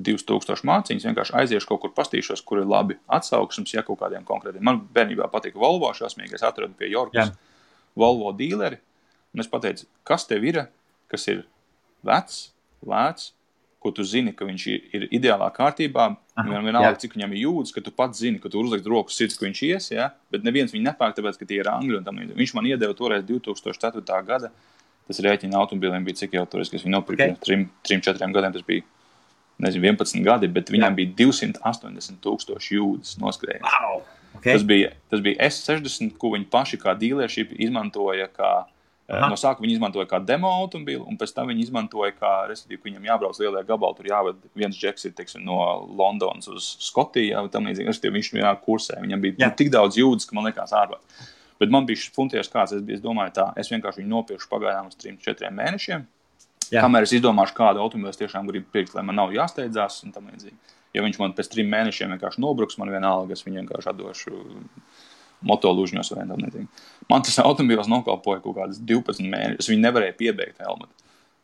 2000 māciņas, vienkārši aiziešu kaut kur pastīšos, kur ir labi atsauksmes, ja kaut kādiem konkrētiem. Man bērnībā patika Volvo šausmīgi, es atradu pie Jorkas Volvo dīleri, un es pateicu, kas tev ir, kas ir vecs, lēts, ko tu zini, ka viņš ir ideālā kārtībā, vienalga, cik viņam ir jūdas, ka tu pats zini, ka tu uzlikt roku sirds, ka viņš ies, ja? Bet neviens viņu nepērk, tāpēc, ka tie ir angļi un tam līdzīgi. Viņš man iedeva toreiz 2004. gada, tas rēķina automobīliem bija cik jau toreiz, kas viņu nopirka 3-4 gadiem, tas bija 11 gadi, bet viņam bija 280,000 jūdas noskrējiens. Wow. Tas bija S60, ko viņi paši kā dealership izmantoja kā, no sākuma viņi izmantoja kā demo automobīlu, un pēc tam viņi izmantoja kā, respektīvi, viņam jābrauc lielie gabali, tur jāved viens džeks ir, teiksim, no Londonas uz Skotiju, jā, tam līdzīgi, respektīvi, viņš vienā kursē, viņam bija tik daudz jūdas, ka man likās ārvāt. Bet man bija funties kāds, es domāju tā, es vienkārši viņu nopirkšu pagaidām uz 3-4 mēnešiem, kamēr es izdomāšu, kādu automobīlu es tiešām gribu pirkt, lai man nav jāsteidzās un tam līdzīgi. Ja viņš man pēc 3 mēnešiem vienkārši nobruks, man vienalga, es viņu vienkārši atdošu motolužņos vai tam līdzīgi. Man tas automobīls nokalpoja kaut kādas 12 mēnešus, es viņu nevarēju piebeigt helmatu.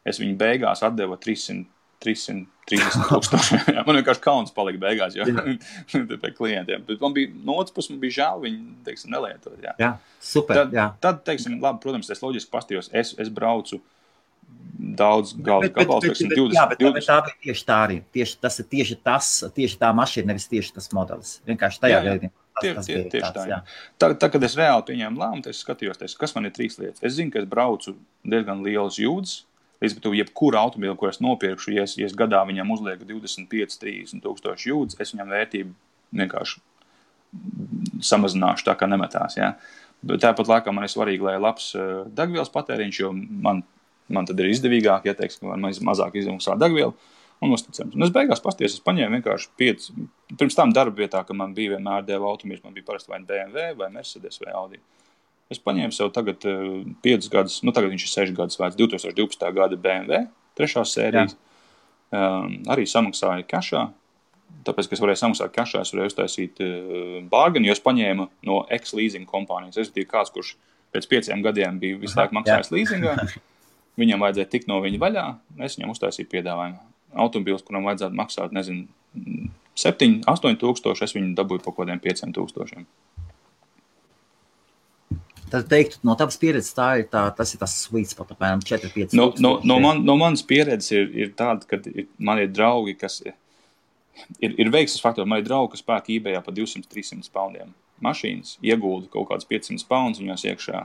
Es viņu beigās atdeva 330,000. Man vienkārši kauns palika beigās, jo pie klientiem. Bet man bija, no otras puses, man bija žēl viņu, teiksim, nelietot. Jā, super, Tad, teiksim, labi, protams, es loģiski pastījos, es braucu daudz galdu gabalu, teiksim, 20. Jā, bet tā bija tieši tā arī. Tas ir tieši tā mašīna, nevis tieši tas modelis. Vienkārši tajā gadījumā. Tieši tā. Tad, kad es reāli pieņēmu lēmumu, es skatījos, kas man ir 3 lietas. Es zinu, ka es braucu diezgan lielas jūdas, līdz pat jebkuru automobīlu, ko es nopirkšu, ja es gadā viņam uzlieku 25-30,000 jūdas, es viņam vērtību vienkārši samazināšu tā, kā nemetās. Ja? Bet tāpat laikā man ir svarīgi, lai labs degvielas patēriņš, jo man tad ir izdevīgāk, ja teiksim, ka man mazāk izmaksā degvielu un uzticams. Un es beigās pasties, es paņēmu vienkārši 5, pirms tam darba vietā, ka man bija vienmēr deva automobīls, man bija parasti vai BMW, vai Mercedes, vai Audi. Es paņēmu sev tagad 5 gadus, tagad viņš ir 6 gadus vērts, 2012. gada BMW, 3. sērijas. Arī samaksāju kašā, tāpēc, ka es varēju samaksāt kašā, es varēju uztaisīt bārgani, jo es paņēmu no ex-leasing kompānijas. Es biju kāds, kurš pēc 5 gadiem bija visu laiku maksājis leasingā. Viņam vajadzēja tikt no viņa vaļā, es viņam uztaisīju piedāvājumu. Automobīls, kuram vajadzētu maksāt, 7-8 tūkstoši, es viņu dabūju pa kodiem 5 tūkstošiem. Tad teiktu, no tavas pieredzes tas ir tas sweet spot, apmēram 4-5 tūkstoši. No manas pieredzes ir tāda, ka man ir draugi, kas ir veiksmes faktori. Man ir draugi, kas pērk eBayā pa 200-300 poundiem mašīnas, iegulda kaut kāds 500 pounds viņos iekšā,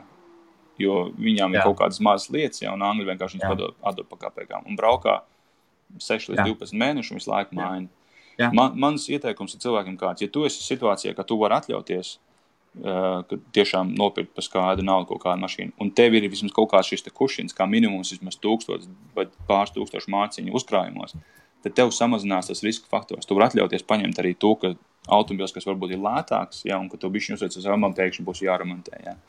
jo viņām ir kaut kādas mazas lietas, ja, un angļi vienkārši viņas atdod pa kapekām. Un braukā 6 līdz 12 mēnešu un visu laiku maina. Mans ieteikums ir cilvēkiem kāds, ja tu esi situācijā, ka tu vari atļauties, ka tiešām nopirkt par skaidru naudu kaut kādu mašīnu, un tev ir vismaz kaut kāds šis te kušins, kā minimums vismaz 1000 vai pāris tūkstošu māciņu uzkrājumos, tad tev samazinās tas riska faktors. Tu vari atļauties paņemt arī to, ka automobils, kas varbūt ir lētāks, ja, un ka tev bišķiņ uzveic uz remontu, pēkšņi būs jāremontē. Ja.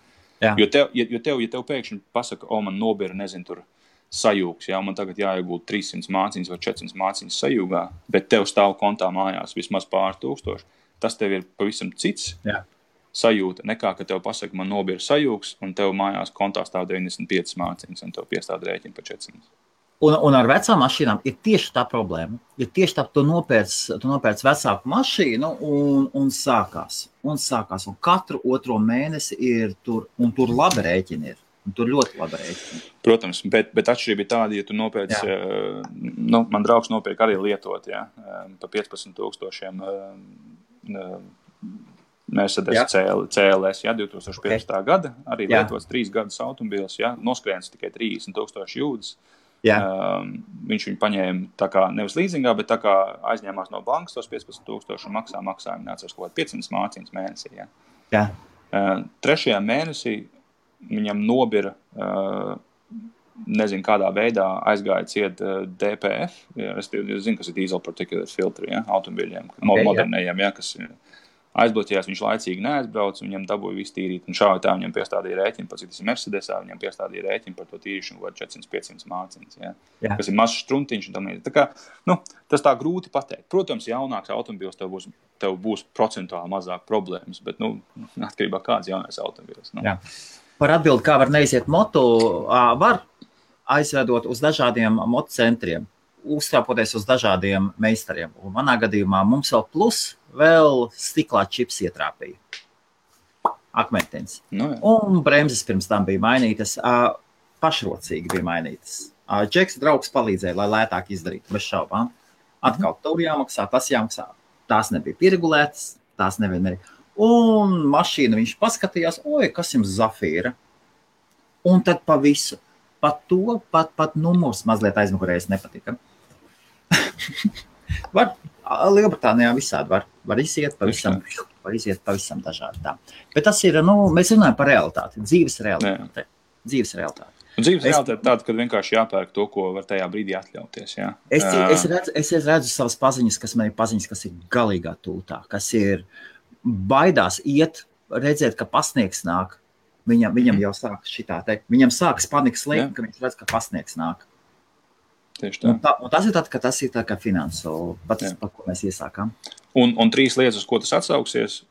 Jo tev pēkšņi pasaka, man nobira, nezinu, tur sajūgs, ja, man tagad jāiegūt 300 māciņas vai 400 māciņas sajūgā, bet tev stāv kontā mājās vismaz pāris tūkstoši. Tas tev ir pavisam cits sajūta, nekā, ka tev pasaka, man nobira sajūgs, un tev mājās kontā stāv 95 māciņas, un tev piestāda rēķina pa 400. Un ar vecām mašīnām ir tieši tā problēma. Ir tieši tā, tu nopērc vecāku mašīnu un sākās. Un katru otro mēnesi ir tur, un tur labi rēķini ir. Un tur ļoti labi rēķini. Protams, bet atšķirība ir tāda, ja tu nopērc, man draugs nopērk arī lietot, pa 15,000 Mercedes CLS, 2015. gada, arī lietots 3 gadus automobīls, noskrēns tikai 30,000 jūdas. Viņš viņu paņēma tā kā nevis līzingā, bet tā kā aizņēmās no bankas tos 15,000 un maksājumu nācās kaut 500 māciņas mēnesī. Ja. 3. mēnesī viņam nobira, nezinu kādā veidā aizgāja ciet DPF, es zinu, kas ir diesel particulate filtri, automobiļiem, modernējiem, kas ir aizbloķējās, viņš laicīgi neaizbrauc, viņam dabūja visu tīrīt, un šādi tā viņam piestādīja rēķinu, pats, tas ir Mercedesā, viņam piestādīja rēķinu par to tīrīšanu, kaut 400-500 mārciņas, kas ir mazs štruntiņš, un tam līdzīgi. Tā kā, tas tā grūti pateikt. Protams, jaunāks automobils tev būs procentuāli mazāk problēmas, bet, atkarībā kāds jaunais automobils. Jā. Par atbildi, kā var neiziet moto, var aizvedot uz dažādiem motocentriem, uztrāpoties uz dažādiem meistariem. Un manā gadījumā mums vēl stiklā čips ietrāpīja. Akmentens. Un bremzes pirms tam bija mainītas, pašrocīgi bija mainītas. Džeks draugs palīdzēja, lai lētāk izdarītu, bez šaubām. Atkal tur jāmaksā, tas jāmaksā. Tās nebija pieregulētas, tās nevienmēr. Un mašīna viņš paskatījās, kas jums zafīra. Un tad pa visu. Pat to, pat numurs mazliet aizmugurējas nepatika. Lielbritānijā visādi var iziet pavisam dažādi tā. Bet tas ir, mēs runājam par realitāti, dzīves realitāti. Dzīves realitāte tāda, kad vienkārši jāpērk to, ko var tajā brīdī atļauties. Jā. Es redzu savas paziņas, kas man ir paziņas, kas ir galīgā tūtā, kas ir baidās iet, redzēt, ka pasniegs nāk. Viņam jau sākas šitā te. Viņam sākas panikas lēkme, ka viņš redz, ka pasniegs nāk. Tieši tā. Un tas ir tā kā finansu, par ko mēs iesākām. Un 3 lietas, uz ko tas atsauksies,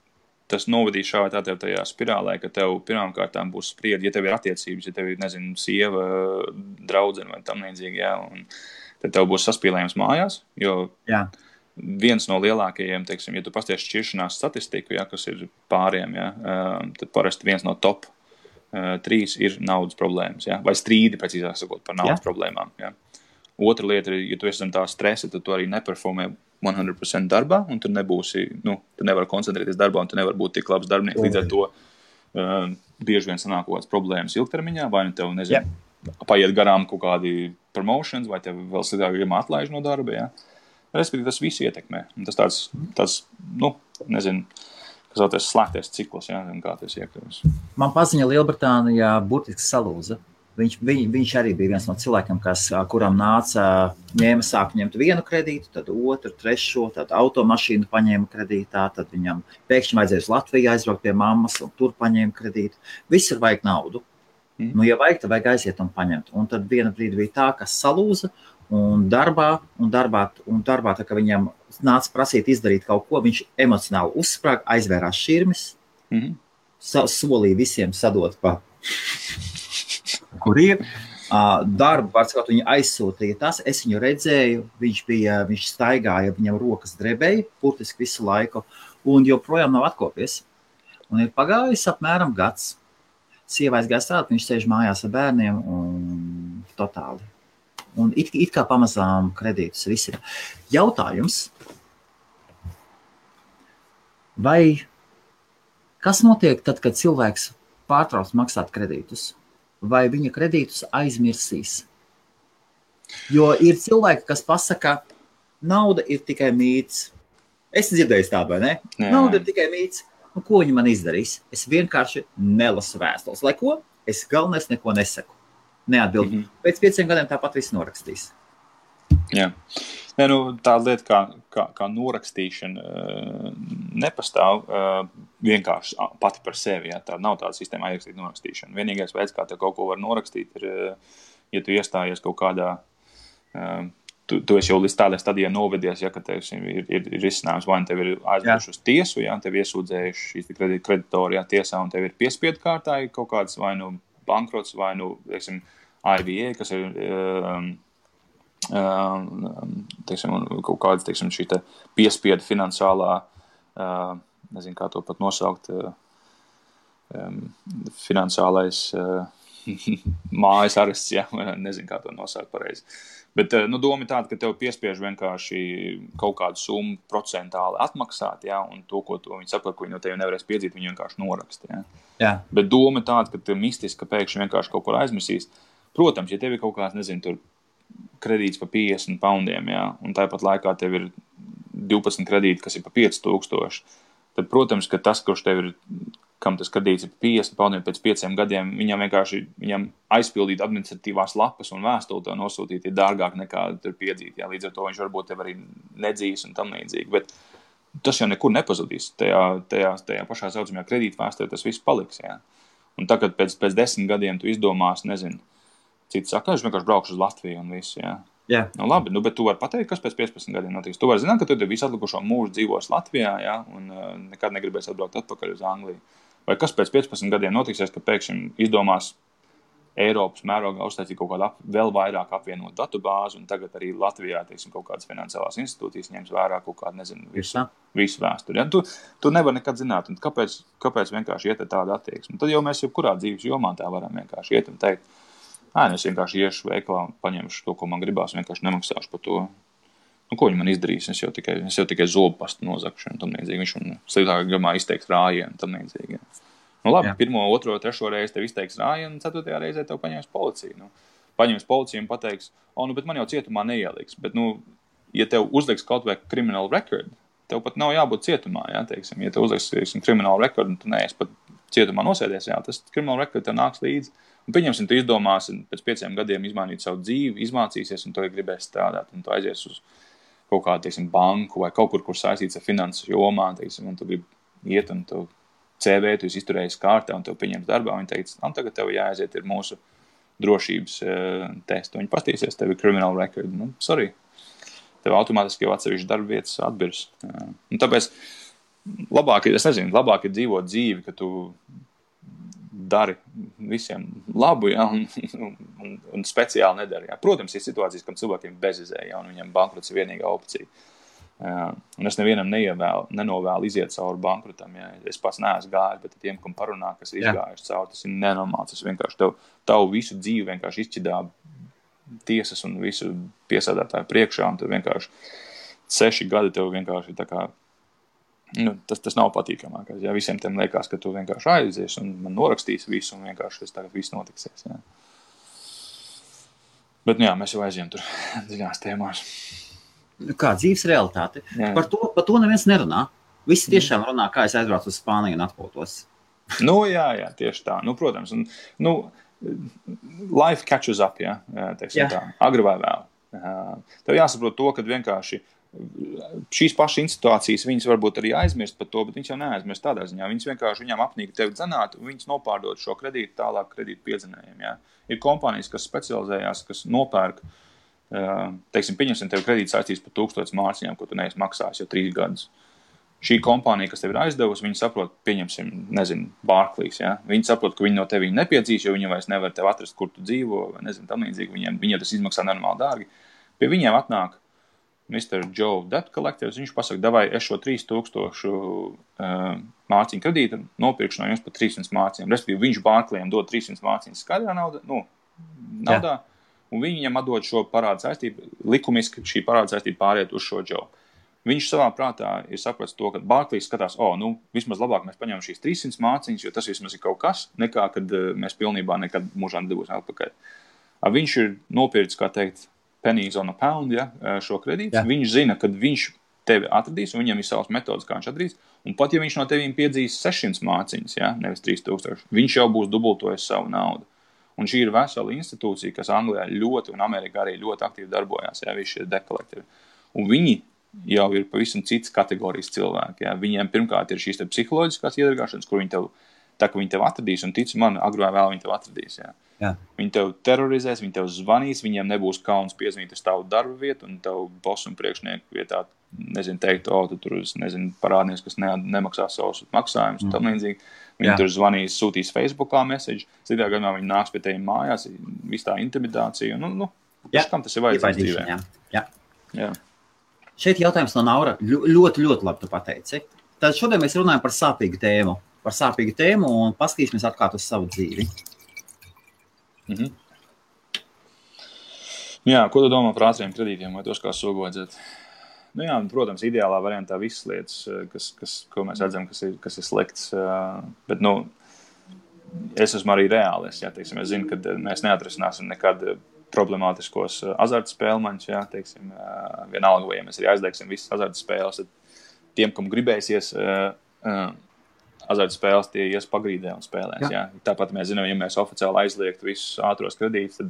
tas novadīs šā vai tā tev tajā spirālē, ka tev pirmām kārtām būs spriedi, ja tev ir attiecības, ja tev ir, sieva, draudzene vai tam līdzīgi, un tad tev būs saspīlējums mājās, jo viens no lielākajiem, teiksim, ja tu pasties šķiršanās statistiku, kas ir pāriem, tad parasti viens no top 3 ir naudas problēmas, vai strīdi, precīzāk sakot, par naudas problēmām. Otra lieta ir, ja tu esi tā stresa, tad tu arī neperformē 100% darbā, un tu nebūsi, tu nevari koncentrēties darbā, un tu nevari būt tik labs darbinieks. Līdz ar to bieži vien sanāk kaut kādas problēmas ilgtermiņā, vai tev, paiet garām kaut kādi promotions, vai tev vēl sliktāk atlaiž no darba, Respektīvi, tas viss ietekmē. Un tas tāds kas vēlties slēgties cikls, kā tas iekļūs. Man paziņa Lielbritānijā burtiski salūza. Viņš arī bija viens no cilvēkiem, kuram sāk ņemt vienu kredītu, tad otru, trešo, tad automašīnu paņēma kredītā, tad viņam pēkšņi vajadzēja uz Latviju aizbraukt pie mammas, un tur paņēma kredītu. Visur vajag naudu. Ja vajag, tad vajag aiziet un paņemt. Un tad viena brīdi bija tā, kas salūza, un darbā, tā kā viņam nāca prasīt izdarīt kaut ko, viņš emocionāli uzsprāga, aizvērās šķirmes, solīja visiem sadot pa kur ir. Darbu, varbūt viņi aizsūtīja tas, es viņu redzēju, viņš staigāja, viņam rokas drebēja, burtiski visu laiku, un joprojām nav atkopies. Un ir pagājis apmēram gads. Sieva aizgāja strādāt, viņš sēž mājās ar bērniem un totāli. Un it kā pamazām kredītus visi. Jautājums, vai kas notiek tad, kad cilvēks pārtrauc maksāt kredītus? Vai viņa kredītus aizmirsīs? Jo ir cilvēki, kas pasaka, nauda ir tikai mīts. Es dzirdēju tādu, vai ne? Nauda ir tikai mīts. Ko viņi man izdarīs? Es vienkārši nelasu vēstules. Lai ko? Es galvenais neko nesaku. Neatbildu. Pēc 5 gadiem tāpat viss norakstīs. Jā. Tā lieta kā norakstīšana nepastāv vienkārši pati par sevi. Tā nav tāda sistēma aizrakstīt norakstīšana. Vienīgais veids, kā tev kaut ko var norakstīt, ir, ja tu iestājies kaut kādā, tu esi jau līdz tādai stadijai novedies, ka tev ir risinājums, vai tev ir aizdevuši uz tiesu, tev iesūdzējuši šīs kreditori tiesā, un tev ir piespiedu kārtā kaut kāds vai nu bankrots, vai nu, teiksim, IVA, kas ir kaut kāds, teiksim, šī te piespiedu finansālā, nezinu, kā to pat nosaukt, finansālais mājas arests, nezinu, kā to nosaukt pareizi. Bet, doma ir tāda, ka tev piespiež vienkārši kaut kādu summu procentāli atmaksāt, un to, ko viņi saprot, ko viņi no tevi nevarēs piedzīt, viņi vienkārši noraksta, Jā. Bet doma ir tāda, ka tev mistiski pēkšņi vienkārši kaut kur aizmirsīs. Protams, ja tev ir kaut kāds, nezinu, tur kredīts par 50 poundiem, un tāpat laikā tev ir 12 kredīti, kas ir par 5000, tad, protams, ka tas, kurš tev ir, kam tas kredīts ir 50 poundiem pēc 5 gadiem, viņam aizpildīt administratīvās lapas un vēstuli to nosūtīt ir dārgāk nekā tur piedzīt. Līdz ar to viņš varbūt tev arī nedzīs un tam līdzīgi. Bet tas jau nekur nepazudīs. Tajā pašā saucamajā kredītvēsturē tas viss paliks. Jā. Un tagad pēc 10 gadiem tu izdomās, nezinu, cits saka, es vienkārši braukšu uz Latviju un visu. Jā. Jā. Nu, labi, bet tu vari pateikt, kas pēc 15 gadiem notiks. Tu vari zināt, ka tu visu atlikušo mūžu dzīvos Latvijā, jā, un nekad negribēs atbraukt atpakaļ uz Angliju. Vai kas pēc 15 gadiem notiksies, ka pēkšņi izdomās Eiropas mērogā uztaisīt kaut kādu vēl vairāk apvienot datubāzi, un tagad arī Latvijā, teiksim, kaut kādas finansiālās institūcijas ņems vērā kaut kādu, nezinu, visu vēsturi. Ja? Tu nevar nekad zināt, un kāpēc vienkārši iet tāda attieksme. Tad jau mēs jebkurā dzīves jomā tā varam vienkārši iet un teikt, es vienkārši iešu veikalā un paņemšu to, ko man gribās, vienkārši nemaksāšu par to. Nu, ko viņi man izdarīs? Es jau tikai zobu pastu nozakšu un tam līdzīgi. Viņš man sliktākā gadījumā izteiks rājienu un tam līdzīgi. Ja. Nu, labi, 1., 2., 3. reizi tev izteiks rājienu, un 4. reizē tev paņems policiju. Nu, paņems policiju un pateiks, bet man jau cietumā neieliks. Bet, ja tev uzliks kaut vai criminal record, tev pat nav jābūt cietumā, jā, teiksim. Ja tev uzliks criminal record, un tu neesi pat cietumā nosēdies, jā, tas criminal record tev nāks līdzi. Un pieņemsim, tu izdomāsi pēc 5 gadiem izmainīt savu dzīvi, izmācīsies, un tu gribēsi strādāt, un tu aizies uz kaut kādu, teiksim, banku vai kaut kur saistīts ar finanses jomā, teiksim, un tu gribi iet, un tu CV, tu izturējies kārtā, un tev pieņems darbā, un viņi teica, tagad tev jāaiziet ir mūsu drošības testu. Viņi pastīsies, tev ir criminal record. Nu, sorry. Tev automātiski jau atsevišķi darba vietas atbirs. Un tāpēc labāk ir dzīvot dzīvi, ka tu dari visiem labu, ja, un speciāli nedari. Ja. Protams, ir situācijas, kam cilvēkiem bezizēja, ja, un viņam bankrots ir vienīgā opcija. Un es nevienam nenovēlu iziet cauri bankrotam. Ja. Es pats neesmu gājis, bet tiem, kam parunā, kas ir izgājuši cauri, tas ir nenormāls. Tas vienkārši tavu visu dzīvi vienkārši izšķidā tiesas un visu piesādātāju priekšā, un tev vienkārši 6 gadi tev vienkārši tā kā, tas nav patīkamākais. Ja. Visiem tiem liekas, ka tu vienkārši aizies un man norakstīs visu, un vienkārši tas tagad viss notiksies. Ja. Bet, mēs jau aizjām tur dziļās tēmās. Kā dzīves realitāte. Jā. Par to neviens nerunā. Visi tiešām runā, kā es aizbraucu uz Spāniju un atpūtos. Jā, tieši tā. Protams. Life catches up, ja, teiksim tā. Agri vai vēl. Tev jāsaprot to, ka vienkārši šīs pašas situācijas viņas varbūt arī aizmirst par to, bet viņas jau neaizmirst tādā ziņā. Viņas vienkārši viņām apnīk tevi dzenāt, un viņas nopārdot šo kredītu tālāk kredītu piedzenējiem. Ja. Ir kompānijas, kas specializējās, kas nopērk, teiksim, pieņemsim tev kredītu saistīs par 1000 mārciņām, ko tu neesi maksājis jau 3 gadus. Šī kompānija, kas tev ir aizdevusi, viņi saprot, pieņemsim, Barclays, ja? Viņi saprot, ka viņi no tevi nepiedzīs, jo viņi vairs nevar tev atrast, kur tu dzīvo, vai nezinu, tam līdzīgi. Viņiem tas izmaksā normāli dārgi. Pie viņiem atnāk Mr. Joe Debt Collectors, viņš pasaka, davai, es šo 3000 mārciņu kredītu nopirkšu no jums par 300 mārciņām. Respektīvi, viņš Barclayiem dod 300 mārciņas skaidrā naudā, un viņi viņam atdod šo parādu saistību, likumiski šī parādu saistība pāriet uz šo Joe. Viņš savā prātā ir sapratis to, ka Barclays skatās, vismaz labāk mēs paņemam šīs 300 mārciņas, jo tas vismaz ir kaut kas, nekā, kad mēs pilnībā nekad mūžā nedabūsim atpakaļ. Viņš ir nopircis, kā teikt, pennies on a pound, ja, šo kredītu. Jā. Viņš zina, kad viņš tevi atradīs, un viņam ir savas metodas, kā viņš atradīs, un pat ja viņš no tevīm piedzīs 600 mārciņas, ja, nevis 3000, viņš jau būs dubultojis savu naudu. Un šī ir vesela institūcija, kas Anglijā ļoti un Amerikā arī ļoti aktīvi darbojās, ja, visi šie debt collectori. Un viņi jau ir pavisam cits kategorijas cilvēki. Ja. Viņiem pirmkārt ir šīs psiholoģiskās iedargāšanas, kur viņi tev atradīs, un tici man, agrāk vai vēl viņi tev atradīs. Ja. Jā. Viņi tev terorizēs, viņi tev zvanīs, viņiem nebūs kauns piezvanīt uz tavu darba vietu, un tev boss un priekšnieku vietā, teikt, tu tur, parādnieks, kas nemaksā savus maksājumus, un tam līdzīgi. Viņi tur zvanīs, sūtīs Facebookā message, citā gadījumā viņi nāks pie teviem mājās, viss tā intimidācija, kam tas ir vajadzīgs dzīvē. Jā. Šeit jautājums no Naura ļoti, ļoti labi tu pateici. Tad šodien mēs runājam par sāpīgu tēmu un paskatīsimies atklāt uz savu dzīvi. Jā, ko tu domā par ātriem kredītiem vai tos kā sogojadzēt? Protams, ideālā variantā visas lietas, ko mēs redzam, kas ir slikts, bet, es esmu arī reālis, ja, teiksim, es zinu, ka mēs neatrisināsim nekad problemātiskos azartspēlmaņus, ja, teiksim, vienalga, vai ja mēs arī aizliegsim visas azartspēles, tad tiem, kam gribēsies azartspēles, tie ies pagrīdē un spēlēs, ja. Tāpat mēs zinām, ja mēs oficiāli aizliegtu visus ātros kredītus, tad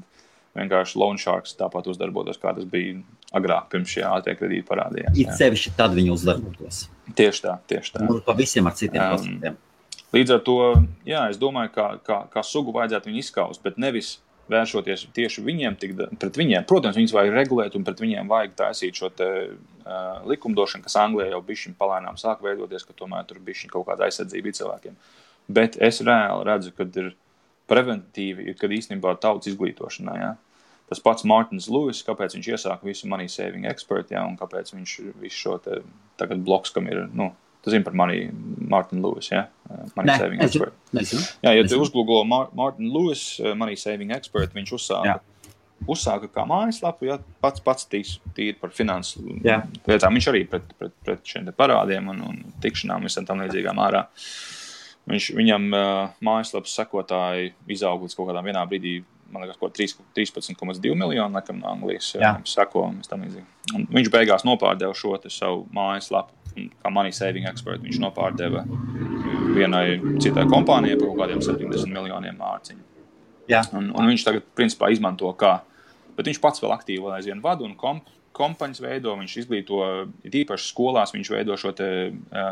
vienkārši loan sharks tāpat uzdarbotos, kā tas bija agrāk, pirms šie ātrie kredīti parādījās. It sevišķi tad viņi uzdarbotos. Tieši tā. Un pa visiem ar citiem procentiem. Līdz ar to, jā, es domāju, kā sugu vajadzētu viņu izskaust, bet nevis vēršoties tieši pret viņiem. Protams, viņus vajag regulēt un pret viņiem vajag taisīt šo te likumdošanu, kas Anglijā jau bišķiņ palēnām sāk veidoties, ka tomēr tur bišķiņ kaut kāda aizsardzība cilvēkiem. Bet es reāli redzu, kad ir preventīvi, kad īstenībā tautas izglītošanā, jā. Tas pats Martins Lewis, kāpēc viņš iesāka visu Money Saving Expert, jā, un kāpēc viņš visu šo te tagad bloks, kam ir, tu zini par Martin Lewis, jā? Money Saving Expert. Jā, ja tu uzgoogle Martin Lewis, Money Saving Expert, viņš uzsāka kā mājaslapu, jā, pats tīri par finansu lietām. Viņš arī pret šiem te parādiem un tikšanām visam tam līdzīgām ārā. Viņam mājaslapas sekotāji izauga līdz kaut kādām vienā brīdī, man liekas, 13,2 miljonu, laikam, no Anglijas seko. Un viņš beigās nopārdeva šo te savu mājaslapu, kā Money Saving Expert. Viņš nopārdeva vienai citai kompānijai par kaut kādiem 70 miljoniem mārciņu. Un viņš tagad, principā, izmanto bet viņš pats vēl aktīvi vēl aizvien vada un kompaņas veido, viņš izglīto, īpaši skolās viņš veido šo te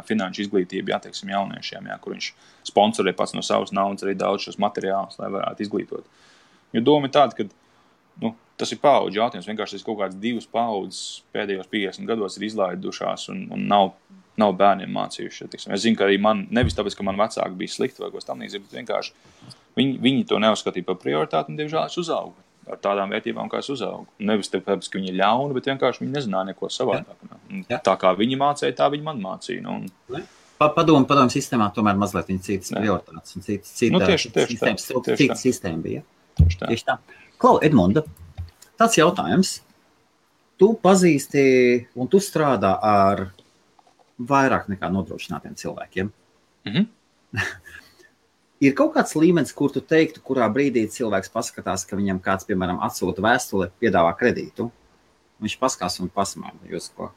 finanšu izglītību, teiksim, jauniešiem, kur viņš sponsorē pats no savas naudas arī daudz šos materiālus, lai varētu izglītot. Jo doma ir tāda, ka tas ir paudžu jautājums, vienkārši tas kaut kāds 2 paudzes pēdējos 50 gados ir izlaidušās un nav bērniem mācījuši. Tiksim. Es zinu, ka arī man, nevis tāpēc, ka man vecāki bija slikti vai ko tam līdzīgi, bet vienkārši viņi to neuzskatīja par prioritāti un, diemžēl, es uzaugu ar tādām vērtībām, kā es uzaugu. Nevis tāpēc, ka viņi ir ļauni, bet vienkārši viņi nezināja neko savādāk. Tā kā viņi mācīja, tā viņi man mācīja. Padomu sistēmā tomēr mazliet viņi citas prioritātes un citas sistēma bija. Tieši tā. Klau, Edmunda, tāds jautājums. Tu pazīsti un tu strādā ar vairāk nekā nodrošinātiem cilvēkiem. Ir kaut kāds līmenis, kur tu teiktu, kurā brīdī cilvēks paskatās, ka viņam kāds, piemēram, atsūta vēstuli, piedāvā kredītu. Viņš paskās un pasmēja jūs ko.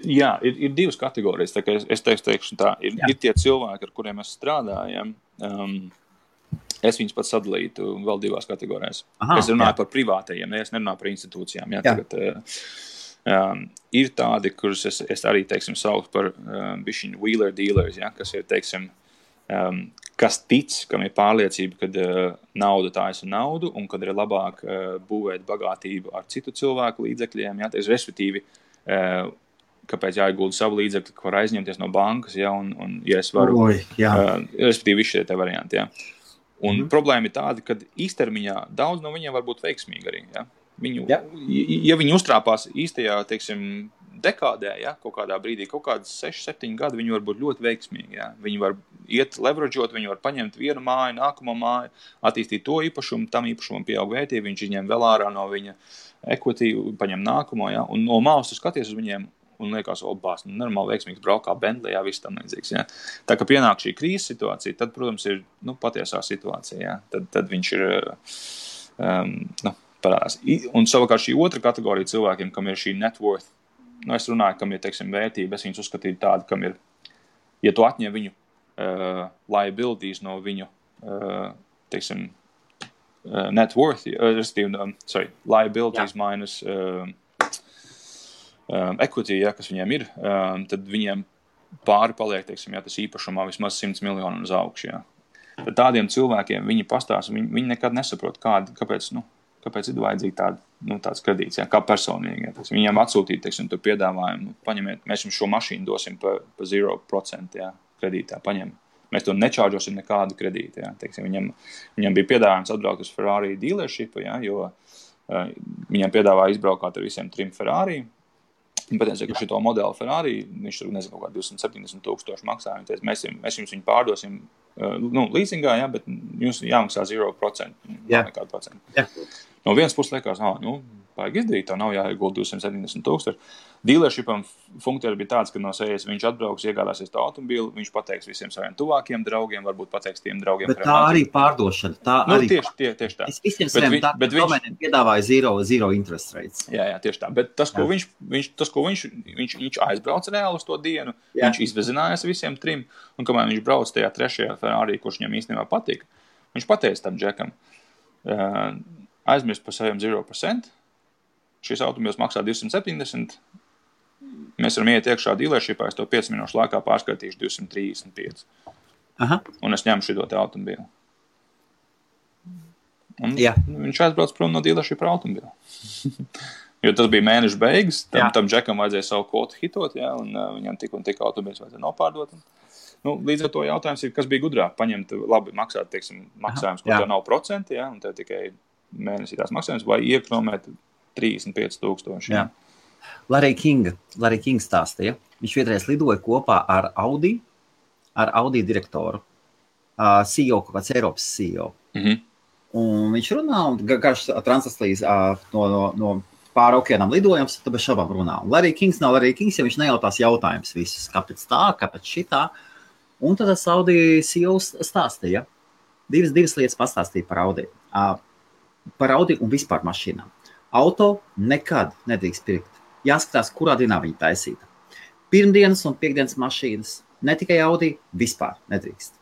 Jā, ir 2 kategorijas. Tā kā es teikšu tā, ir tie cilvēki, ar kuriem mēs strādājam. Es viņus pats sadalītu vēl 2 kategorijās. Es runāju par privātajiem, es nerunāju par institūcijām. Tagad, ir tādi, kurus es arī, teiksim, saucu par bišķiņu wheeler dealers, kas ir, teiksim, kas tic, kam ir pārliecība, kad nauda taisa naudu un kad ir labāk būvēt bagātību ar citu cilvēku līdzekļiem, respektīvi, kāpēc jāiegulda savu līdzekļu, ko var aizņemties no bankas, un ja es varu, respektīvi, visi šie te varianti, Un problēma ir tāda, ka īstermiņā daudz no viņiem var būt veiksmīgi arī, Ja viņi uztrāpās īstajā, teiksim, dekādē, kaut kādā brīdī, kaut kādas 6-7 gadi, viņi var būt ļoti veiksmīgi, Viņi var iet leverageot, viņi var paņemt vienu māju, nākamo māju, attīstīt to īpašumu, tam īpašumam pieaug vērtība, viņš izņem vēl ārā no viņa equity, paņem nākamo, un no malas tu skaties uz viņiem un liekas, normāli veiksmīgs braukā Bentleyā, viss tam līdzīgs, Tā kā pienāk šī krīzes situācija, tad, protams, ir, patiesā situācija, Tad viņš ir, parādās. Un savukārt šī otra kategorija cilvēkiem, kam ir šī net worth, es runāju, kam ir, teiksim, vērtība, es viņus uzskatīju tādu, kam ir, ja tu atņem viņu liabilities no viņu, teiksim, net worth, liabilities minus equity, kas viņiem ir, tad viņiem pāri paliek, teiksim, tas īpašumā vismaz 100 miljonu uz augšu, Tad tādiem cilvēkiem viņi pastāsta, viņi nekad nesaprot, kāpēc ir vajadzīgi tāds kredīts, kā personīgi. Viņiem atsūtīt, teiksim, to piedāvājumu, paņemiet, mēs jums šo mašīnu dosim pa 0% kredītā, paņem. Mēs to nečārģosim nekādu kredītu, Teiksim, viņam bija piedāvājums atbraukt uz Ferrari dealership, jo viņam piedāvāja izbraukāt ar visiem 3 Ferrari. Un patiesībā, ka šito modeli Ferrari, viņš tur, nezinu, kaut kā 270,000 maksā, un mēs jums viņu pārdosim, leasingā, bet jums jāmaksā 0%, nekādu procentu. No vienas puses liekas, vajag izdarīt, tā nav jāiegulda 270,000. Dealershipam funkcija bija tāds, ka no sejas viņš atbrauks, iegādāsies to automobīlu, viņš pateiks visiem saviem tuvākiem draugiem, varbūt pateiks tiem draugiem. Bet tā arī pārdošana, tieši tā. Es visiem saviem domēniem piedāvāju zero interest rates. Jā, tieši tā. Bet tas, ko viņš aizbrauc reāli uz to dienu, viņš izvezinājās visiem 3, un kamēr viņš brauc tajā 3. Ferrari, kurš viņam īstenībā patika, viņš pateica tam džekam, aizmirst par saviem 0%. Šis automobils maksā 270. Mēs varam iet iekšā dealershipā, es to 5 minūšu laikā pārskaitīšu 235. Aha. Un es ņemu šito te automobili. Un viņš aizbrauc prom no dealershipa automobila. Jo tas bija mēneša beigas, tam džekam vajadzēja savu kvotu hitot, un viņam tik un tik automobils vajadzēja nopārdot. Līdz ar to jautājums ir, kas bija gudrāk, paņemt labi maksāt, teiksim, maksājums, kur tev nav procenti, un tev tikai mēnesī tās maksājums, vai iekromēt 35,000. Jā. Larry King stāstīja, viņš vienreiz lidoja kopā ar Audi direktoru, CEO, kaut kāds Eiropas CEO. Un viņš runā, un garš transatlīs no pāri okeānam lidojums, tad bez šabām runā. Un Larry Kings nav Larry Kings, ja viņš nejautās jautājumus visus, kāpēc tā, kāpēc šitā. Un tad Audi CEO stāstīja, divas lietas pastāstīja par Audi. Par Audi un vispār mašīnām. Auto nekad nedrīkst pirkt. Jāskatās, kurā dienā viņa taisīta. Pirmdienas un piekdienas mašīnas, ne tikai Audi, vispār nedrīkst.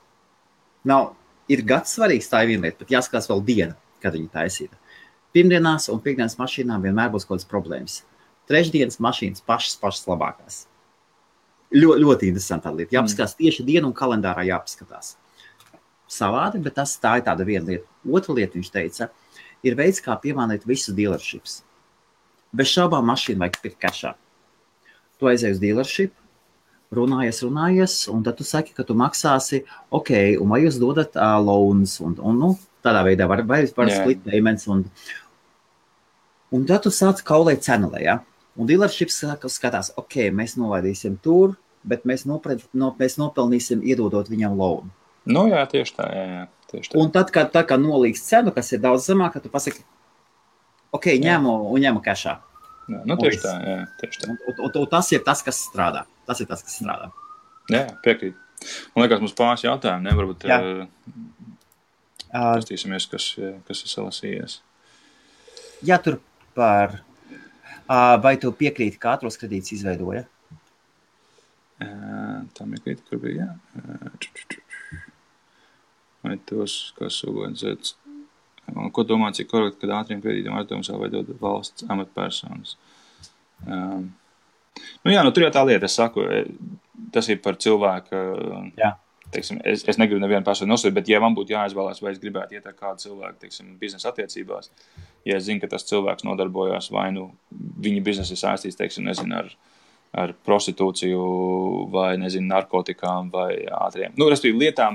Ir gads svarīgs, tā ir viena lieta, bet jāskatās vēl diena, kad viņa taisīta. Pirmdienās un piekdienas mašīnām vienmēr būs kaut kādas problēmas. Trešdienas mašīnas pašas labākās. Ļoti interesantā lieta. Jāpaskatās tieši dienu un kalendārā jāpaskatās. Savādi, bet tā ir tāda viena lieta. Otra lieta, viņš teica, ir veids, kā piemānīt visus dealerships. Bez šaubām mašīnu vajag pirkt kešā. Tu aizēji uz dealership, runājies, un tad tu saki, ka tu maksāsi, ok, un vai jūs dodat loans, un tādā veidā var split payments, un tad tu sāc kaulēt cenelē, ja? Un dealerships skatās, ok, mēs novaidīsim tur, bet mēs nopelnīsim iedodot viņam loan. Jā, tieši tā. Un tad, kad nolīgs cenu, kas ir daudz zemāk, tu pasaki, ok, ņemu kešā. Tieši tā. Un tas ir tas, kas strādā. Jā, piekrīt. Man liekas, mums pāris jautājumi, varbūt pastīsimies, kas ir salasījies. Jā, tur par... Vai tu piekrīti, ka ātros kredītus izveidoja? Tā piekrīti, kur bija, Vai tos, kas organizēts. Ko domā, cik korekti, kad ātriem kredītiem aizdevumus veidot valsts amatpersonas? Tur jau tā lieta, es saku, tas ir par cilvēku, teiksim, es negribu nevienu personu nosūt, bet ja man būtu jāizvēlās, vai es gribētu iet ar kādu cilvēku, teiksim, biznesa attiecībās, ja es zinu, ka tas cilvēks nodarbojās vai viņa biznesa ir saistīts, teiksim, nezinu, ar prostitūciju vai, nezinu, narkotikām vai ātriem. Respektīvi lietām,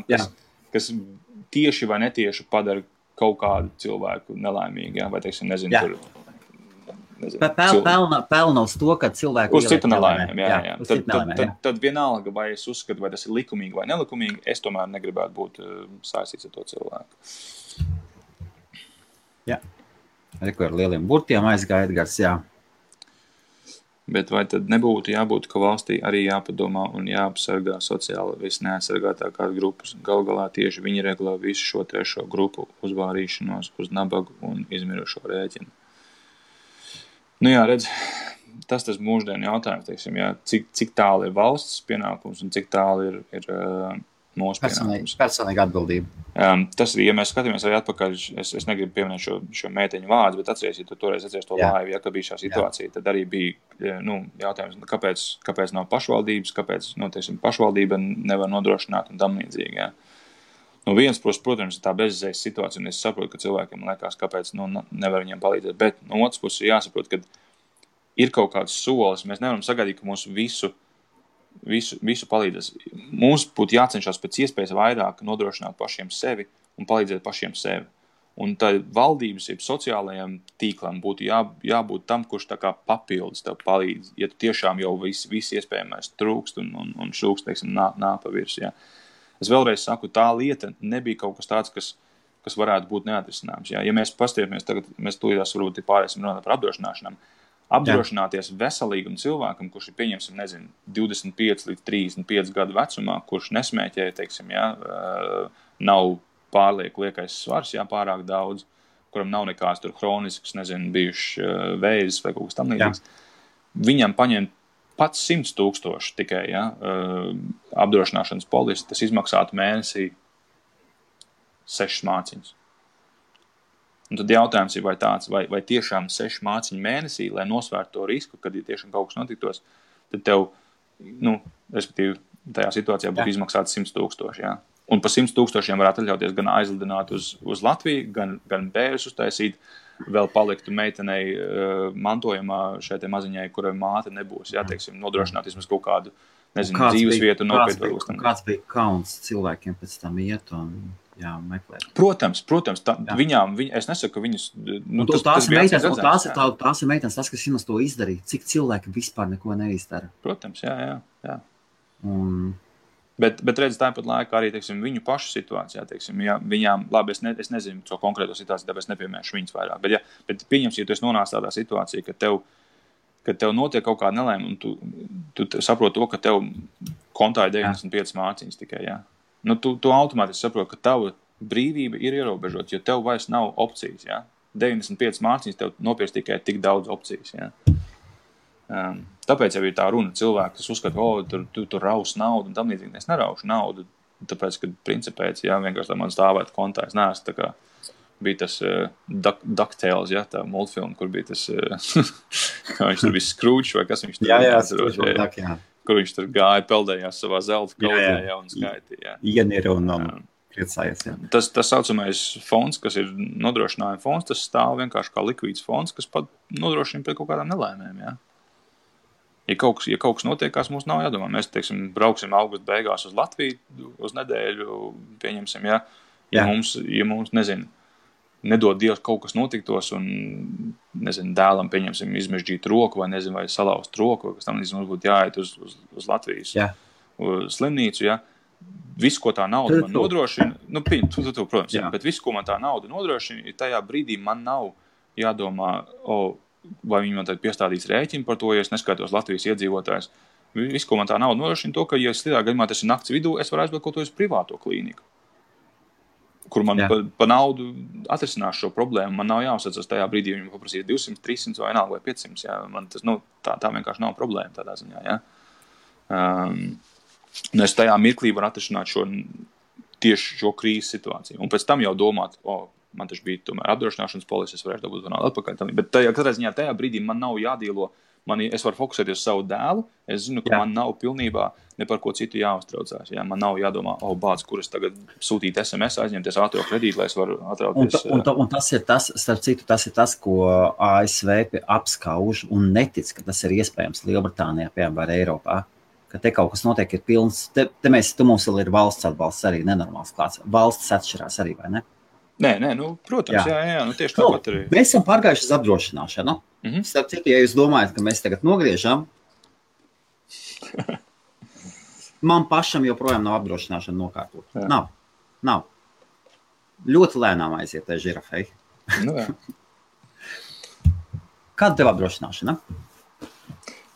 kas tieši vai netieši padara kaut kādu cilvēku nelaimīgi, vai, teiksim, nezinu, tur... Pelna uz to, ka cilvēku uz citu nelaimēm. Tad vienalga, vai es uzskatu, vai tas ir likumīgi vai nelikumīgi, es tomēr negribētu būt saistīts ar to cilvēku. Jā. Ar lieliem burtiem aizgāja Edgars, jā. Bet vai tad nebūtu jābūt, ka valstī arī jāpadomā un jāapsargā sociāli visneaizsargātākās grupas? Galā tieši viņi regulē visu šo trešo grupu uzvārīšanos uz nabagu un izmirušo rēķinu. Redz, tas mūždienu jautājums, teiksim, cik tālu ir valsts pienākums un cik tālu ir mūsu pienākums. Personīga atbildība. Tas ir, ja mēs skatāmies arī atpakaļ, es negribu pieminēt šo mēteņu vārdu, bet atceries, ja tu toreiz to laivu, ka bija šā situācija, tad arī bija jautājums, kāpēc nav pašvaldības, kāpēc pašvaldība nevar nodrošināt un tam līdzīgi. Viens, protams, ir tā bezizējas situācija, un es saprotu, ka cilvēkiem liekas, kāpēc nevar viņiem palīdzēt, bet no otras puses jāsaprot, ka ir kaut kāds solis, mēs nevaram sagaidīt, ka mums visu palīdzēs. Mums būtu jācenšas pēc iespējas vairāk nodrošināt pašiem sevi un palīdzēt pašiem sevi. Un tā valdības, sociālajiem tīklam būtu jābūt tam, kurš tā kā papildus tev palīdz, ja tu tiešām jau viss iespējamais trūkst un šūkst, teiksim, nāk pa virs, Es vēlreiz saku, tā lieta nebija kaut kas tāds, kas varētu būt neatrisināms. Ja mēs pastiepjamies, tagad mēs tūlītās varbūt pārēsim runāt par apdrošināšanām. Apdrošināties veselīgam cilvēkam, kurš ir, pieņemsim, 25 līdz 35 gadu vecumā, kurš nesmēķē, teiksim, nav pārlieku liekais svars, pārāk daudz, kuram nav nekāds tur hronisks, bijuši vēzis vai kaut kas tam līdzīgs. Viņam paņemt pats 100,000 tikai, apdrošināšanas polisi, tas izmaksātu mēnesī 6 māciņas. Un tad jautājums ir, vai tāds, vai tiešām 6 māciņu mēnesī, lai nosvērtu to risku, kad ja tiešām kaut kas notiktos, tad tev, respektīvi, tajā situācijā būtu izmaksāts 100,000, jā. Un par 100,000 varētu atļauties gan aizlidināt uz Latviju, gan bērus uztaisīt, vēl paliktu meitenei mantojumā šai te maziņai, kurai māte nebūs, jā, teiksim, nodrošināt vismaz kaut kādu, nezinu, dzīves vietu nopietnu. Kāds bija kauns cilvēkiem pēc tam iet un meklēt? Protams, viņām, es nesaku, ka viņas... tās ir meitenes, tas, kas viņas to izdarīja, cik cilvēki vispār neko neizdara. Protams, jā. Bet redz, tāpat laikā arī, teiksim, viņu pašu situācijā, teiksim, ja viņām, labi, es nezinu to konkrēto situāciju, tāpēc nepiemēšu viņas vairāk, bet pieņems, ja tu esi nonācis tādā situācijā, ka tev notiek kaut kāda nelēma, un tu saproti to, ka tev kontā ir 95 māciņas tikai, jā. Tu automātiski saproti, ka tava brīvība ir ierobežota, jo tev vairs nav opcijas, jā. 95 māciņas tev nopirks tikai tik daudz opcijas, jā. Tāpēc jau ir tā runa cilvēki, kas uzskata, tu raus naudu un tam līdzīgi. Es neraušu naudu, tāpēc, ka principēc, vienkārši, lai man stāvētu kontā, es neesmu tā kā bija tas DuckTales, tā multfilma, kur bija tas, kā viņš tur bija Scrooge, vai kas viņš tur kur viņš tur gāja, peldējās savā zelta kaudzē, un skaitīja. Ienira un priecājies, jā. Tas saucamais fonds, kas ir nodrošinājuma fonds, tas stāv vienkārši kā likvīds fonds, kas pat nodrošina pret kaut kādām nelēmēm, jā. Ja kaut kas notiekās, mums nav jādomā. Mēs, teiksim, brauksim augusta beigās uz Latviju uz nedēļu, pieņemsim, ja mums, nezinu, nedod Dievs kaut kas notiktos un, nezinu, dēlam, pieņemsim, izmežģīt roku vai, nezinu, vai salauzt roku, kas tam, nezinu, būtu jāiet uz Latvijas slimnīcu, Visu, ko tā nauda man nodrošina, protams, bet visu, ko man tā nauda nodrošina, tajā brīdī man nav jādomā, vai viņi man tad piestādīs rēķinu par to, ja es neskaitos Latvijas iedzīvotājs. Viss, ko man tā nauda nodrošina to, ka, ja slidā gadījumā tas ir nakts vidū, es varu aizbraukt kaut ko uz privāto klīniku, kur man pa naudu atrisinās šo problēmu. Man nav jāuzsacas tajā brīdī, viņam paprasīt 200, 300 vai vienalga vai 500, Man tas, tā vienkārši nav problēma tādā ziņā, Es tajā mirklī varu atrisināt tieši šo krīzes situāciju. Un pēc tam jau domāt, man taču bija tomēr apdrošināšanas polisi, es varēšu dabūt naudu atpakaļ. Bet katrā ziņā tajā brīdī man nav jādīlo, es varu fokusēties uz savu dēlu, es zinu, ka man nav pilnībā ne par ko citu jāuztraucās. Man nav jādomā, bāc, kur es tagad sūtīt SMS, aizņemties ātro kredītu, lai es varu atrauties. Un tas ir tas, starp citu, tas ir tas, ko ASV apskauž un netic, ka tas ir iespējams Lielbritānijā, piemēram, vai Eiropā. Ka te kaut kas notiek, ir pilns, te mums vēl ir valsts atbalsts arī nenormāls klāts. Valsts atšķirās arī, vai ne? Nē, protams, tieši tāpat arī. Mēs esam pārgājuši uz apdrošināšanu. Starp citu, ja jūs domājat, ka mēs tagad nogriežam, man pašam joprojām nav apdrošināšana nokārtot. Nav. Ļoti lēnām aiziet tai žirafei. Kāda tev apdrošināšana?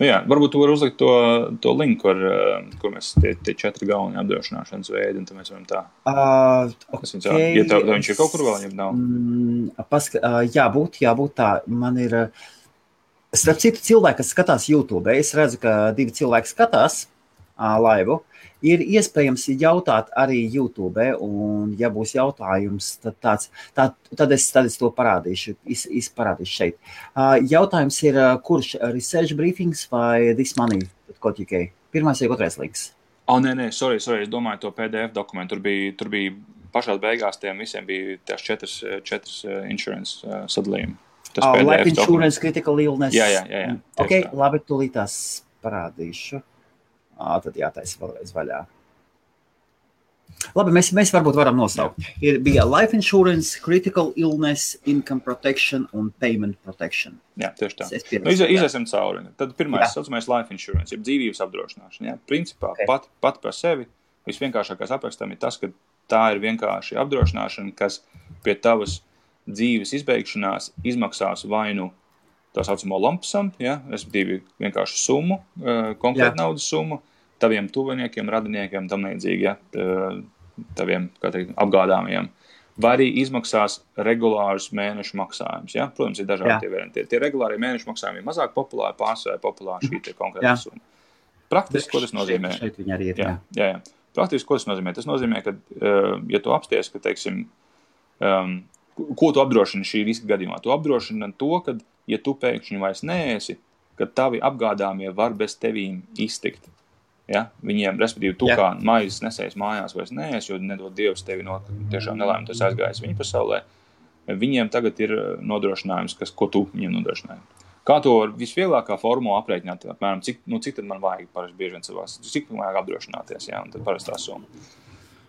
Varbūt tu vari uzlikt to linku, kur mēs tie 4 galvenie apdrošināšanas veidi, un tad mēs varam tā. Okay. Ja viņš ir kaut kur vēl, ja nav? Jābūt tā. Man ir, starp citu cilvēki, kas skatās YouTube, es redzu, ka 2 cilvēki skatās laivu. Ir iespējams jautāt arī YouTube, un ja būs jautājums, tad es to parādīšu, izparādīšu šeit. Jautājums ir, kurš Research Briefings vai This Money? Pirmais vai otrais links? Nē, sorry, es domāju to PDF dokumentu. Tur bija pašās beigās tiem visiem bija tās 4 insurance sadalījumi. Life insurance, critical illness. Jā. Ok, labi, tūlītās parādīšu. Tad jātaisa vēlreiz vaļā. Labi, mēs varbūt varam nosaukt. Bija life insurance, critical illness, income protection un payment protection. Jā, tieši tā. Iziesim cauri. Tad pirmais saucamais life insurance, jeb dzīvības apdrošināšana. Principā pat par sevi visvienkāršākais aprakstam ir tas, ka tā ir vienkārši apdrošināšana, kas pie tavas dzīves izbeigšanās izmaksās vainu tā saucamo lump sum, respektīvi vienkārši summu, konkrēta naudas summu, taviem tuviniekiem, radiniekiem, tam līdzīgi, taviem, kā teikt, apgādāmiem. Vai arī izmaksās regulārus mēnešu maksājumus, Protams, ir dažādi tie varianti. Tie regulārie mēnešu maksājumi ir mazāk populāri, pārsvarā populāri šī te konkrēta summa. Praktiski, ko tas nozīmē? Šeit viņi arī ir, Praktiski, ko tas nozīmē? Tas nozīmē, ka, ja tu apsties, ka, teiksim, ko tu apdrošini šī riska gadījumā? Tu apdrošini to, ka, ja tu pēkšņi vairs neesi, ka tavi apgādāmie var bez tevīm iztikt. Ja? Viņiem, respektīvi, tu kā maizes nesējis mājās vairs neesi, jo nedod Dievs tevi no tiešām nelēm, tas aizgājis viņa pasaulē. Viņiem tagad ir nodrošinājums, ko tu viņiem nodrošināji. Kā to var visvieglākā formula aprēķināt? Apmēram, cik tad man vajag parasti bieži vien savās, cik man vajag apdrošināties, jā, un tad parastā summa.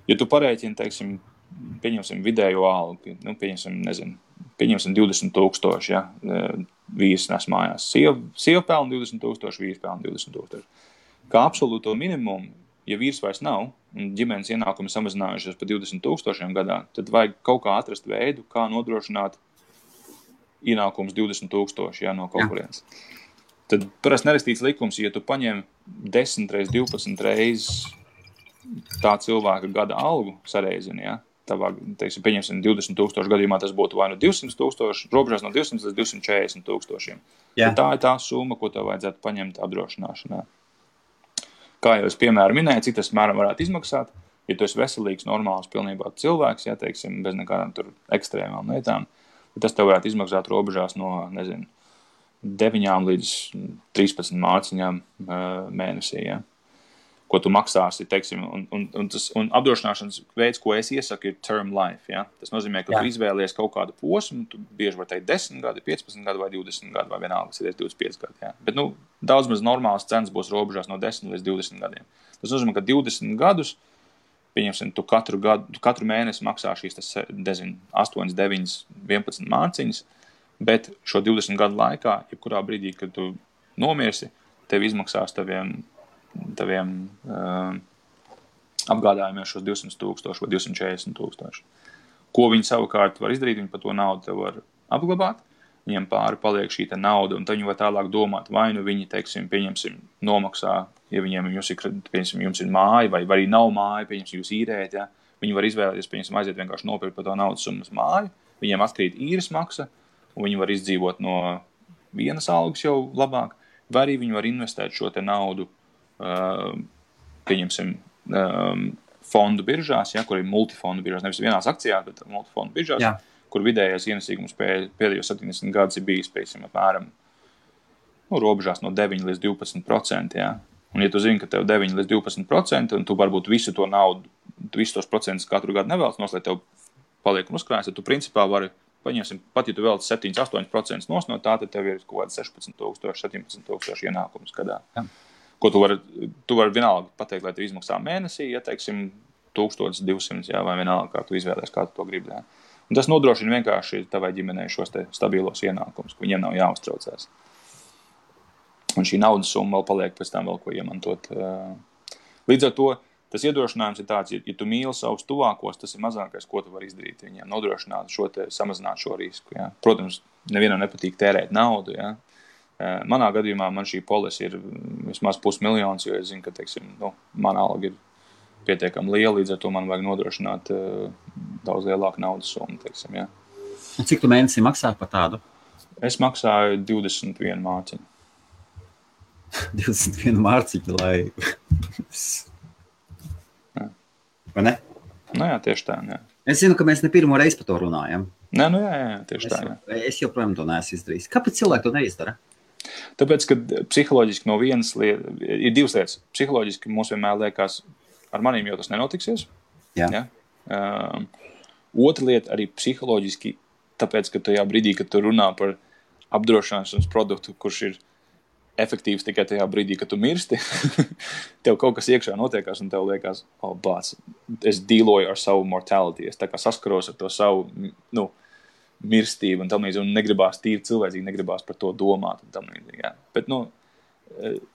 Ja tu parēķini, teiksim, pieņemsim vidējo algu, pieņemsim 20,000, ja, vīrs nes mājās. Sieva pelna 20,000, vīrs pelna 20,000. Kā absolūto minimumu, ja vīrs vairs nav, un ģimenes ienākumi samazinājušies pa 20,000 gadā, tad vajag kaut kā atrast veidu, kā nodrošināt ienākums 20,000, ja, no kaut kurienes. Tad parasti nerakstīts likums, ja tu paņem 10 reiz 12 reizes tā cilvēka gada algu sareizini, ja, tavā, teiksim, pieņemsim 20,000 gadījumā, tas būtu vai no 200,000, robežās no 200 līdz 240,000. Tā ir tā summa, ko tev vajadzētu paņemt apdrošināšanā. Kā jau es piemēram minēju, cik tas mēram varētu izmaksāt, ja tu esi veselīgs, normāls, pilnībā cilvēks, ja, teiksim, bez nekādām tur ekstrēmām lietām, tas tev varētu izmaksāt robežās no, 9 līdz 13 mārciņām mēnesī, ja. Ko tu maksāsi, teiksim, un apdrošināšanas veids, ko es iesaku, ir term life, ja. Tas nozīmē, ka tu izvēlies kaut kādu posmu, tu bieži var teikt 10 gadi, 15 gadi vai 20 gadi, vai vienalga, tas ir 25 gadi, ja. Bet, daudz maz normāls cenas būs robežās no 10 līdz 20 gadiem. Tas nozīmē, ka 20 gadus, pieņemsim, tu katru mēnesi maksā šīs, 8, 9, 11 mārciņas, bet šo 20 gadu laikā, jebkurā brīdī, kad tu nomirsi, tev izmaksās taviem apgādājumiem šos 200,000 vai 240,000. Ko viņi savukārt var izdarīt, viņi par to naudu tev var apglabāt, viņiem pāri paliek šī nauda, un tad viņi var tālāk domāt, vai nu viņi, teiksim, pieņemsim, nomaksā, ja jums ir māja, vai arī nav māja, pieņemsim, jūs īrējat, ja, viņi var izvēlēties, pieņemsim, aiziet vienkārši nopirkt par to naudas summas māju, viņiem atkrīt īres maksa, un viņi var izdzīvot no vienas algas jau labāk, vai arī viņi var investēt šo te naudu, pieņemsim, fondu biržās, ja, kur ir multifondu biržās, nevis vienās akcijās, bet multifondu biržās, kur vidējais ienesīgums pēdējos 70 gadus ir bijis, pieņemsim, apmēram robežās no 9 līdz 12%. Ja. Un ja tu zini, ka tev 9 līdz 12%, un tu varbūt visu to naudu, visus tos procentus katru gadu nevēlas nos, lai tev paliek un uzkrājas, tad tu principā vari, paņemsim, pat ja tu vēlas 7-8% nos no tā, tad tev ir kaut kāds 16,000, 17,000 ienākums gadā. Ja. Ko tu vari vienalga pateikt, lai tev izmaksā mēnesī, ja, teiksim, 1200, jā, vai vienalga, kā tu izvēlēs, kā tu to gribi. Jā. Un tas nodrošina vienkārši tavai ģimenei šos te stabilos ienākumus, ka viņiem nav jāuztraucās. Un šī naudas summa vēl paliek pēc tam vēl ko iemantot. Līdz ar to tas iedrošinājums ir tāds, ja tu mīli savus tuvākos, tas ir mazākais, ko tu vari izdarīt viņiem, nodrošināt samazināt šo risku. Jā. Protams, nevienam nepatīk tērēt naudu, jā. Manā gadījumā man šī polise ir vismaz 500,000, jo es zinu, ka, teiksim, mana alga ir pietiekami liela, līdz ar to man vajag nodrošināt daudz lielāku naudas summu, teiksim, jā. Un cik tu mēnesī maksā par tādu? Es maksāju 21 mārciņu. 21 mārciņu, lai... Vai ne? Jā, tieši tā, jā. Es zinu, ka mēs ne pirmo reizi par to runājam. Nē, jā, tieši tā, jā. Es joprojām to neesmu izdarījis. Kāpēc cilvēki to neizdara? Tāpēc, ka psiholoģiski no vienas lietas, ir divas lietas. Psiholoģiski mums vienmēr liekas, ar manīm jau tas nenotiksies. Jā. Ja? Otra lieta arī psiholoģiski, tāpēc, ka tajā brīdī, kad tu runā par apdrošināšanas produktu, kurš ir efektīvs tikai tajā brīdī, kad tu mirsti, tev kaut kas iekšā notiekās un tev liekas, bāc, es dīloju ar savu mortality, es tā kā saskaros ar to savu, mirstību un tam līdzi, un negribās tīri cilvēcīgi, negribās par to domāt un tam līdzi, jā. Bet,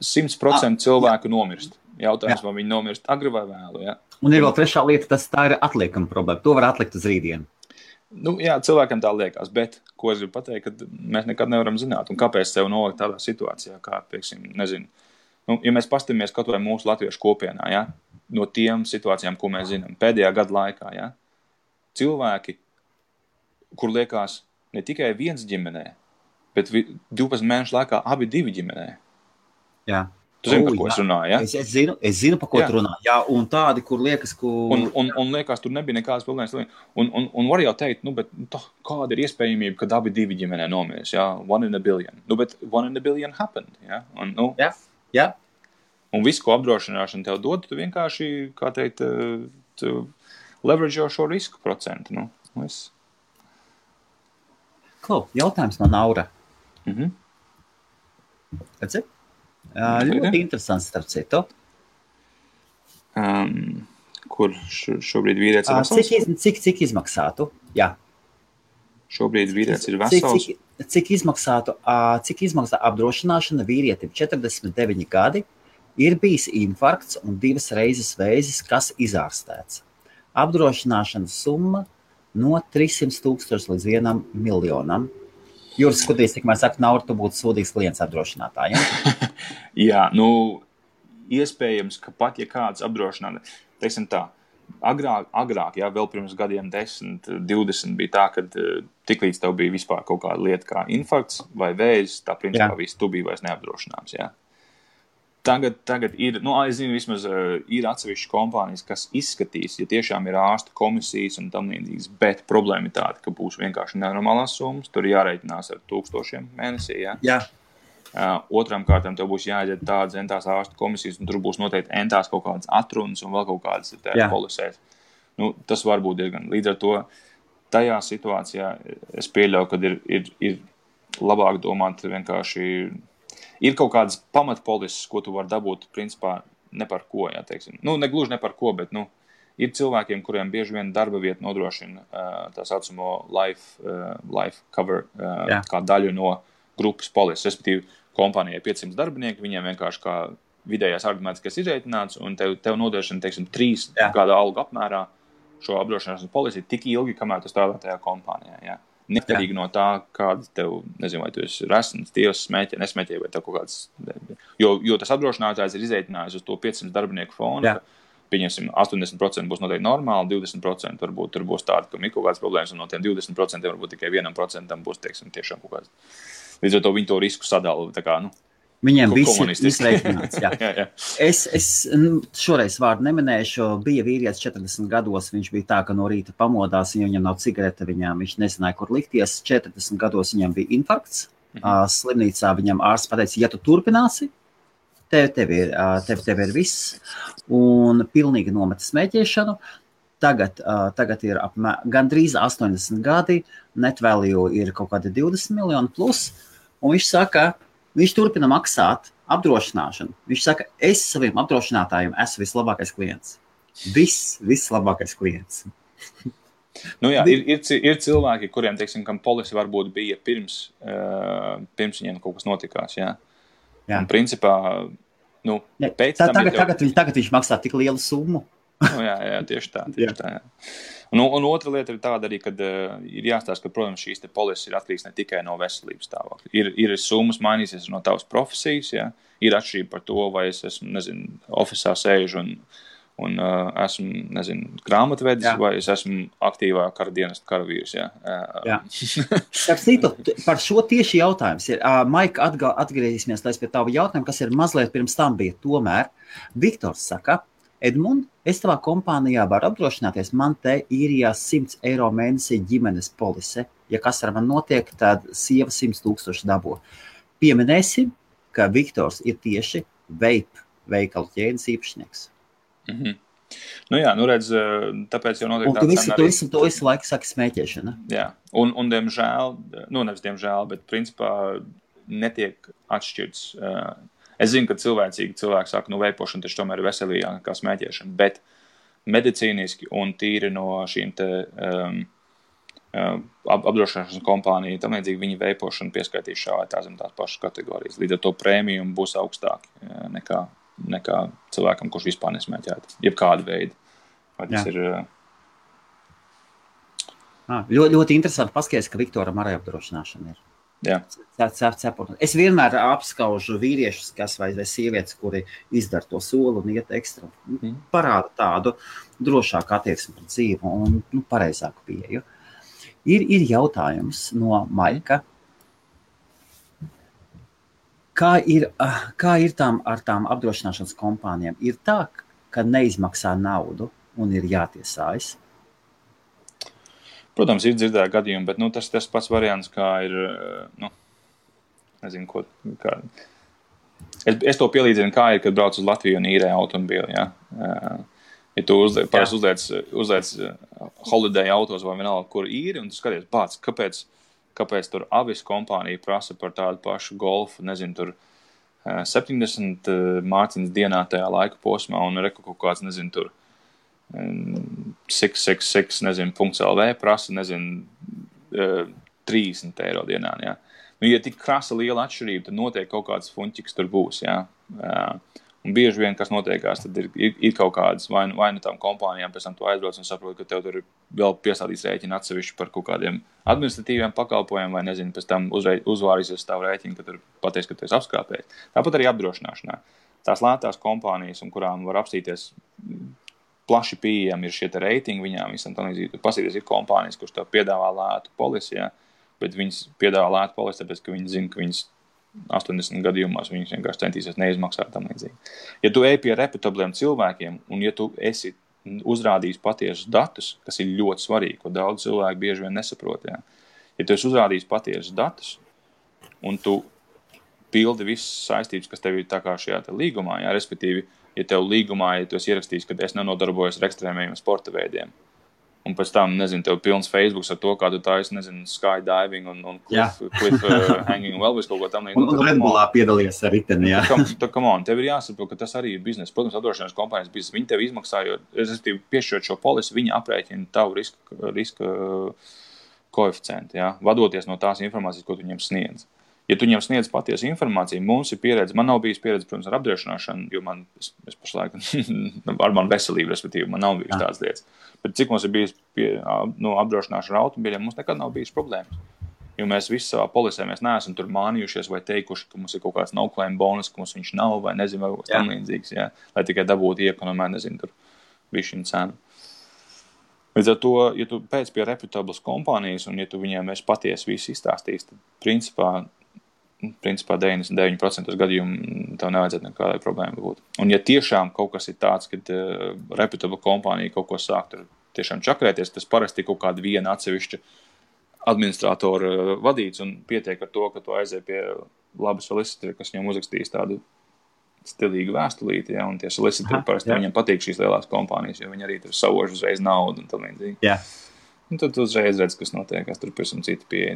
100% cilvēku nomirst. Jautājums, vai viņi nomirst agri vai vēlu, jā. Un ir vēl trešā lieta, tā ir atliekama problēma. To var atlikt uz rītdienu. Jā, cilvēkam tā liekas, bet, ko es gribu pateikt, ka mēs nekad nevaram zināt, un kāpēc sev nolikt tādā situācijā, kā, pieksim, nezinu. Ja mēs pastamies kaut vai mūsu latviešu kopienā, ja, no tiem situācijām, ko mēs zinām, pēdējā gada laikā, ja, cilvēki, kur liekas ne tikai viens ģimenē, bet 12 mēnešu laikā abi divi ģimenē. Jā. Tu zini, par ko es runāju, ja? Es zinu, par ko tu runā. Jā, un tādi, kur liekas, Un liekas, tur nebija nekādas problēmas. Un var jau teikt, bet kāda ir iespējamība, ka abi divi ģimenē nomirs, ja? 1 in a billion. Bet 1 in a billion happened, ja? Jā. Un visu, ko apdrošināšana tev dod, tu vienkārši, kā teikt, tu leverage šo risku procentu, Jautājums no Naura. Redzi? Ļoti interesants, starp citu. Kur šobrīd vīrietis ir vesels? Cik izmaksātu? Jā. Šobrīd vīrietis ir vesels? Cik izmaksā apdrošināšana vīrietim 49 gadi, ir bijis infarkts un 2 reizes vēzis, kas izārstēts. Apdrošināšanas summa no 300,000 līdz 1 miljonam. Juris skatīs, cik mēs saka, Naura, tu būtu sūdīgs klients apdrošinātājiem. Jā, iespējams, ka pat, ja kāds apdrošinātājs, teiksim tā, agrāk, jā, vēl pirms gadiem 10, 20 bija tā, kad tiklīdz tev bija vispār kaut kāda lieta kā infarkts vai vēzis, tā principā viss tu bija vairs neapdrošināms, jā. Tagad ir, es zinu, vismaz ir atsevišķas kompānijas, kas izskatīs, ja tiešām ir ārsta komisijas un tam līdzīgas, bet problēma ir tāda, ka būs vienkārši nenormālās summas, tur jāreikinās ar 1000 mēnesī, jā. Jā. Otram kārtām tev būs jāaiziet tādas entās ārsta komisijas, un tur būs noteikti entās kaut kādas atrunas un vēl kaut kādas polisēs. Tas var būt diezgan. Līdz ar to tajā situācijā es pieļauju, ka ir labāk domāt vienkārši. Ir kaut kādas pamatpolises, ko tu vari dabūt, principā, ne par ko, jā, teiksim. Ne gluži ne par ko, bet, ir cilvēkiem, kuriem bieži vien darba vieta nodrošina tā saucamo life cover kā daļu no grupas polises. Respektīvi, kompānijai 500 darbinieki, viņiem vienkārši kā vidējais argumentiskais izreitināts, un tev nodrošina, teiksim, 3 gada algu apmērā šo apdrošināšanas polisi tik ilgi, kamēr tu strādā tajā kompānijā, jā. Neatkarīgi no tā, kāda tev, nezinu, vai tu esi resns, tievs, smēķē, nesmēķē, vai tev kaut kāds. Jo tas apdrošinātājs ir izreitinājis uz to 500 darbinieku fonu, ka, pieņemsim, 80% būs noteikti normāli, 20% varbūt tur būs tādi, ka ir kaut kādas problēmas, un no tiem 20% varbūt tikai 1% būs, teiksim, tiešām kaut kāds. Līdz ar to viņi to risku sadala, tā kā, Viņiem viss ir izreikināts. Jā. Es šoreiz vārdu neminēšu. Bija vīrietis 40 gados, viņš bija tā, ka no rīta pamodās, ja viņam nav cigarete, viņš nezināja, kur likties. 40 gados viņam bija infarkts. Slimnīcā viņam ārsts pateica, ja tu turpināsi, tev ir viss. Un pilnīgi nometa smēķēšanu. Tagad ir gandrīz 80 gadi, net value ir kaut kādi 20 miljoni plus. Un viņš saka, viņš turpina maksāt apdrošināšanu. Viņš saka, es saviem apdrošinātājiem esmu vislabākais klients. Vislabākais klients. Jā, ir cilvēki, kuriem, teiksim, kam polisi varbūt bija pirms viņiem kaut kas notikās, jā. Un principā, pēc tam... Tagad viņš maksā tik lielu summu. Jā, tieši tā, jā. Un otra lieta ir tāda arī, kad ir jāstāsta, ka, protams, šīs te polises ir atkarīgs ne tikai no veselības stāvokļa. Ir summas mainīsies no tavas profesijas, jā. Ir atšķirība par to, vai es esmu, ofisā sēžu un esmu, grāmatvedis, vai es esmu aktīvā kara dienesta karavīrs, jā. Par šo tieši jautājums ir. Maika, atgriezīsimies pie tava jautājuma, kas ir mazliet pirms tam bija. Tomēr Viktors saka, Edmund, es tavā kompānijā varu apdrošināties, man te īrijā 100 eiro mēnesī ģimenes polise. Ja kas ar man notiek, tad sieva 100,000 dabo. Pieminēsim, ka Viktors ir tieši veikalu ķēdes īpašnieks. Redz, tāpēc jau notiek tāds scenārijs. Un tu visu laiku saki smēķēšana. Jā, un diemžēl, nevis diemžēl, bet principā netiek atšķirts. Es zinu, ka cilvēki saka, veipošana taču tomēr ir veselīgāka kā smēķēšana, bet medicīniski un tīri no šīm te apdrošināšanas kompāniju, tam līdzīgi viņi veipošanu pieskaitīs šā vai tā zem tās pašas kategorijas. Līdz ar to prēmijumi būs augstāki nekā cilvēkam, kurš vispār nesmēķētu, jebkāda veida. Vai tas ir... Ļoti interesanti paskaties, ka Viktoram arī apdrošināšana ir. Jā. Es vienmēr apskaužu vīriešus, vai sievietes, kuri izdara to soli un iet ekstra. Parāda tādu drošāku attieksmi pret dzīvi un pareizāku pieeju. Ir jautājums no Maika. Kā ir ar tām apdrošināšanas kompānijām? Ir tā, ka neizmaksā naudu un ir jātiesājas? Protams, ir dzirdēti gadījumi, bet tas pats variants, kā ir, nezinu, kā. Es to pielīdzinu, kā ir, kad brauc uz Latviju un īrē automobīli, ja? Ja tu uzliec holiday autos vai vienalga, kur īri, un tu skaties, kāpēc tur avis kompānija prasa par tādu pašu golfu, nezinu, tur 70 mārciņas dienā tajā laika posmā, un kaut kāds, nezinu, tur 666, nezinu, .lv prasa, nezinu, 30 eiro dienā, jā. Ja tik krasa liela atšķirība, tad noteikti kaut kāds fuņķiks tur būs, jā. Un bieži vien, kas notiekās, tad ir kaut kādas vai nu tām kompānijām pēc tam tu aizbrauc un saproti, ka tev tur ir vēl piesādīts rēķini atsevišķi par kaut kādiem administratīviem pakalpojumiem, vai nezinu, pēc tam uzvārīsies tavu rēķinu, ka tur pateiks, ka tu esi apskāpējis. Tāpat arī apdrošināšanā. Tās lētās kompānijas, un kurām var apstīties plaši pieejami ir šie te reitingi viņām, visam tā līdzīgi. Pasīties, ir kompānijas, kurš tev piedāvā lētu polisi, jā, bet viņas piedāvā lētu polisi, tāpēc, ka viņi zina, ka viņas 80 gadījumos viņus vienkārši centīsies neizmaksāt tam līdzīgi. Ja tu ej pie reputabliem cilvēkiem, un ja tu esi uzrādījis patiesus datus, kas ir ļoti svarīgi, ko daudz cilvēku bieži vien nesaprot, jā. Ja tu esi uzrādījis patiesus datus, un tu pildi visas saistības, kas tev ir tā kā šajā te līgumā, jā, respektīvi, ja tev līgumā, ja tu esi ierakstījis, ka es nenodarbojos ar ekstrēmajiem sporta veidiem, un pēc tam, nezinu, tev pilns Facebooks ar to, kā tu taisi, nezinu, skydiving un cliff hanging un vēl visu kaut ko tam. Un Red Bullā piedalījies ar riteni, jā. Come on, tev ir jāsaprot, ka tas arī ir biznesa. Protams, apdrošināšanas kompānijas biznesa. Viņi tev izmaksājot, respektīvi, piešķirot šo polisi, viņi aprēķina tavu riska koeficientu, jā, vadoties no tās informācijas, ko tu viņiem sniedz. Ja tu viņam sniedz patiesu informāciju, mums ir pieredze, man nav bijis pieredze, protams, ar apdrošināšanu, jo es pašlaik ar manu veselību, respektīvi, man nav bijis tādas lietas. Bet cik mums ir bijis apdrošināšana ar automobīļiem, mums nekad nav bijis problēmas. Jo mēs visi savā polisē, mēs neesam tur mānījušies vai teikuši, ka mums ir kaut kāds no-claim bonus, ka mums viņš nav vai nezinu, vai kaut kas tam līdzīgs, jā, lai tikai dabūtu iekonomē, nezinu, tur bišķiņu cenu. Līdz ar to, ja tu pēc pie reputablas kompānijas un ja tu viņiem esi patiesi visu izstāstījis, tad principā 99% gadījumu tev nevajadzētu nekādai problēma būt. Un ja tiešām kaut kas ir tāds, kad reputabla kompānija kaut ko sāk tur tiešām čakrēties, tas parasti kaut kāda viena atsevišķa administratora vadīts un pietiek ar to, ka tu aizies pie laba solicitora, kas viņam uzrakstīs tādu stilīgu vēstulīti, ja, un tie solicitori parasti viņam patīk šīs lielās kompānijas, jo viņi arī tur savož uzreiz naudu un tā līdzīgi. Jā. Un tad tu uzreiz redz, kas notiek, kas tur pēc un citi pieeja.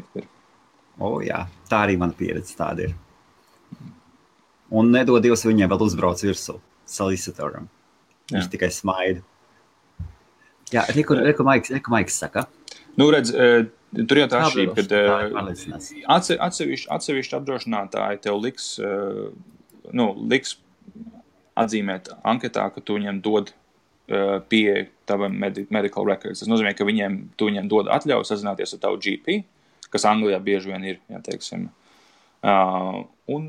Jā, tā arī mana pieredze tāda ir. Un nedod Dievs viņiem vēl uzbrauc virsū solicitoram. Viņš tikai smaida. Jā, reku Maiks saka. Redz, tur jau tā atšķirība, kad atsevišķi apdrošinātāji tev liks atzīmēt anketā, ka tu viņiem dod pieeja tavam medical records. Tas nozīmē, ka tu viņiem dod atļauju sazināties ar tavu GP, kas Anglijā bieži vien ir, ja teiksim. Un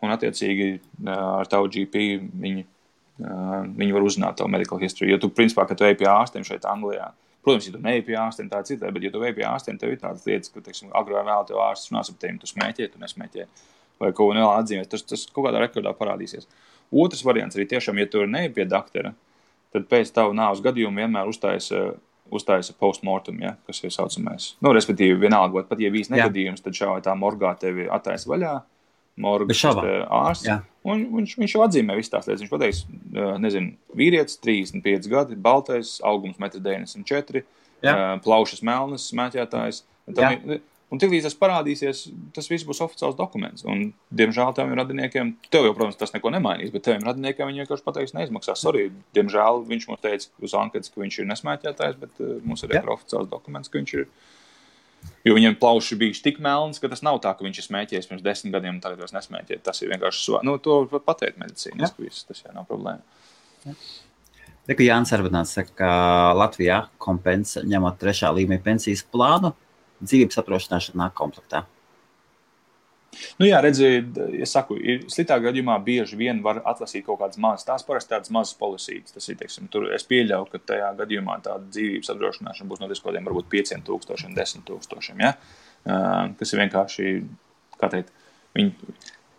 attiecīgi ar tavu GP viņi var uzzināt tavu medical history. Jo tu, principā, kad tu ej pie ārstiem šeit Anglijā, protams, ja tu neej pie ārstiem, tā citā, bet ja tu ej pie ārstiem, tev ir tādas lietas, ka, teiksim, agrāk vēl tev ārsts runās ap tevi, tu smēķē, tu nesmēķē, vai kaut ko vēl atzīmēs, tas kaut kādā rekordā parādīsies. Otrs variants arī tiešām, ja tu neej pie doktora, tad pēc tavu nāves gadījumu vienmēr uztājas postmortem, ja, kas ir saucamais. Respektīvi, vienalga, pat ja bijis negadījums, tad šā vai tā morgā tevi attaisa vaļā, morgas ārsts, un viņš jau atzīmē visu tās lietas. Viņš pateiks, nezinu, vīrietis, 35 gadi, baltais, augums 1,94 m, plaušas melnas, smēķētājs. Un tiklīdz tas parādīsies, tas viss būs oficiāls dokuments. Un, diemžēl, teviem radiniekiem, tev jau, protams, tas neko nemainīs, bet teviem radiniekiem viņi vienkārši pateiks, neizmaksās. Sorry, diemžēl, viņš mums teica uz anketas, ka viņš ir nesmēķētājs, bet mums ir oficiāls dokuments, ka viņš ir. Jo viņiem plauši bija tik melns, ka tas nav tā, ka viņš ir smēķējis pirms 10 gadiem un tagad vairs nesmēķē. Tas ir vienkārši, to pateikt medicīniski viss, tas jau nav problēma. Reku Jānis Arvadāns saka, ka Latvijā kompensa ņemot 3. līmeņa pensijas plānu, dzīvības apdrošināšana nāk komplektā. Jā, redzi, es saku, sliktā gadījumā bieži vien var atlasīt kaut kādas mazas, tās parasti tādas mazas polisītes. Tas ir, teiksim, tur es pieļauju, ka tajā gadījumā tāda dzīvības apdrošināšana būs no kaut kādiem varbūt 5,000, 10,000, ja? Kas ir vienkārši, kā teikt,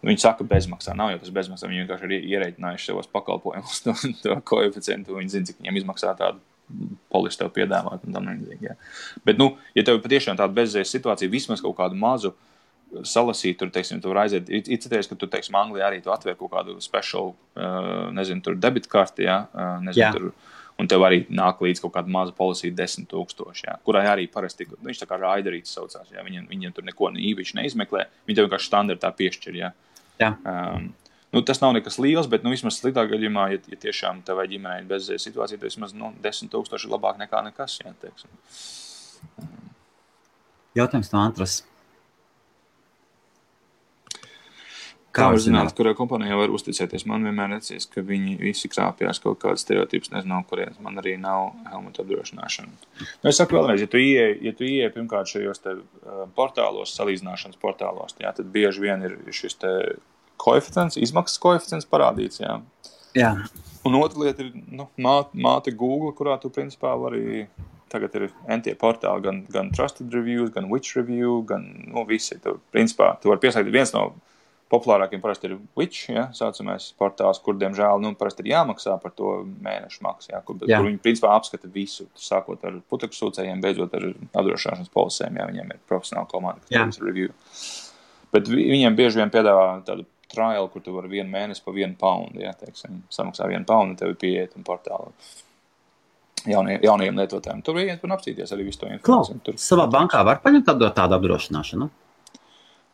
Viņi saka bezmaksā, nav jau tas bezmaksā, viņi vienkārši ir ierēķinājuši savos pakalpojumus to koeficientu, viņi zina, cik viņiem izmaksā tādu polisi tev piedāvāt un tam līdzīgi. Bet, ja tev patiešām tāda bezizējas situācija, vismaz kaut kādu mazu salasīt, tur, teiksim, tu var aiziet, izceties, ka tu, teiksim, Anglijā arī tu atver kaut kādu special, nezinu, tur debitkarti, tur, un tev arī nāk līdz kaut kāda maza polisija 10,000, kurai arī parasti, viņš tā kā raiderīts saucās, viņiem tur neko īpaši neizmeklē, viņi tev vienkārši standartā piešķir, tas nav nekas liels, bet, vismaz sliktā gadījumā, ja tiešām tev vai ģimenei bezizējas situācija, tad vismaz, 10,000 ir labāk nekā nekas, teiksim. Jautājums no Antras. Kā var zināt, kurā kompānijā var uzticēties? Man vienmēr liekas, ka viņi visi krāpjās kaut kādas stereotipus, nezinu, kurienes. Man arī nav helmuta apdrošināšana. Es saku vēlreiz, ja tu ieej pirmkārt šajos te portālos, salīdzināšanas portālos, tad bieži vien ir šis te koeficients, izmaksas koeficients parādīts, Jā. Un otra lieta ir, māte Google, kurā tu principā vari, tagad ir entie portāli, gan Trusted Reviews, gan Which Review, gan, visi. Principā, tu vari piesaistīt viens no populārākiem parasti ir Which, saucamais portāls, kur, diemžēl, parasti ir jāmaksā par to mēnešu maksu, kur viņi, principā, apskata visu, sākot ar putekļu sūcējiem, beidzot ar apdrošināšanas polisēm, viņiem ir profesionāla komanda, kas review. Bet viņiem bieži vien piedāvā tādu trial, kur tu vari 1 mēnesi pa £1, teiksim, samaksā £1, tev ir pieeja un portāli jaunajiem lietotājiem. Tur iet un apstīties arī visu to informāciju. Savā bankā var paņemt tādu apdrošināšanu?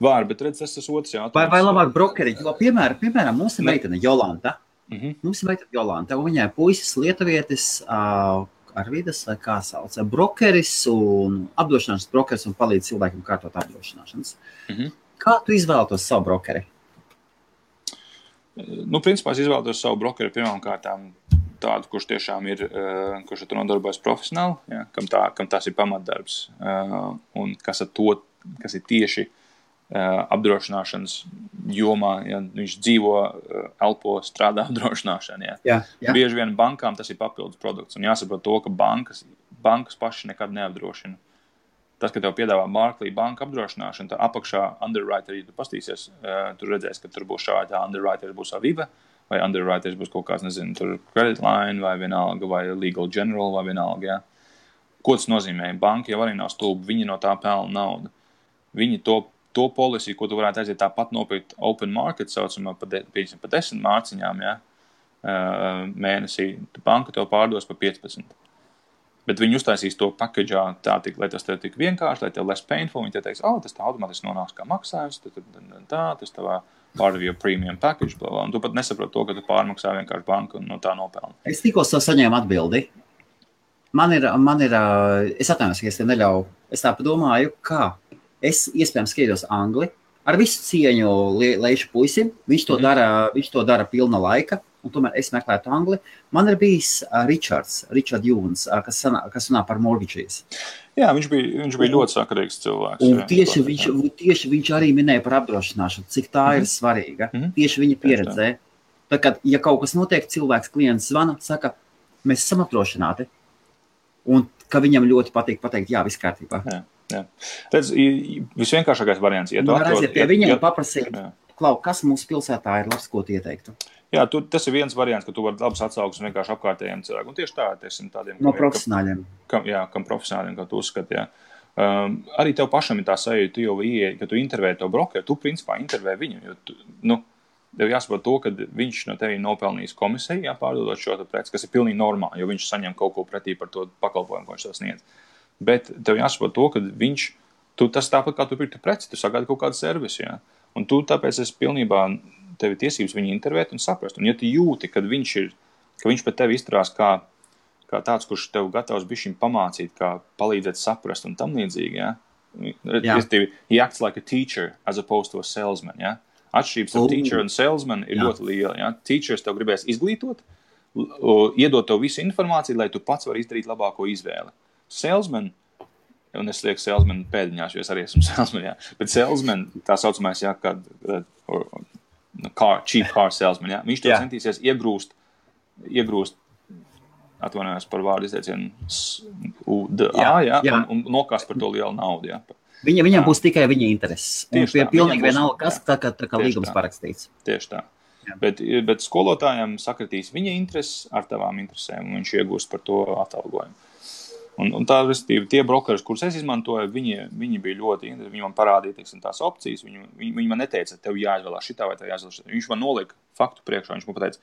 Var, bet redz, tas otrs jautājums. Vai labāk brokeri? Jo, piemēram, mums ir meitene Jolanta. Mums ir meitene Jolanta, un viņai puisis lietuvietis Arvidas, vai kā sauc, brokeris un apdrošināšanas brokeris un palīdz cilvēkiem kārtot apdrošināšanas. Kā tu izvēlētos savu brokeri? Principā es izvēlētos savu brokeri pirmām kārtām tādu, kurš tiešām ir, kurš ar to nodarbojas profesionāli, kam tas ir pamatdarbs, un kas ir tieši apdrošināšanas jomā, viņš dzīvo, elpo, strādā apdrošināšanā. Bieži vien bankām tas ir papildus produkts, un jāsaprot to, ka bankas paši nekad neapdrošina. Tas, ka tev piedāvā Barclays banka apdrošināšana, tā apakšā underwriter, ja tu pastīsies, tu redzēsi, ka tur būs šādi underwriter, būs Aviva, vai underwriter būs kaut kāds, nezinu, tur credit line, vai vienalga, vai legal general, vai vienalga, Ko tas nozīmē? Banka jau arī nav stulba, viņi no tā pelna naudu. Viņi to polisiju, ko tu varētu aiziet tāpat nopirkt open market, saucamā pa 10 mārciņām, mēnesī, banka tev pārdos pa 15. Bet viņi uztaisīs to packagā tā, lai tas tev tik vienkārši, lai tev less painful, viņi te teiks, tas tā automātiski nonāks kā maksājums, tas tavā part of your premium package, un tu pat nesaprot to, ka tu pārmaksā vienkārši banku un no tā nopelni. Es tikko saņēmu atbildi. Man ir, es atvainojos, ka es te neļauju, es tā padomāju, kā es iespējams skatos angli, ar visu cieņu Leišu puisim, viņš to dara pilna laika, un tomēr es meklētu angli. Man ir bijis Richard Jūns, kas runā par mortgages. Jā, viņš bija ļoti sakarīgs cilvēks. Un tieši viņš arī minēja par apdrošināšanu, cik tā ir svarīga. Tieši viņa pieredzē. Tā kā, ja kaut kas notiek, klients zvana, saka, mēs esam apdrošināti. Un ka viņam ļoti patīk pateikt, jā, viss kārtībā. Jā. Redz, visvienkāršākais variants. Ja tu aiziet pie viņiem paprasīt, Klau, kas mūsu pilsētā ir labs, ko tu ieteiktu? Jā, tas ir viens variants, ka tu vari labas atsauksmes vienkārši apkārtējiem cilvēkiem. Un tieši tā, tādiem. No profesionāļiem. Kam profesionāļiem, kā tu uzskati, jā. Arī tev pašam ir tā sajūta, tu jau ieeji, ka tu intervēji to brokeru, tu principā intervēji viņu, jo tev jāsaprot to, ka viņš no tevi nopelnījis komisiju, pārdodot šo preci, kas ir pilnīgi normāli, jo viņš saņem kaut ko pretī par to pakalpojumu, ko viņš tev sniedz. Bet tev jāsaprot to, ka tas tāpat kā tu pirktu preci, tu sagādi kaut kādu servisu, jā. Un tu tāpēc esi pilnībā tevi tiesības viņu intervēt un saprast. Un ja tu jūti, ka viņš pret tevi izturās kā tāds, kurš tev gatavs bišķiņ pamācīt, kā palīdzēt saprast un tam līdzīgi, jā. He acts like a teacher as opposed to a salesman, jā. Atšķirības ar teacher un salesman ir ļoti liela. Ja? Teachers tev gribēs izglītot, iedot tev visu informāciju, lai tu pats vari izdarīt labāko izvēli. Salesman, un es lieku salesman pēdiņās, jo es arī esmu salesman, jā. Bet salesman, tā saucamais, cheap car salesman, jā. Viņš tev centīsies iegrūst, atvainojos par vārdu izteicienu, un nokāst par to lielu naudu, jā. Viņam būs tikai viņa intereses. Un pilnīgi vienalga, kas tā kā līgums parakstīts. Tieši tā. Bet skolotājiem sakritīs viņa intereses ar tavām interesēm, un viņš iegūst par to atalgojumu. Un tā, respektīvi, tie brokeri, kurus es izmantoju, viņi bija ļoti interesanti. Viņi man parādīja, teiksim, tās opcijas. Viņi man neteica, tev jāizvēlās šitā vai tev jāizvēlās šitā. Viņš man nolika faktu priekšā. Viņš man pateica,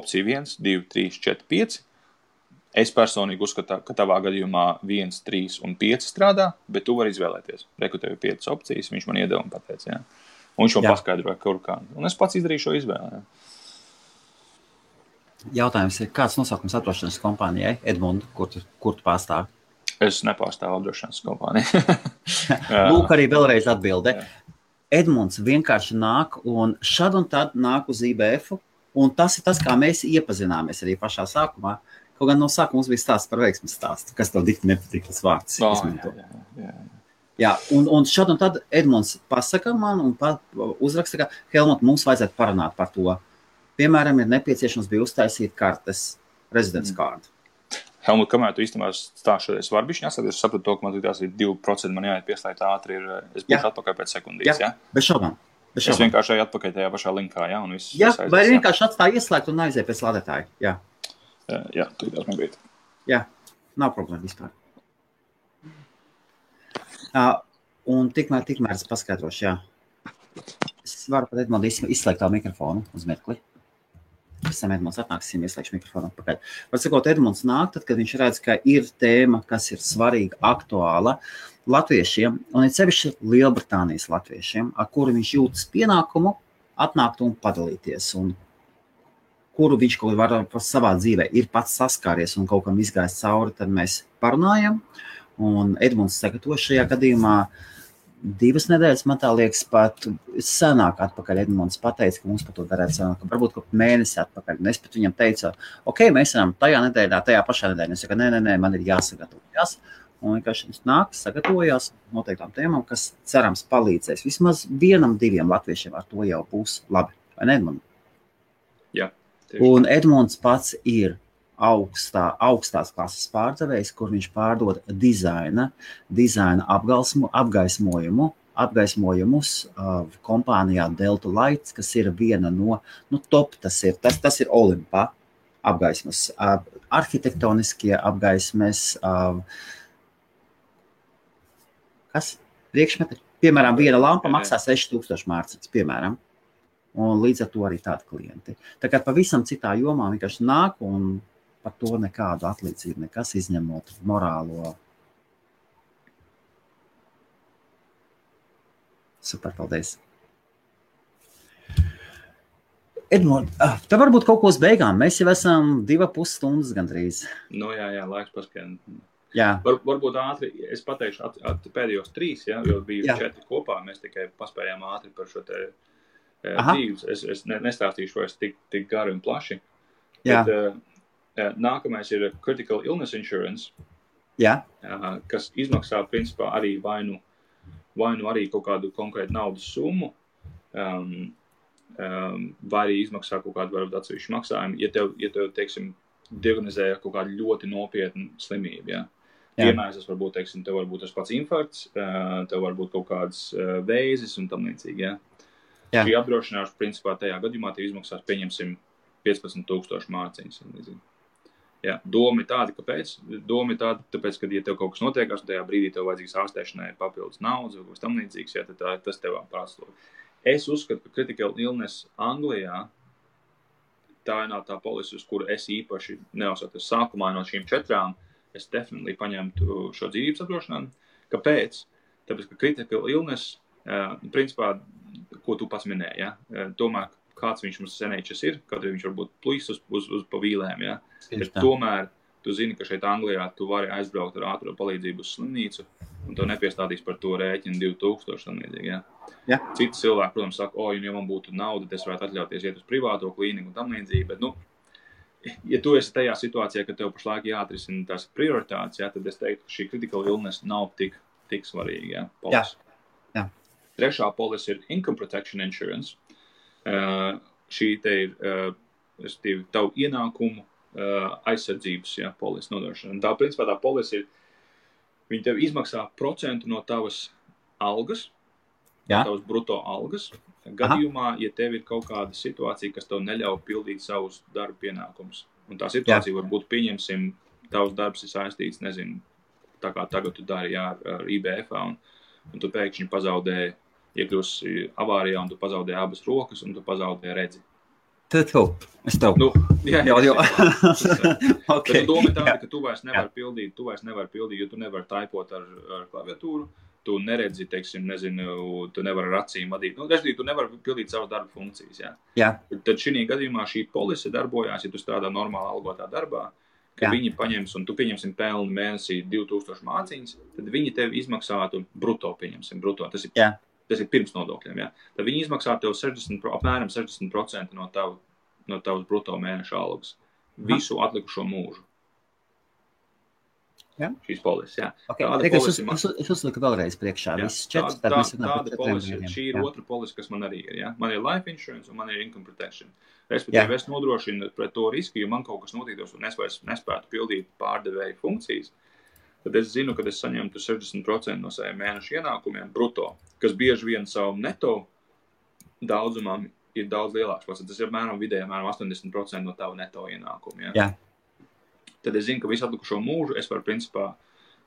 opcija 1, 2, 3, 4, 5. Es personīgi uzskatu, ka tavā gadījumā 1, 3 un 5 strādā, bet tu vari izvēlēties. Reku tev ir 5 opcijas, viņš man iedeva un pateica, jā. Un viņš man paskaidroja, kur kā. Un es pats izdarīju šo izvēli, jā. Jautājums ir, kāds nosaukums apdrošināšanas kompānijai? Edmund, kur tu pārstāvi? Es nepārstāvu apdrošināšanas kompāniju. Lūk, arī vēlreiz atbilde. Edmunds vienkārši nāk un šad un tad nāk uz IBF-u, un tas ir tas, kā mēs iepazināmies arī pašā sākumā. Kaut gan no sākuma mums bija stāsts par veiksmes stāstu, kas tev dikti nepatīk tas vārds. Jā, un šad un tad Edmunds pasaka man un uzraksta, ka Helmut, mums vajadzētu parunāt par to. Piemēram, ir nepieciešams bija uztaisīt kartes, rezidents kārdu. Helmut, kamēr tu īstenībā stāšoties varbišķi, es sapratu to, ka man tās ir 2%, man jāiet pieslēgt ātri, es būšu atpakaļ pēc sekundīs, jā? Bez šaubām. Es vienkārši eju atpakaļ tajā pašā linkā, jā? Un viss vai vienkārši atstāja ieslēgt un aiziet pēc lādētāja, jā? Jā, tu tās man bija. Jā, nav problēma vispār. Un tikmēr es paskaidrošu, jā. Es varu pat Edmundu izslēgt tā mikrofonu uz mirkli. Pēc tam Edmunds atnāksim, ieslēgšu mikrofonu atpakaļ. Var sakot, Edmunds nāk, tad, kad viņš redz, ka ir tēma, kas ir svarīga, aktuāla latviešiem, un ir sevišķi Lielbritānijas latviešiem, ar kuru viņš jūtas pienākumu atnākt un padalīties, un kuru viņš kaut var savā dzīvē ir pats saskāries un kaut kam izgājis cauri, tad mēs parunājam, un Edmunds sagatavo šajā gadījumā 2 nedēļas, man tā liekas, pat senāk atpakaļ Edmunds pateica, ka mums par to darētu senāk, varbūt kaut mēnesi atpakaļ. Un es pat viņam teicu, ok, mēs varam tajā nedēļā, tajā pašā nedēļā. Es saku, nē, man ir jāsagatavojas. Un vienkārši viņš nāk, sagatavojās noteiktām tēmām, kas cerams palīdzēs. Vismaz 1, 2 latviešiem ar to jau būs labi. Vai ne, Edmund? Jā. Un Edmunds pats ir augstās klases pārdevējs, kur viņš pārdod dizaina apgaismojumus kompānijā Delta Lights, kas ir viena no top, tas ir Olimpa apgaismas, arhitektoniskie apgaismes, kas? Priekšmeti? Piemēram, viena lampa maksā 6000 mārciņas, piemēram. Un līdz ar to arī tādi klienti. Tā kā pavisam citā jomā vienkārši nāk un par to nekādu atlīdzību, nekas izņemot morālo. Super, paldies. Edmund, tev varbūt kaut ko uz beigām. Mēs jau esam 2,5 stundas gandrīz. Jā, laiks paskrien. Jā. Varbūt ātri, es pateikšu pēdējos 3, ja, jo bija 4 kopā, mēs tikai paspējām ātri par šo te dzīves. Es nestāstīšu vairs tik gari un plaši. Jā. Bet, nākamais ir Critical Illness Insurance, kas izmaksā principā arī vai nu arī kaut kādu konkrētu naudas summu, vai arī izmaksā kaut kādu varbūt atsevišķu maksājumu, ja tev teiksim, diagnozē kaut kādu ļoti nopietnu slimību. Ja? Piemērs, tas varbūt, teiksim, tev varbūt tas pats infarkts, tev varbūt kaut kāds vēzis un tam līdzīgi. Ja? Šī apdrošināšana principā tajā gadījumā tev izmaksās, pieņemsim, 15,000 mārciņas. Jā, doma ir tāda, kāpēc? Doma ir tāda, tāpēc, ka, ja tev kaut kas notiekās, un tajā brīdī tev vajadzīgs ārstēšanai papildus naudas vai kaut kas tam līdzīgs, jā, tad tas tev prātslog. Es uzskatu, ka Critical Illness Anglijā tā ir tā polise, uz kuru es īpaši neuzskatu. Sākumā no šīm 4 es definitely paņemtu šo dzīvības apdrošinājumu. Kāpēc? Tāpēc, ka Critical Illness, principā, ko tu pats minēji, ja? Tomēr kāds viņš mums senēčas ir, kaut arī viņš varbūt plīs uz pa vīlēm, ja? Bet tomēr tu zini, ka šeit Anglijā tu vari aizbraukt ar ātro palīdzību uz slimnīcu, un tev nepiestādīs par to rēķinu 2000 slimnīdzīgi, ja? Jā. Citi cilvēki, protams, saka, ja man būtu nauda, es varētu atļauties iet uz privāto klīniku un tam līdzīgi, bet, ja tu esi tajā situācijā, ka tev pašlaik jāatrisina tās prioritātes, ja, tad es teiktu, ka šī critical illness nav tik svarīga, ja, polis. Jā. Trešā polis ir Income Protection Insurance. Šī te ir tavu ienākumu aizsardzības polis nodrošināšana. Tā, principā, tā polis ir, viņi tev izmaksā procentu no tavas algas, no tavas bruto algas, gadījumā, ja tev ir kaut kāda situācija, kas tev neļauj pildīt savus darba pienākumus. Un tā situācija var būt, pieņemsim, tavs darbs ir saistīts, nezinu, tā kā tagad tu dari ar IBF-ā, un tu pēkšņi pazaudēji, iekļūsi avārijā, un tu pazaudēji abas rokas, un tu pazaudēji redzi. Es tev. Nu, jā. Okay. Bet doma tāda, ka tu vairs nevari pildīt, jo tu nevari taipot ar klaviatūru, tu neredzi, teiksim, nezinu, tu nevari ar acīm vadīt. Nu, tu nevari pildīt savas darba funkcijas, jā. Tad šī gadījumā šī polise darbojās, ja tu strādā normāli algotā darbā, ka viņi paņems, un tu pieņemsim pelni mēnesī 2000 māciņas, tad viņi tev izmaksātu bruto, pieņemsim, bruto. Tas ir pirms nodokļiem, Tad viņi izmaksā tev apmēram 60% no tavas bruto mēneša algas. Visu atlikušo mūžu. Šīs polises, Okay. Es uzliku vēlreiz priekšā. Tāda polise, šī ir otra polise, kas man arī ir, Man ir life insurance un man ir income protection. Respektīvi, es nodrošinu pret to risku, ja man kaut kas notiktos un es vairs nespētu pildīt pārdevēju funkcijas, tad es zinu, ka es saņemtu 60% no saviem mēneša ienākumiem bruto, kas bieži vien savu neto daudzumam ir daudz lielāks. Tas ir vidēji 80% no tavu neto ienākumu. Tad es zinu, ka visu atlikušo mūžu es varu principā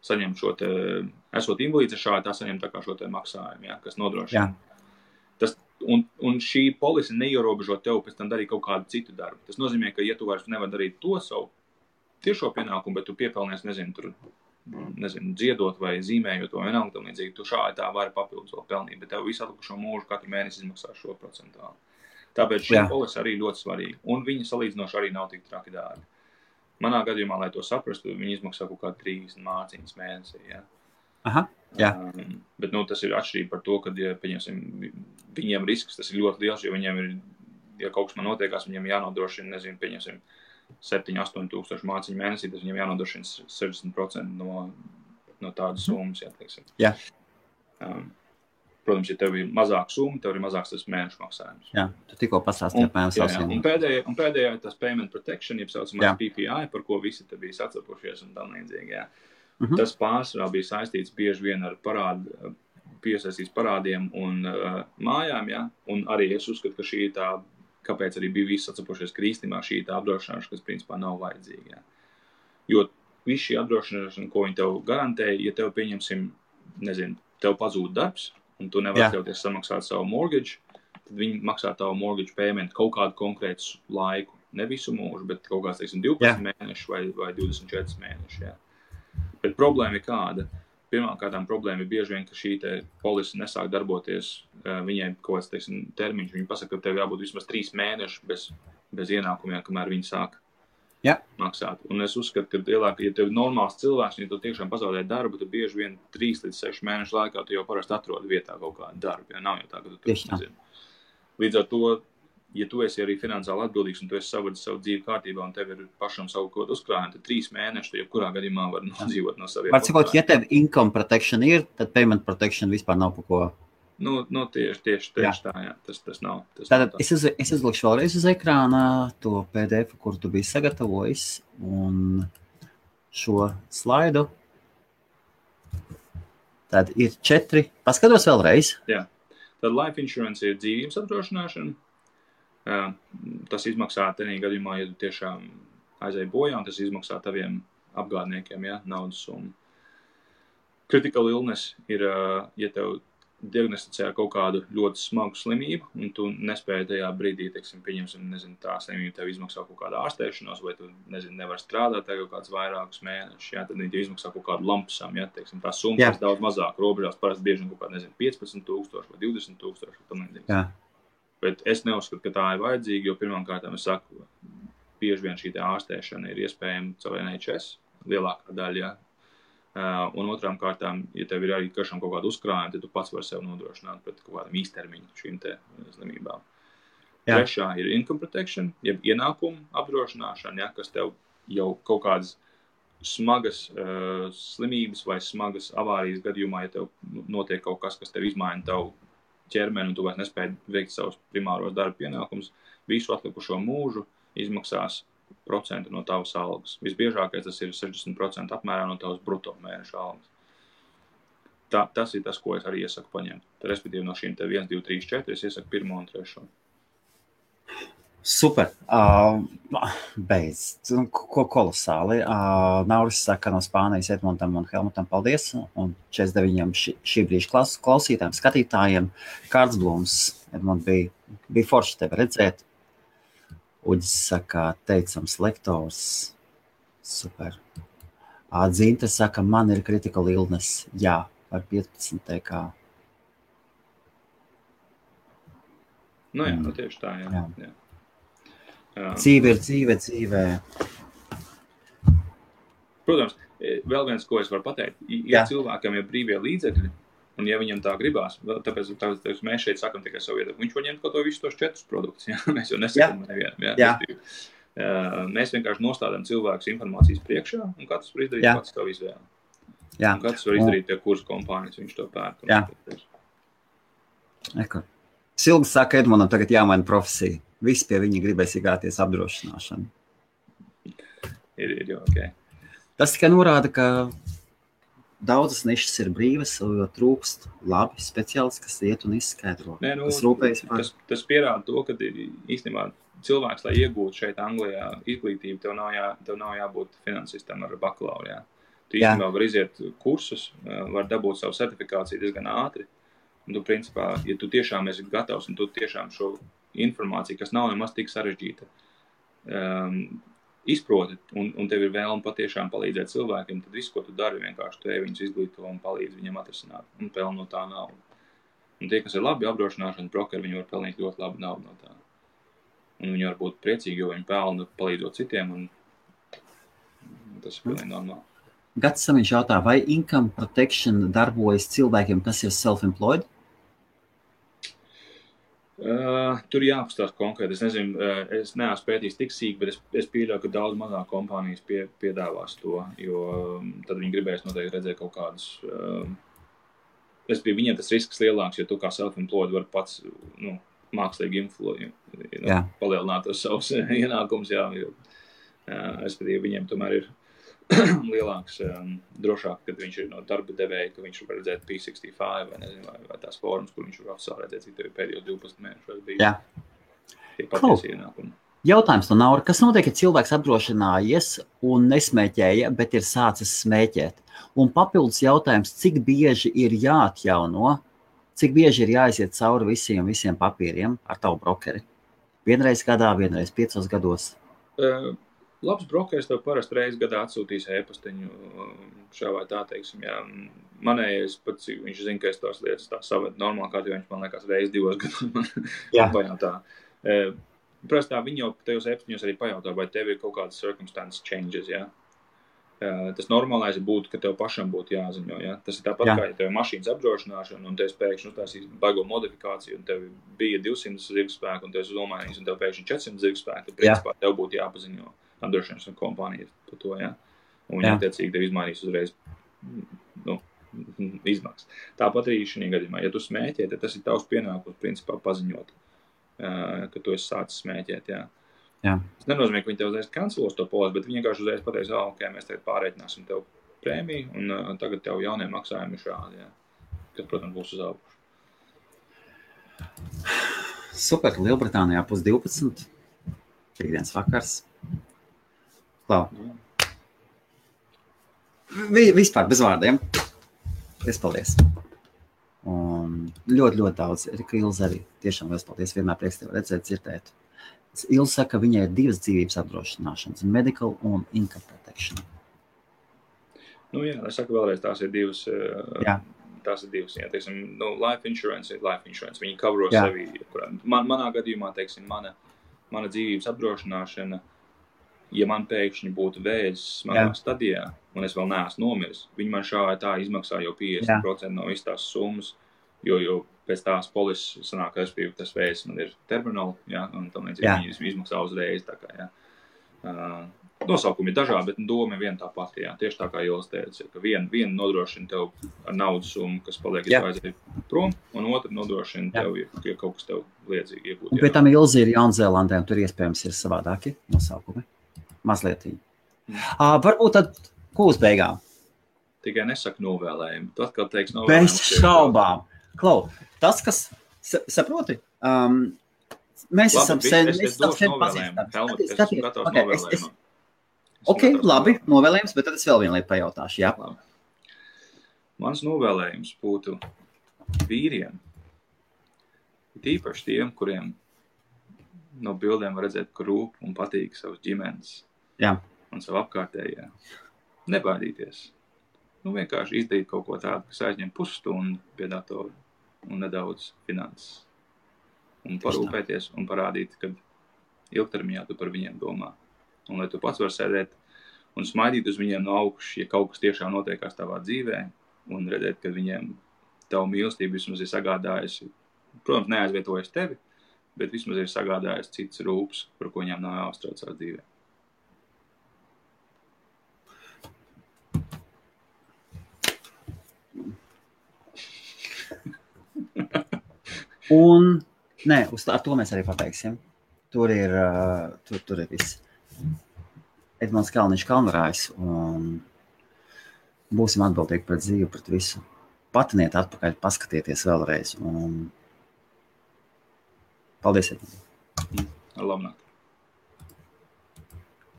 saņemt šo te, esot invalīds, šādi tā saņemt tā kā šo te maksājumu, kas nodrošina. Un šī polise neierobežo tev pēc tam darīt kaut kādu citu darbu. Tas nozīmē, ka ja tu vairs nevar darīt to savu tiešo pienākumu, bet tu piepelnies, dziedot vai zīmējot vai vienalga tam līdzīgi, tu šādi tā vari papildus vēl pelnīt, bet tev visu atlikušo mūžu katru mēnesi izmaksā šo procentāli. Tāpēc šī polise arī ļoti svarīga. Un viņa salīdzinoši arī nav tik traki dārgi. Manā gadījumā, lai to saprastu, viņi izmaksā kaut kā 30 māciņas mēnesī, Bet, tas ir atšķirība par to, ka, ja, pieņemsim, viņiem risks, tas ir ļoti liels, jo viņiem ir, ja kaut kas man notiekās, viņiem jānodrošina, pieņemsim, 7-8 tūkstoši māciņu mēnesī, tas viņiem jānodrošina 60% no tādas summas, teiksim. Protams, ja tev ir mazāka summa, tev ir mazāks tas mēnešu maksājums. Tu tikko pastāstīji apmēram savsiem. Un pēdējā ir tas payment protection, jeb saucamais PPI, par ko visi te bija sacepušies un tam līdzīgi, Tas pārsvarā bija saistīts bieži vien ar piesaistīts parādiem un mājām, Un arī es uzskatu, ka šī tā, kāpēc arī bija visi sacepušies krīstimā, šī tā apdrošināšana, kas principā nav vajadzīga, Jo viss šī apdrošināšana, ko viņi tev garantēja, ja tev pieņemsim, tev pazūd darbs, un tu nevar atļauties samaksāt savu mortgage, tad viņi maksā tavu mortgage payment kaut kādu konkrētu laiku. Ne visu mūžu, bet kaut kāds, 12 mēneši vai 24 mēneši, Bet problēma ir kāda? Pirmkārtām problēma ir bieži vien, ka šī te polise nesāk darboties, viņai kaut kāds, termiņš. Viņi pasaka, ka tev jābūt vismaz 3 mēneši bez ienākumiem, kamēr viņi sāk maksāt. Un es uzskatu, ka lielāk, ja tev ir normāls cilvēks, ja tu tiešām pazaudē darbu, tad bieži vien 3 līdz 6 mēnešu laikā tu jau parasti atrodi vietā kaut kādu darbu. Nav jau tā, ka tu nezini. Līdz ar to, ja tu esi arī finansiāli atbildīgs un tu esi savadis savu dzīvi kārtībā un tev ir pašam savu kaut uzkrājumu, tad 3 mēneši, tu jebkurā gadījumā var nodzīvot no saviem. Var cikot, ja tev income protection ir, tad payment protection vispār nav par ko. Tieši tā, tas nav. Tātad es izlikšu vēlreiz uz ekrāna to PDF, kur tu biji sagatavojis, un šo slaidu. Tad ir 4. Paskatos vēlreiz. Tad life insurance ir dzīvības apdrošināšana. Tas izmaksā tenī gadījumā, ja tu tiešām aizēji bojā, un tas izmaksā taviem apgādniekiem, naudas summu. Critical illness ir, ja tev diagnosticē kaut kādu ļoti smagu slimību, un tu nespēji tajā brīdī, pieņemsim, tā slimība tev izmaksā kaut kādu ārstēšanos, vai tu, nevar strādāt kaut kāds vairākus mēnešus, tad viņi tev izmaksā kaut kādu lampsam, tā summa ir daudz mazāk robežās, parasti bieži kaut kādu, 15,000 vai 20,000, tam līdzīgi. Bet es neuzskatu, ka tā ir vajadzīga, jo pirmkārt, es saku, bieži vien šī ārstēšana ir iespējama caur NHS, lielākā daļa, un otrām kārtām, ja tev ir arī kaut kāda uzkrājuma, tad tu pats vari sev nodrošināt pret kaut kādam īstermiņu šīm te slimībām. Trešā ir income protection, jeb ienākumu apdrošināšana, kas tev jau kaut kādas smagas slimības vai smagas avārijas gadījumā, ja tev notiek kaut kas tev izmaina tavu ķermeni un tu vairs nespēji veikt savus primāros darba pienākumus, visu atlikušo mūžu izmaksās procentu no tavas algas. Visbiežākais tas ir 60% apmērā no tavas bruto mēneša algas. tas ir tas, ko es arī iesaku paņemt. Respektīvi no šīm 1, 2, 3, 4 es iesaku 1 un 3. Super. Beidz. Kolosāli. Nauris saka no Spānijas Edmundam un Helmutam paldies. Un 49 šī brīža klausītājiem, skatītājiem. Kārds Blums. Edmund bija forši tevi redzēt. Uģis saka, teicams lektors. Super. Dzīnte saka, man ir critical illness. Jā, par 15 TK. Nu jā, tieši tā, jā. Dzīve ir dzīve. Protams, vēl viens, ko es varu pateikt, ja cilvēkam ir brīvie līdzekļi, un ja viņam tā gribās, tāpēc mēs šeit sakam tikai savu viedokli, viņš var ņemt kaut to visus tos 4 produktus, mēs jau nesakam nevienam. Mēs vienkārši nostādām cilvēkus informācijas priekšā, un katrs var izdarīt pats savu izvēli. Un katrs var izdarīt tie kursu kompānijas, viņš to pērk. Silga saka, Edmundam tagad jāmaina profesija. Visi pie viņa gribēs iegāties apdrošināšanu. Ir jau ok. Tas tikai norāda, ka daudzas nišas ir brīvas, jo trūkst labi speciālisti, kas iet un izskaidro. Kas rūpējas par... Tas pierāda to, ka īstenībā cilvēks, lai iegūtu šeit Anglijā izglītību, tev nav jābūt finansistam ar bakalauru. Tu īstenībā var iziet kursus, var dabūt savu certifikāciju diezgan ātri. Un tu, principā, ja tu tiešām esi gatavs un tu tiešām šo informāciju, kas nav nemaz tik sarežģīta, izproti un tev ir vēlme patiešām palīdzēt cilvēkiem, tad visu, ko tu dari, vienkārši tu viņus izglīto un palīdz viņam atrisināt un peln no tā naudu. Un tie, kas ir labi apdrošināšanas brokeri, viņi var pelnīt ļoti labu naudu no tā. Un viņi var būt priecīgi, jo viņi pelna palīdzot citiem, un tas ir pilnīgi normāli. Gats Samiņš jautā, vai income protection darbojas cilvēkiem, kas ir self-employed? Tur jāapstās konkrēti. Es nezinu, es neesmu pētījis tik sīk, bet es pieļauju, ka daudz mazāk kompānijas piedāvās to, jo tad viņi gribēs noteikti redzēt kaut kādus... Viņiem tas risks lielāks, jo tu kā self-employed var pats mākslīgi palielināt tos savus ienākumus, respektīvi viņiem tomēr ir lielāks, drošāk, kad viņš ir no darba devēja, ka viņš var redzēt P65 vai nezinu, vai tās formas, kur viņš var oficiāli redzēt, cik tev ir pēdējos 12 mēnešos bija tie patiesi ienākumi. Jautājums no Naura, kas notiek, ja cilvēks apdrošinājies un nesmēķēja, bet ir sācis smēķēt? Un papildus jautājums, cik bieži ir jāatjauno, cik bieži ir jāiziet cauri visiem papīriem ar tavu brokeri? Vienreiz gadā, vienreiz 5 gados? Labs brokeris tev parasti reizi gadā atsūtīs e-pastiņu šā vai tā, teiksim, Manējais pats, viņš zina, ka es tās lietas tā saved normāli, kā viņš man liekas reizi 2 gados man pajautā. Prastā viņi jau tajos e-pastiņos arī pajautā, vai tev ir kaut kādas circumstance changes, Tas normālais būtu, ka tev pašam būtu jāziņo, Tas ir tāpat kā, ja tev ir mašīnas apdrošināšana un tev pēkšņi uztaisīs baigo modifikāciju un tev bija 200 zirgspēku un tev esi domājis un tev pēkšņi 400 zirgspēku, tad principā tev būtu jāpaziņo apdrošināšanas kompānijas par to, Un viņi attiecīgi tev izmainīs uzreiz izmaksas. Tāpat arī šī gadījumā, ja tu smēķē, tad tas ir tavs pienākums principā paziņot, ka tu esi sācis smēķēt, Tas nenozīmē, ka viņi tev uzreiz kancelos to polisi, bet viņi vienkārši uzreiz pateiks, ok, mēs tagad pārreķināsim tev prēmiju un tagad tev jaunie maksājumi ir šādi, kas, protams, būs uz augšu. Super, Lielbritānijā 11:30, piekdienas vakars. Klau. Vispār bez vārdiem. Paldies. Un ļoti daudz. Erika Ilze arī. Tiešām liels paldies. Vienmēr prieks tevi redzēt, dzirdēt. Ilze saka, ka viņai ir 2 dzīvības apdrošināšanas, medical un income protection. Es saku vēlreiz, tās ir 2. Tās ir 2. Teiksim, life insurance ir life insurance. Viņi kavro sevi. Manā gadījumā, teiksim, mana dzīvības apdrošināšana, ja man pēkšņi būtu vēzis smagā stadijā, un es vēl neesmu nomiris, viņi man šā vai tā izmaksā jau 50% no visas tās summas, jo pēc tās polises sanāk, ka tas vēzis man ir terminal, un tam līdzīgi viņi izmaksā uzreiz. Tā kā, Nosaukumi ir dažādi, bet doma ir viena tā pati. Tieši tā kā Ilis teica, ka viena nodrošina tev ar naudas summu, kas paliek izvaizēji prom, un otra nodrošina tev, ja kaut kas tev liedzīgi iegūt. Bet tam Ilze ir Jaunzēlandē, un tur iespējams ir savādāki nosaukumi. Mazliet. Varbūt tad ko uz beigām? Tikai nesaka novēlējumi. Tu atkal teiksi novēlējumi. Bez šaubām. Klau, tas, kas, saproti, mēs esam sen pazīstami. Helmut, es esmu gatavs novēlējumam. Ok, labi, novēlējums, bet tad es vēl vienu lietu pajautāšu, jā. Labi. Mans novēlējums būtu vīriem, tīpaši tiem, kuriem no bildēm var redzēt, ka rūp un patīk savas ģimenes un savu apkārtējā. Nebaidīties. Vienkārši izdarīt kaut ko tādu, kas aizņem pusstundu pie datora un nedaudz finanses. Un parūpēties un parādīt, ka ilgtermiņā tu par viņiem domā. Un lai tu pats var sēdēt un smaidīt uz viņiem no augšas, ja kaut kas tiešām notiekās tavā dzīvē, un redzēt, ka viņiem tavu mīlestību vismaz ir sagādājusi, protams, neaizvietojas tevi, bet vismaz ir sagādājis cits rūps, par ko viņām nav jāuztrauc savā dzīvē. Un, ar to mēs arī pabeigsim. Tur ir viss. Edmunds Kalniņš Kalnarājs, un būsim atbildīgi pret dzīvi, pret visu. Patiniet atpakaļ, paskatieties vēlreiz. Un paldies, Edmunds. Labnāk.